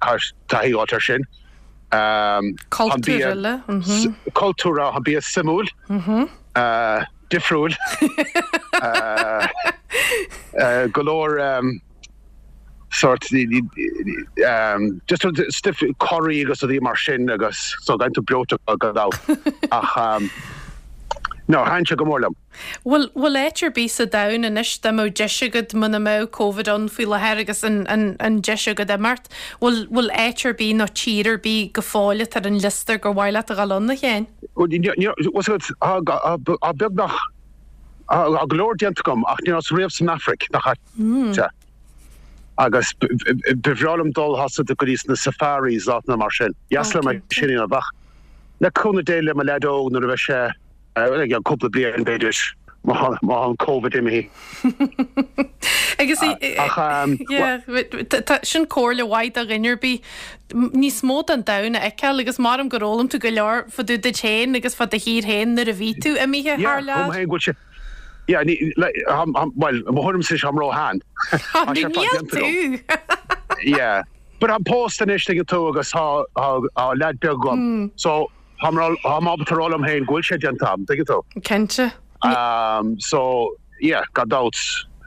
taithí a fháilt air sin. Cultúr eile. Cultúr, tá an bia suimiúil, difriúil. Go leor sort just stuif curry agus rudaí mar sin agus so bíonn tú breoite gan dabht ach no thaitin sé go mór liom. Bhfuil, bhfuil áit ar bith sa domhan anois dá mbeadh deis agat muna mbeadh Covid ann faoi láthair agus an, an, an deis agat imeacht, bhfuil, bhfuil áit ar bith nó tír ar bith go fóill atá ar an liosta gur mhaith leat a dhul ann, a Sheáin? Bhuel, ní, ní, bhfuil a fhios agat, tá, tá beagnach, tá go leor déanta agam ach ní rabhas riamh san Afraic, nach ait. Agus ba bhreá liom dul tá a fhios agat go dtí sna safaris áiteanna mar sin. Dheas liom é sin a dhéanamh ach le cúnamh Dé le mo leaid óg nuair a bheidh sé i gceann cúpla bliain b'fhéidir, má tá an Covid imithe. Agus yeah, sin comhairle mhaith do dhuine ar bith níos mó den domhan a fheiceáil agus maram gur fhoghlaim tú go leor fá dtaobh duit féin agus fá do thír féin nuair a bhí tú imithe thar lear. Yeah, go bhfuil sé Yeah, ní, like, bhuel, mo thuairimse táim ró-shean. Tá sé fad déanta agam. Yeah. But táim pósta anois, tuigeann tú, agus tá, tá, tá leaid beag agam. So, Táim ábalta a rá liom féin go bhfuil sé déanta agam, tuigeann tú. Cinnte. So, yeah, gan dabht,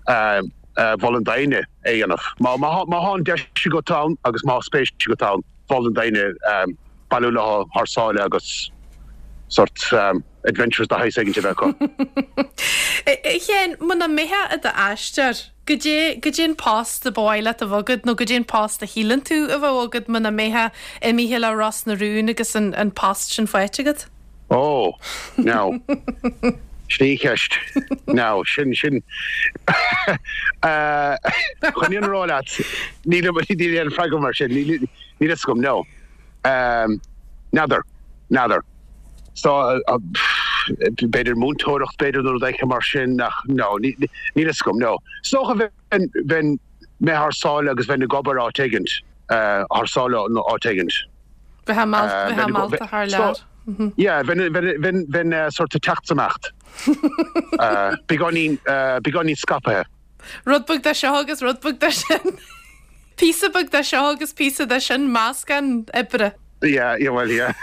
mholfainn d'éinne é a dhéanamh. Má tá an deis agat ann agus má tá spéis agat ann, mholfainn d'éinne bailiú leo thar sáile agus sort adventures de shaghas éigin a bheith acu. A Sheáin, muna mbeifeá i d'aisteoir, Goidé, goidé an post a ba mhaith leat a bheith agat nó goidé an post a shíleann tú a bheadh agat muna mbeifeá imithe le Ros na Rún agus an, an post sin faighte agat? Ó, now, sin í an cheist. Now, sin, sin, eh, chun an fhírinne a rá leat, níl, níl aon freagra mar sin, níl, níl fhios agam, no. N'fheadar, n'fheadar. So, b'fhéidir múinteoireacht, b'fhéidir nó rud éicint mar sin ach no, níl fhios agam, no. Is dócha bheinn, bheinn mé thar sáile agus bheinn ag obair áit éigint, thar sáile nó áit éigint. Bheifeá meallta thar lear. Yeah, bheinn, bheinn, bheinn, bheinn sort ag teacht is imeacht. Beagáinín, beagáinín scaipthe. Rud beag de seo agus rud beag de sin. Píosa beag de seo agus píosa de sin, meascán oibre. Yeah, yeah, well, yeah.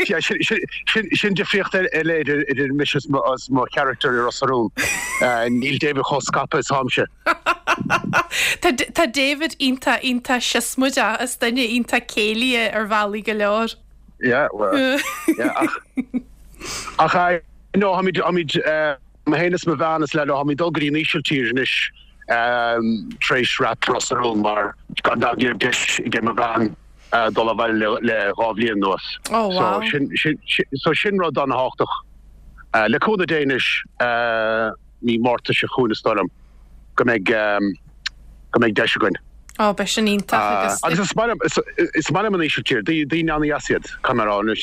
Yeah, sin, sin, sin, sin difríocht eile idir, idir mise is mo, is mo charachtar i Ros na Rún. Níl David chomh scaipthe is táimse. Tá, tá David iontach, iontach siosmaideach, is duine iontach céillí é ar bhealaí go leor. Yeah, well, yeah, ach, ach, eh, no, táimid, táimid, eh, Mé féin is mo bhean is leaid, táimid ag dul go dtí an Ísiltír anois tar éis wrap Ros na Rún mar gan dabht ní raibh deis ag mo bhean dul abhaile le 2 bhliain anuas. Oh wow. So sin, sin, so sin rud an-thábhachtach. Le cúnamh Dé anois mí Márta seo chugainn is dóigh liom go mbeidh, go mbeidh deis againn. Ó, beidh sin iontach agus. Agus is maith liom, is maith liom an Ísiltír, daoine an-dheas iad, caithfidh mé a rá, anois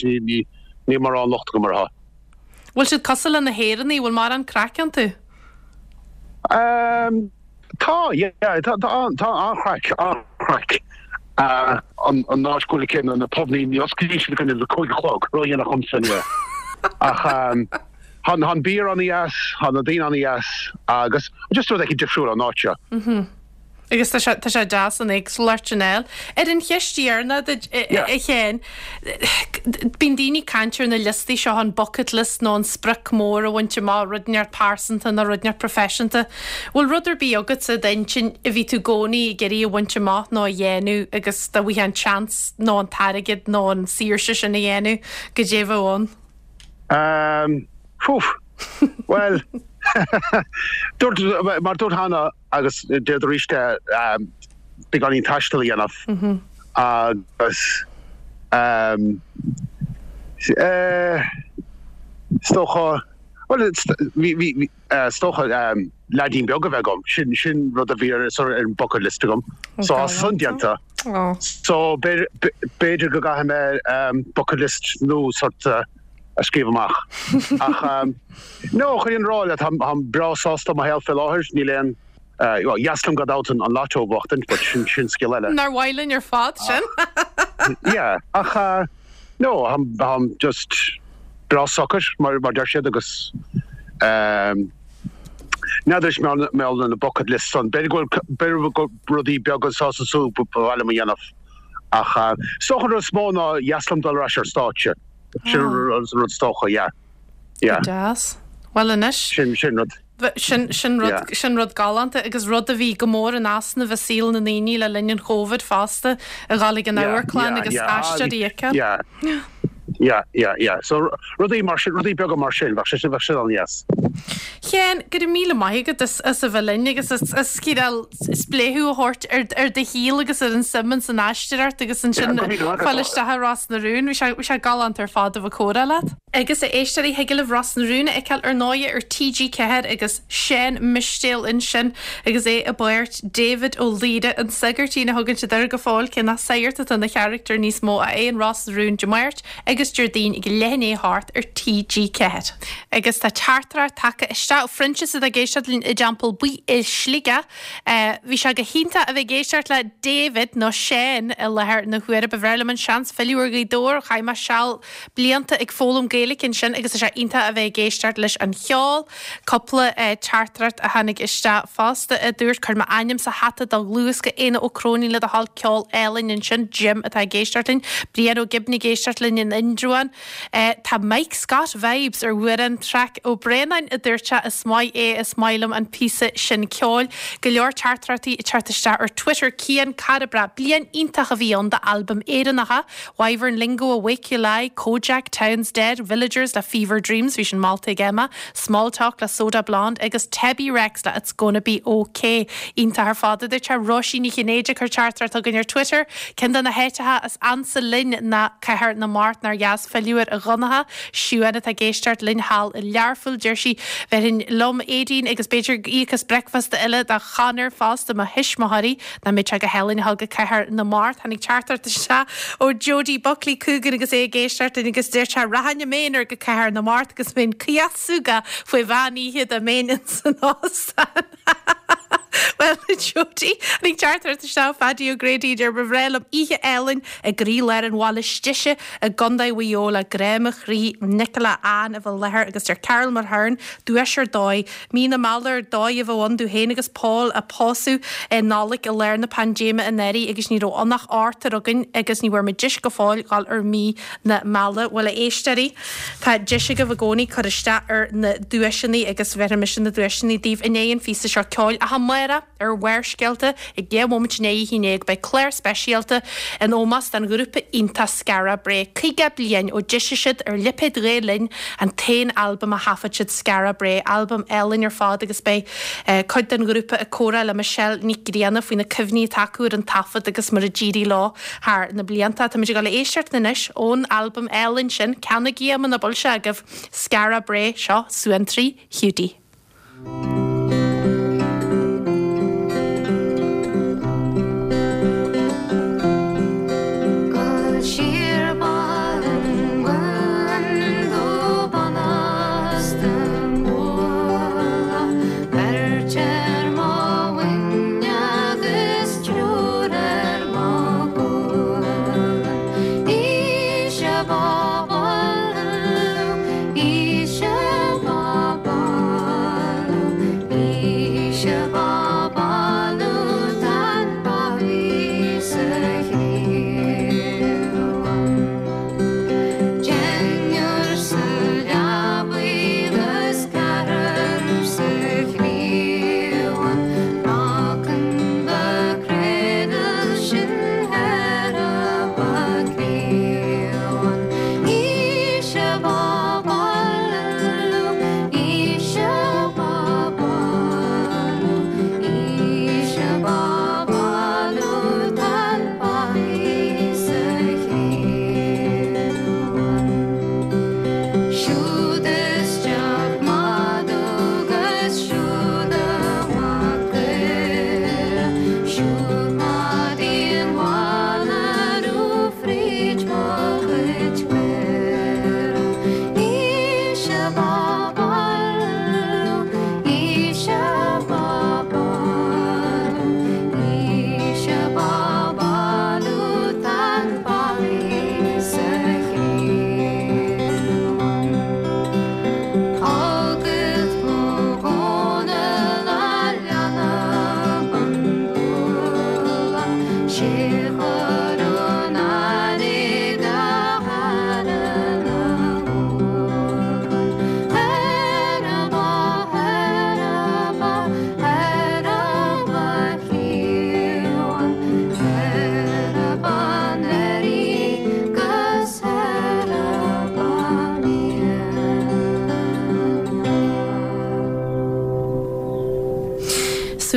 níl mórán locht agam orthu. Bhfuil siad cosúil le na hÉireannaigh, bhfuil mórán craic iontu? Tá, yeah, tá, tá an-chraic, an-chraic. An áit go bhfuil céanna, na pubannaí, ní osclaíonn siad go dtí a 5 a chlog, ródhéanach dhomsa anyway. Ach tá an beer an-dheas, tá na daoine an-dheas agus just rud éicint difriúil an áit seo. Agus tá sé, tá sé deas an éagsúlacht sin a fháil. Ar an cheist dheireanach duit, a Sheáin, bíonn daoine ag caint ar na liostaí seo, an bucket list nó an sprioc mór a bhaint amach, rud inteacht pearsanta nó rud inteacht proifisiúnta. Bhfuil rud ar bith agatsa i d'intinn a bhí tú i gcónaí ag iarraidh a bhaint amach nó a dhéanamh agus dá bhfaighfeá an seans nó an t-airgead nó an saoirse sin a dhéanamh, goidé a bheadh ann? Um, Fúf. Bhuel, dúirt, mar dúirt cheana, Agus déarfad arís é, beagáinín taistil a dhéanamh agus is dócha, bhuel, is dócha leaidín beag a bheith agam, sin, sin rud a bhí ar, ar an bucket list agam. So tá san déanta. So b'fhéidir go gcaithfidh mé bucket list nua sort a scríobh amach. Ach no, chun an rá leat, táim breá sásta i mo shaol fé láthair, níl aon, bhuel, dheas liom gan dabht an lotto a bhuachtaint, but sin, sin scéal eile. Nár mhaith linn ar fad sin? Yeah, ach no, táim just breá socair, mar mar deir siad, agus n'fheadar is mé na bucket list san, b'fhéidir go bhfuil, b'fhéidir go bhfuil rudaí beaga anso is ansúd ba mhaith liom a dhéanamh. Ach is dócha an rud is mó ná dheas liom dul ar ais ar stáitse. Sin an rud is dócha, yeah. Yeah. Go deas. Bhuel anois. Sin, sin rud. Sin, sin rud, yeah. sin rud galánta agus rud a bhí go mór in easnamh i saol na ndaoine le linn an Chóvid fosta, a dhul ag an yeah, amharclann yeah, agus yeah. aisteoirí a fheiceáil. Yeah. Yeah, yeah, yeah. So rudaí mar sin, rudaí beaga mar sin, bheadh sé, bheadh sé an-dheas. Sheáin, go raibh míle maith agat as, as a bheith linn agus as, as cineál spléachadh a thabhairt ar, ar do shaol agus ar an suim ins an aisteoireacht agus ansin fáil isteach i Ros na Rún. Bhí sé, bhí sé galánta ar fad a bheith ag comhrá leat. Agus a éisteoirí, thig libh Ros na Rún a fheiceáil ar ndóighe ar TG4 agus Seán Mistéil ansin agus é i bpáirt David Ó Laoire, an sagairtín a thugann siad air go fóill, cé nach sagart atá ina charachtar níos mó, ach é in Ros na Rún Dé Máirt agus Déardaoin ag leath i ndiaidh a hocht ar TG4. Agus tá teachtaireacht tagtha isteach ó Phroinsias atá ag éisteacht linn i dTeampall Buí i Sligeach. Bhí sé go hiontach a bheith ag éisteacht le David, nó Seán, i láthair na huaire. Ba bhreá liom an seans filleadh ar Ghaoth Dobhair. Chaith mé seal blianta ag foghlaim Gaeilge ansin agus tá sé iontach a bheith ag éisteacht leis an cheol. Cúpla teachtaireacht a tháinig isteach fosta a dúirt, Cuir m'ainm sa hata do dhluthbhosca Éanna Ó Cróinín le do thoil ceol álainn ansin. Jim atá ag éisteacht linn. Brian Ó Gibne ag éisteacht linn in Indreabhán. Tá Mike Scott vibes ar Mhuireann Traic Ó Braonáin a dúirt sé is maith é is maith liom an píosa sin ceoil. Go leor teachtaireachtaí ag teacht isteach ar Twitter. Cian cara breá. Bliain iontach a bhí ann d'albaim Éireannacha. Wyvern Lingo Awake You Lie, Kojak, Town's Dead, Villagers le Fever Dreams, bhí sin molta ag Emma, Small Talk le Soda Blonde agus Tebi Rex le It's Gonna Be OK. Iontach ar fad a dúirt sé. Róisín Ní Chinnéide ag cur teachtaireacht chugainn ar Twitter. Ceann de na háiteacha is ansa linn ná Cathair na Mart, nár dheas filleadh air a Dhonncha. Siuán atá ag éisteacht linn thall i Learpholl, deir sí, Bhéarfainn liom Aedín agus b'fhéidir íoc as bricfeasta eile do Chonor fosta, mo thuismitheoirí. Nach mbeadh sé go hálainn a dhul go Cathair na Mart. Tháinig teachtaireacht isteach ó Jody Buckley chugainn agus é ag éisteacht linn agus deir sé, Rachainn i m'aonar go Cathair na Mart agus bheinn caoch súgach faoi mheán oíche dá mbeinn ins an óstán. Bhuel, a Jody, tháinig teachtaireacht isteach ó Phaddy O'Grady a deir, Ba bhreá liom oíche álainn i gcroílár an bhaile istigh i gContae Mhaigh Eo le grá mo chroí, Nicola Ann i bheith i láthair agus deir Carol Mulhern, duais ar dóigh. Mí na Meala ar dóigh a bheadh ann domh féin agus Paul a pósadh i Nollaig i lár na paindéime anuraidh agus ní raibh ann ach ochtar againn agus ní bhfuair muid deis go fóill dhul ar mí na meala. Bhuel a éisteoirí, tá deis agaibh i gcónaí cur isteach ar na duaiseanna agus bhéarfaidh mise na duaiseanna daoibh i ndiaidh an phíosa seo ceoil ach amárach. Ar Bharrscéalta, ag 11 bhomaite i ndiaidh a 11 beidh clár speisialta in ómós don ghrúpa iontach Skara Brae. 50 bliain ó d'eisigh siad ar lipéad Ghael Linn an t-aon albam a thaifead siad, Skara Brae, albam álainn ar fad agus beidh cuid den ghrúpa ag comhrá le Michelle Nic Grianna faoi na cuimhní atá acu ar an taifead agus mar a d'éirigh leo thar na blianta. Táimid ag dul a éisteacht anois ón albam álainn sin, ceannaigí é muna bhfuil sé agaibh, Skara Brae, seo Suantraí Hiúdaí.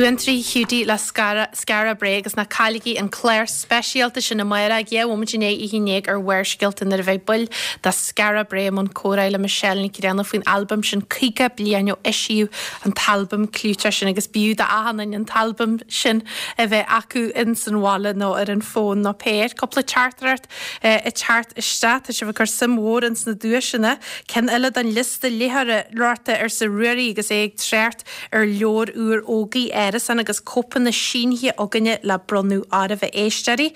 Suantraí Hiúdaí le Skara Brae agus ná cailligí an clár speisialta sin amárach ag 12 bhomaite i ndiaidh a 11 ar Bharrscéalta nuair a bheidh baill de Skara Brae i mbun comhrá le Michelle Nic Grianna faoin albam sin 50 bliain ó eisíodh an t-albam clúiteach sin agus b'fhiú d'achan duine an t-albam sin a bheith acu ins an bhaile nó ar an bhfón nó pé air. Cúpla teachtaireacht ag teacht isteach. Tá sibh ag cur suim mhór ins na duaiseanna. Ceann eile den liosta léitheoireachta arsa Ruairí agus é ag trácht ar leabhar úr Ógie Árasán agus cóipeanna sínithe againne le bronnadh oraibh a éisteoirí.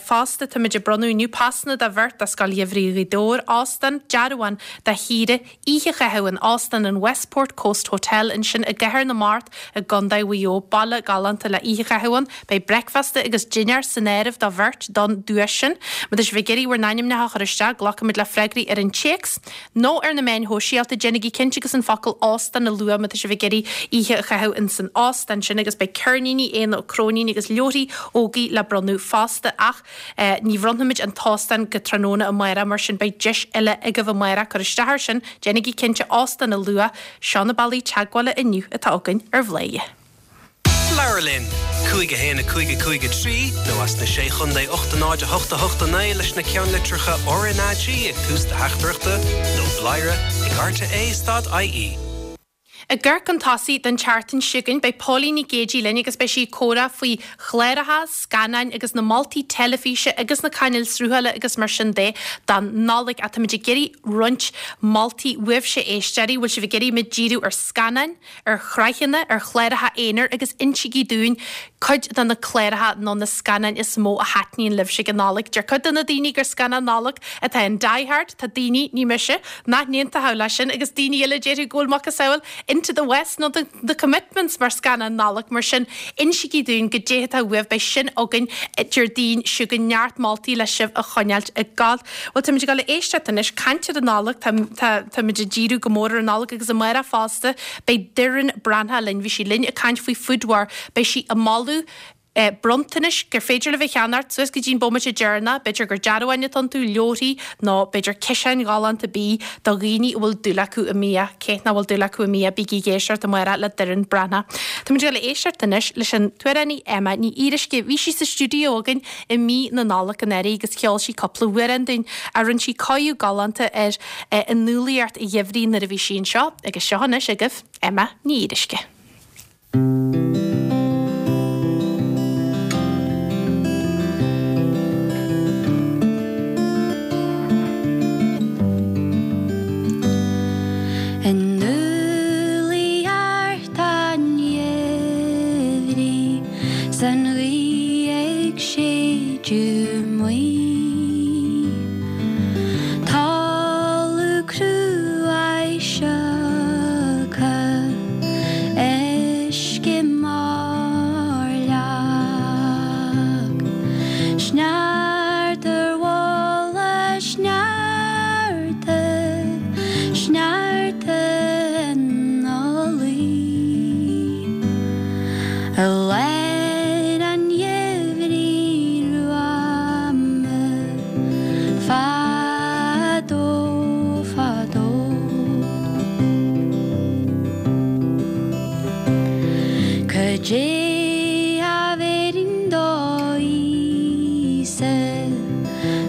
Fosta, táimid ag bronnadh inniu pasanna do bheirt do Scoil Gheimhridh Ghaoth Dobhair, óstán, dearbhán do shaoire, oíche a chaitheamh in Óstán an Westport Coast Hotel ansin i gCathair na Mart i gContae Mhaigh Eo, baile galánta le oíche a chaitheamh ann. Beidh bricfeasta agus dinnéar san áireamh do bheirt don duais sin. Má tá sibh ag iarraidh bhur n-ainmneacha a chur isteach, glacfaimid le freagraí ar an téacs. nó ar na meáin shóisialta, déanaigí cinnte agus an focal 'óstán' a lua má tá sibh ag iarraidh oíche a chaitheamh ins an óstán sin agus beidh ceirníní Éanna Ó Cróinín agus leabharthaí Ógie le bronnadh fosta ach ní bhronnfaimid an t-óstán go tráthnóna amárach mar sin beidh deis eile agaibh amárach cur isteach air sin, déanaigí cinnte 'óstán' a lua. Seo na bealaí teagmhála inniu atá againn ar Bhladhaire. Labhair linn! 5 1 5 5 3 nó as na Sé Chontae 8 0 8 8 9 leis na ceannlitreacha RnaG ag tús do theachtaireachta nó bladhaire ag rte stad ie. Ag amharc chun tosaigh don tseachtain seo chugainn, beidh Póilín Nic Géidigh linn agus beidh sí ag comhrá faoi chláracha, scannáin agus na moltaí teilifíse agus na cainéil sruthála agus mar sin de don Nollaig. Ach táimid ag iarraidh roinnt moltaí uaibhse éisteoirí, bhfuil sibh ag iarraidh muid díriú ar scannáin, ar shraitheanna, ar chláracha aonair agus insígí dúinn cuid de na cláracha nó na scannáin is mó a thaitníonn libhse ag an Nollaig. Deir cuid de na daoine gur scannán Nollag atá in Die Hard, tá daoine, ní mise, nach n-aontódh leis sin agus daoine eile a déarfadh go bhfuil macasamhail Into the West nó The Commitments mar scannán Nollag. Mar sin, insígí dúinn goidé atá uaibh, beidh sin againn Déardaoin seo chugainn, neart moltaí le sibh a choinneáilt ag gabháil. Bhuel, táimid ag dul a éisteacht anois, caint ar an Nollaig, tá, tá, táimid ag díriú go mór ar an Nollaig agus amárach fosta, beidh Doireann Breathnach linn, bhí sí linn ag caint faoi Food War, beidh sí ag moladh eh bronntanais gur féidir libh a cheannacht suas go dtí an bomaite deireanach, b'fhéidir gur dearbháin atá iontu, leabharthaí nó b'fhéidir ciseáin ghalánta bídh do dhaoine a bhfuil dúil acu i mbia, cé nach bhfuil dúil acu i mbia, bígí ag éisteacht amárach le Doireann Breathnach. Táimid ag dul a éisteacht anois leis an t-amhránaí Emma Ní Fhíoruisce, bhí sí sa stiúideo againn i mí na Nollag anuraidh agus cheol sí cúpla amhrán dúinn. Rinne sí cóiriú galánta ar an umhlaíocht gheimhridh nuair a bhí sí anseo agus seo anois agaibh Emma Ní Fhíoruisce. An umhlaíocht an gheimhridh 's an ghaoth ag séideadh maoth. Talamh cruaidh sioctha, uisce mar leac. Sneachta ar mhullach sneachta, sneachta ina luí. I lár an gheimhridh ghruama fadó fadó. Cad é a bhéarfainn do Íosa,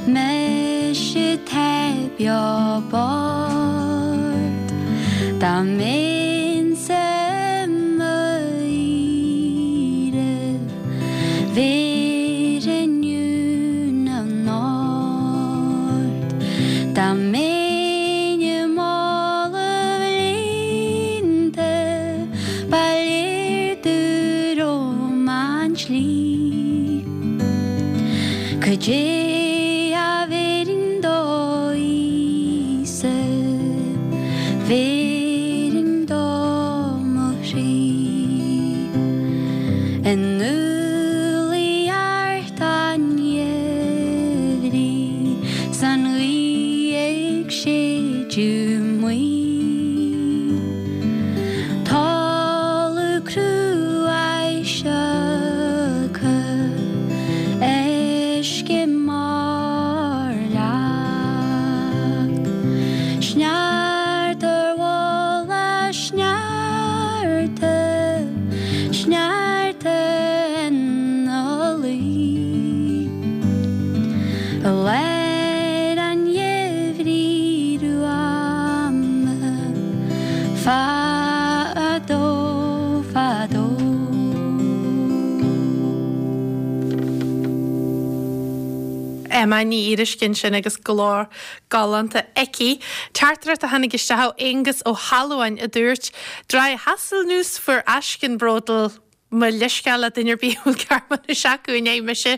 mise atá beo bocht, dá mbeinnse i mo aoire, bhéarfainn Dún na nOrd. Dá mbeinn i mála líonta, ba léir domh romham an tslí. Cad é a bhéarfainn do Íosa, bhéarfainn dó mo chroí. In umhlaíocht an gheimhridh 's an ghaoth ag. Emma Ní Fhíoruisce ansin agus glór galánta aici. Teachtaireacht a tháinig isteach ó Aonghus Ó hAlmhain a dúirt, Drei Haselnüsse für Aschenbrödel Mo leithscéal le duine ar bith a bhfuil Gearmáinis acu i ndiaidh mise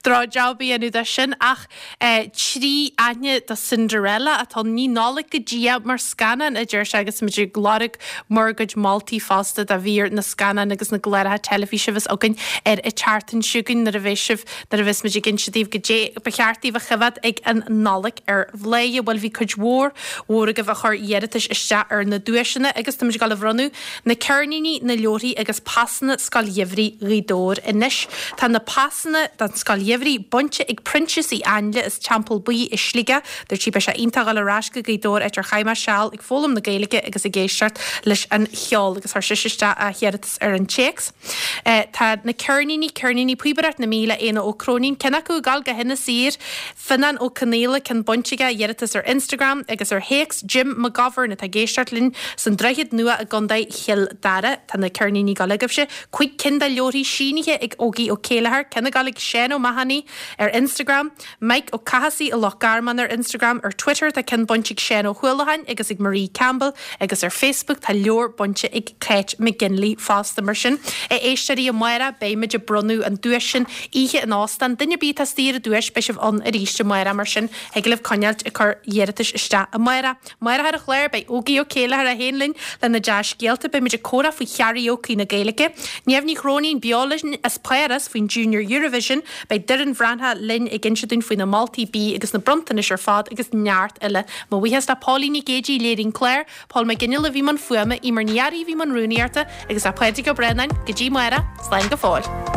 droch-job a dhéanamh de sin ach 3 aithne do Cinderella atá ann. Ní Nollaig go dtí é mar scannán, a deir sé agus muid ag lorg bhur gcuid moltaí fosta do mhír na scannán agus na gcláracha teilifíse a bheas againn ar an tseachtain seo chugainn nuair a bheidh sibh nuair a bheas muid ag inse daoibh goidé ba cheart daoibh a choimhéad ag an Nollaig ar Bhladhaire. Bhuel bhí cuid mhór mhór agaibh a chuir iarratais isteach ar na duaiseanna agus tá muid ag dul a bhronnadh Na ceirníní, na leabharthaí agus pasanna Scoil Gheimhridh Ghaoth Dobhair anois. Tá na pasanna don Scoil Gheimhridh bainte ag Proinsias Uí Ainle as Teampall Buí i Sligeach. Dúirt sí beidh sé iontach dhul ar ais go Gaoth Dobhair áit ar chaith mé seal ag foghlaim na Gaeilge agus ag éisteacht leis an cheol agus chuir sise isteach a hiarratas ar an téacs. Tá na ceirníní, ceirníní Píobaireacht na Mí le Éanna Ó Cróinín, ceann acu ag dul go hInis Oírr. Fionnán Ó Conaola, ceann bainte aige, iarratas ar Instagram agus ar théacs Jim McGovern atá ag éisteacht linn san Droichead Nua i gContae Chill Dara. Tá na ceirníní ag dul agaibhse. Cuig cinn de leabharthaí sínithe ag Ógie Ó Céilleachair, ceann ag dul ag Seán Ó Mathúnaigh ar Instagram, Mike Ó Cathasaigh i Loch Garman ar Instagram, ar Twitter tá ceann bainte ag Seán Ó hUallacháin agus ag Marie Campbell agus ar Facebook tá leabhar bainte ag Kate McGinley fosta. Mar sin, a éisteoirí, amárach beidh muid ag bronnadh an duais sin Oíche in óstán. Duine ar bith atá istigh ar an duais, beidh sibh ann arís amárach, mar sin thig libh coinneáilt ag cur iarratais isteach amárach. Amárach ar an chlár, beidh Ógie Ó Céilleachair é féin linn lena dea-scéalta, beidh muid ag comhrá faoi karaoke na Gaeilge, Niamh Ní Chróinín beo linn as Páras faoin Junior Eurovision, beidh Doireann Bhreathnach linn ag inse dúinn faoi na moltaí bídh agus na bronntanais ar fad agus neart eile. Mo bhuíochas le Póilín Nic Géidigh a léirigh an clár, Pól Mac Fhionnghaile a bhí i mbun fuaime, Eimear Ní Fhearraigh a bhí i mbun rúnaíochta agus le Pádraig Ó Braonáin, go dtí amárach, slán go fóill.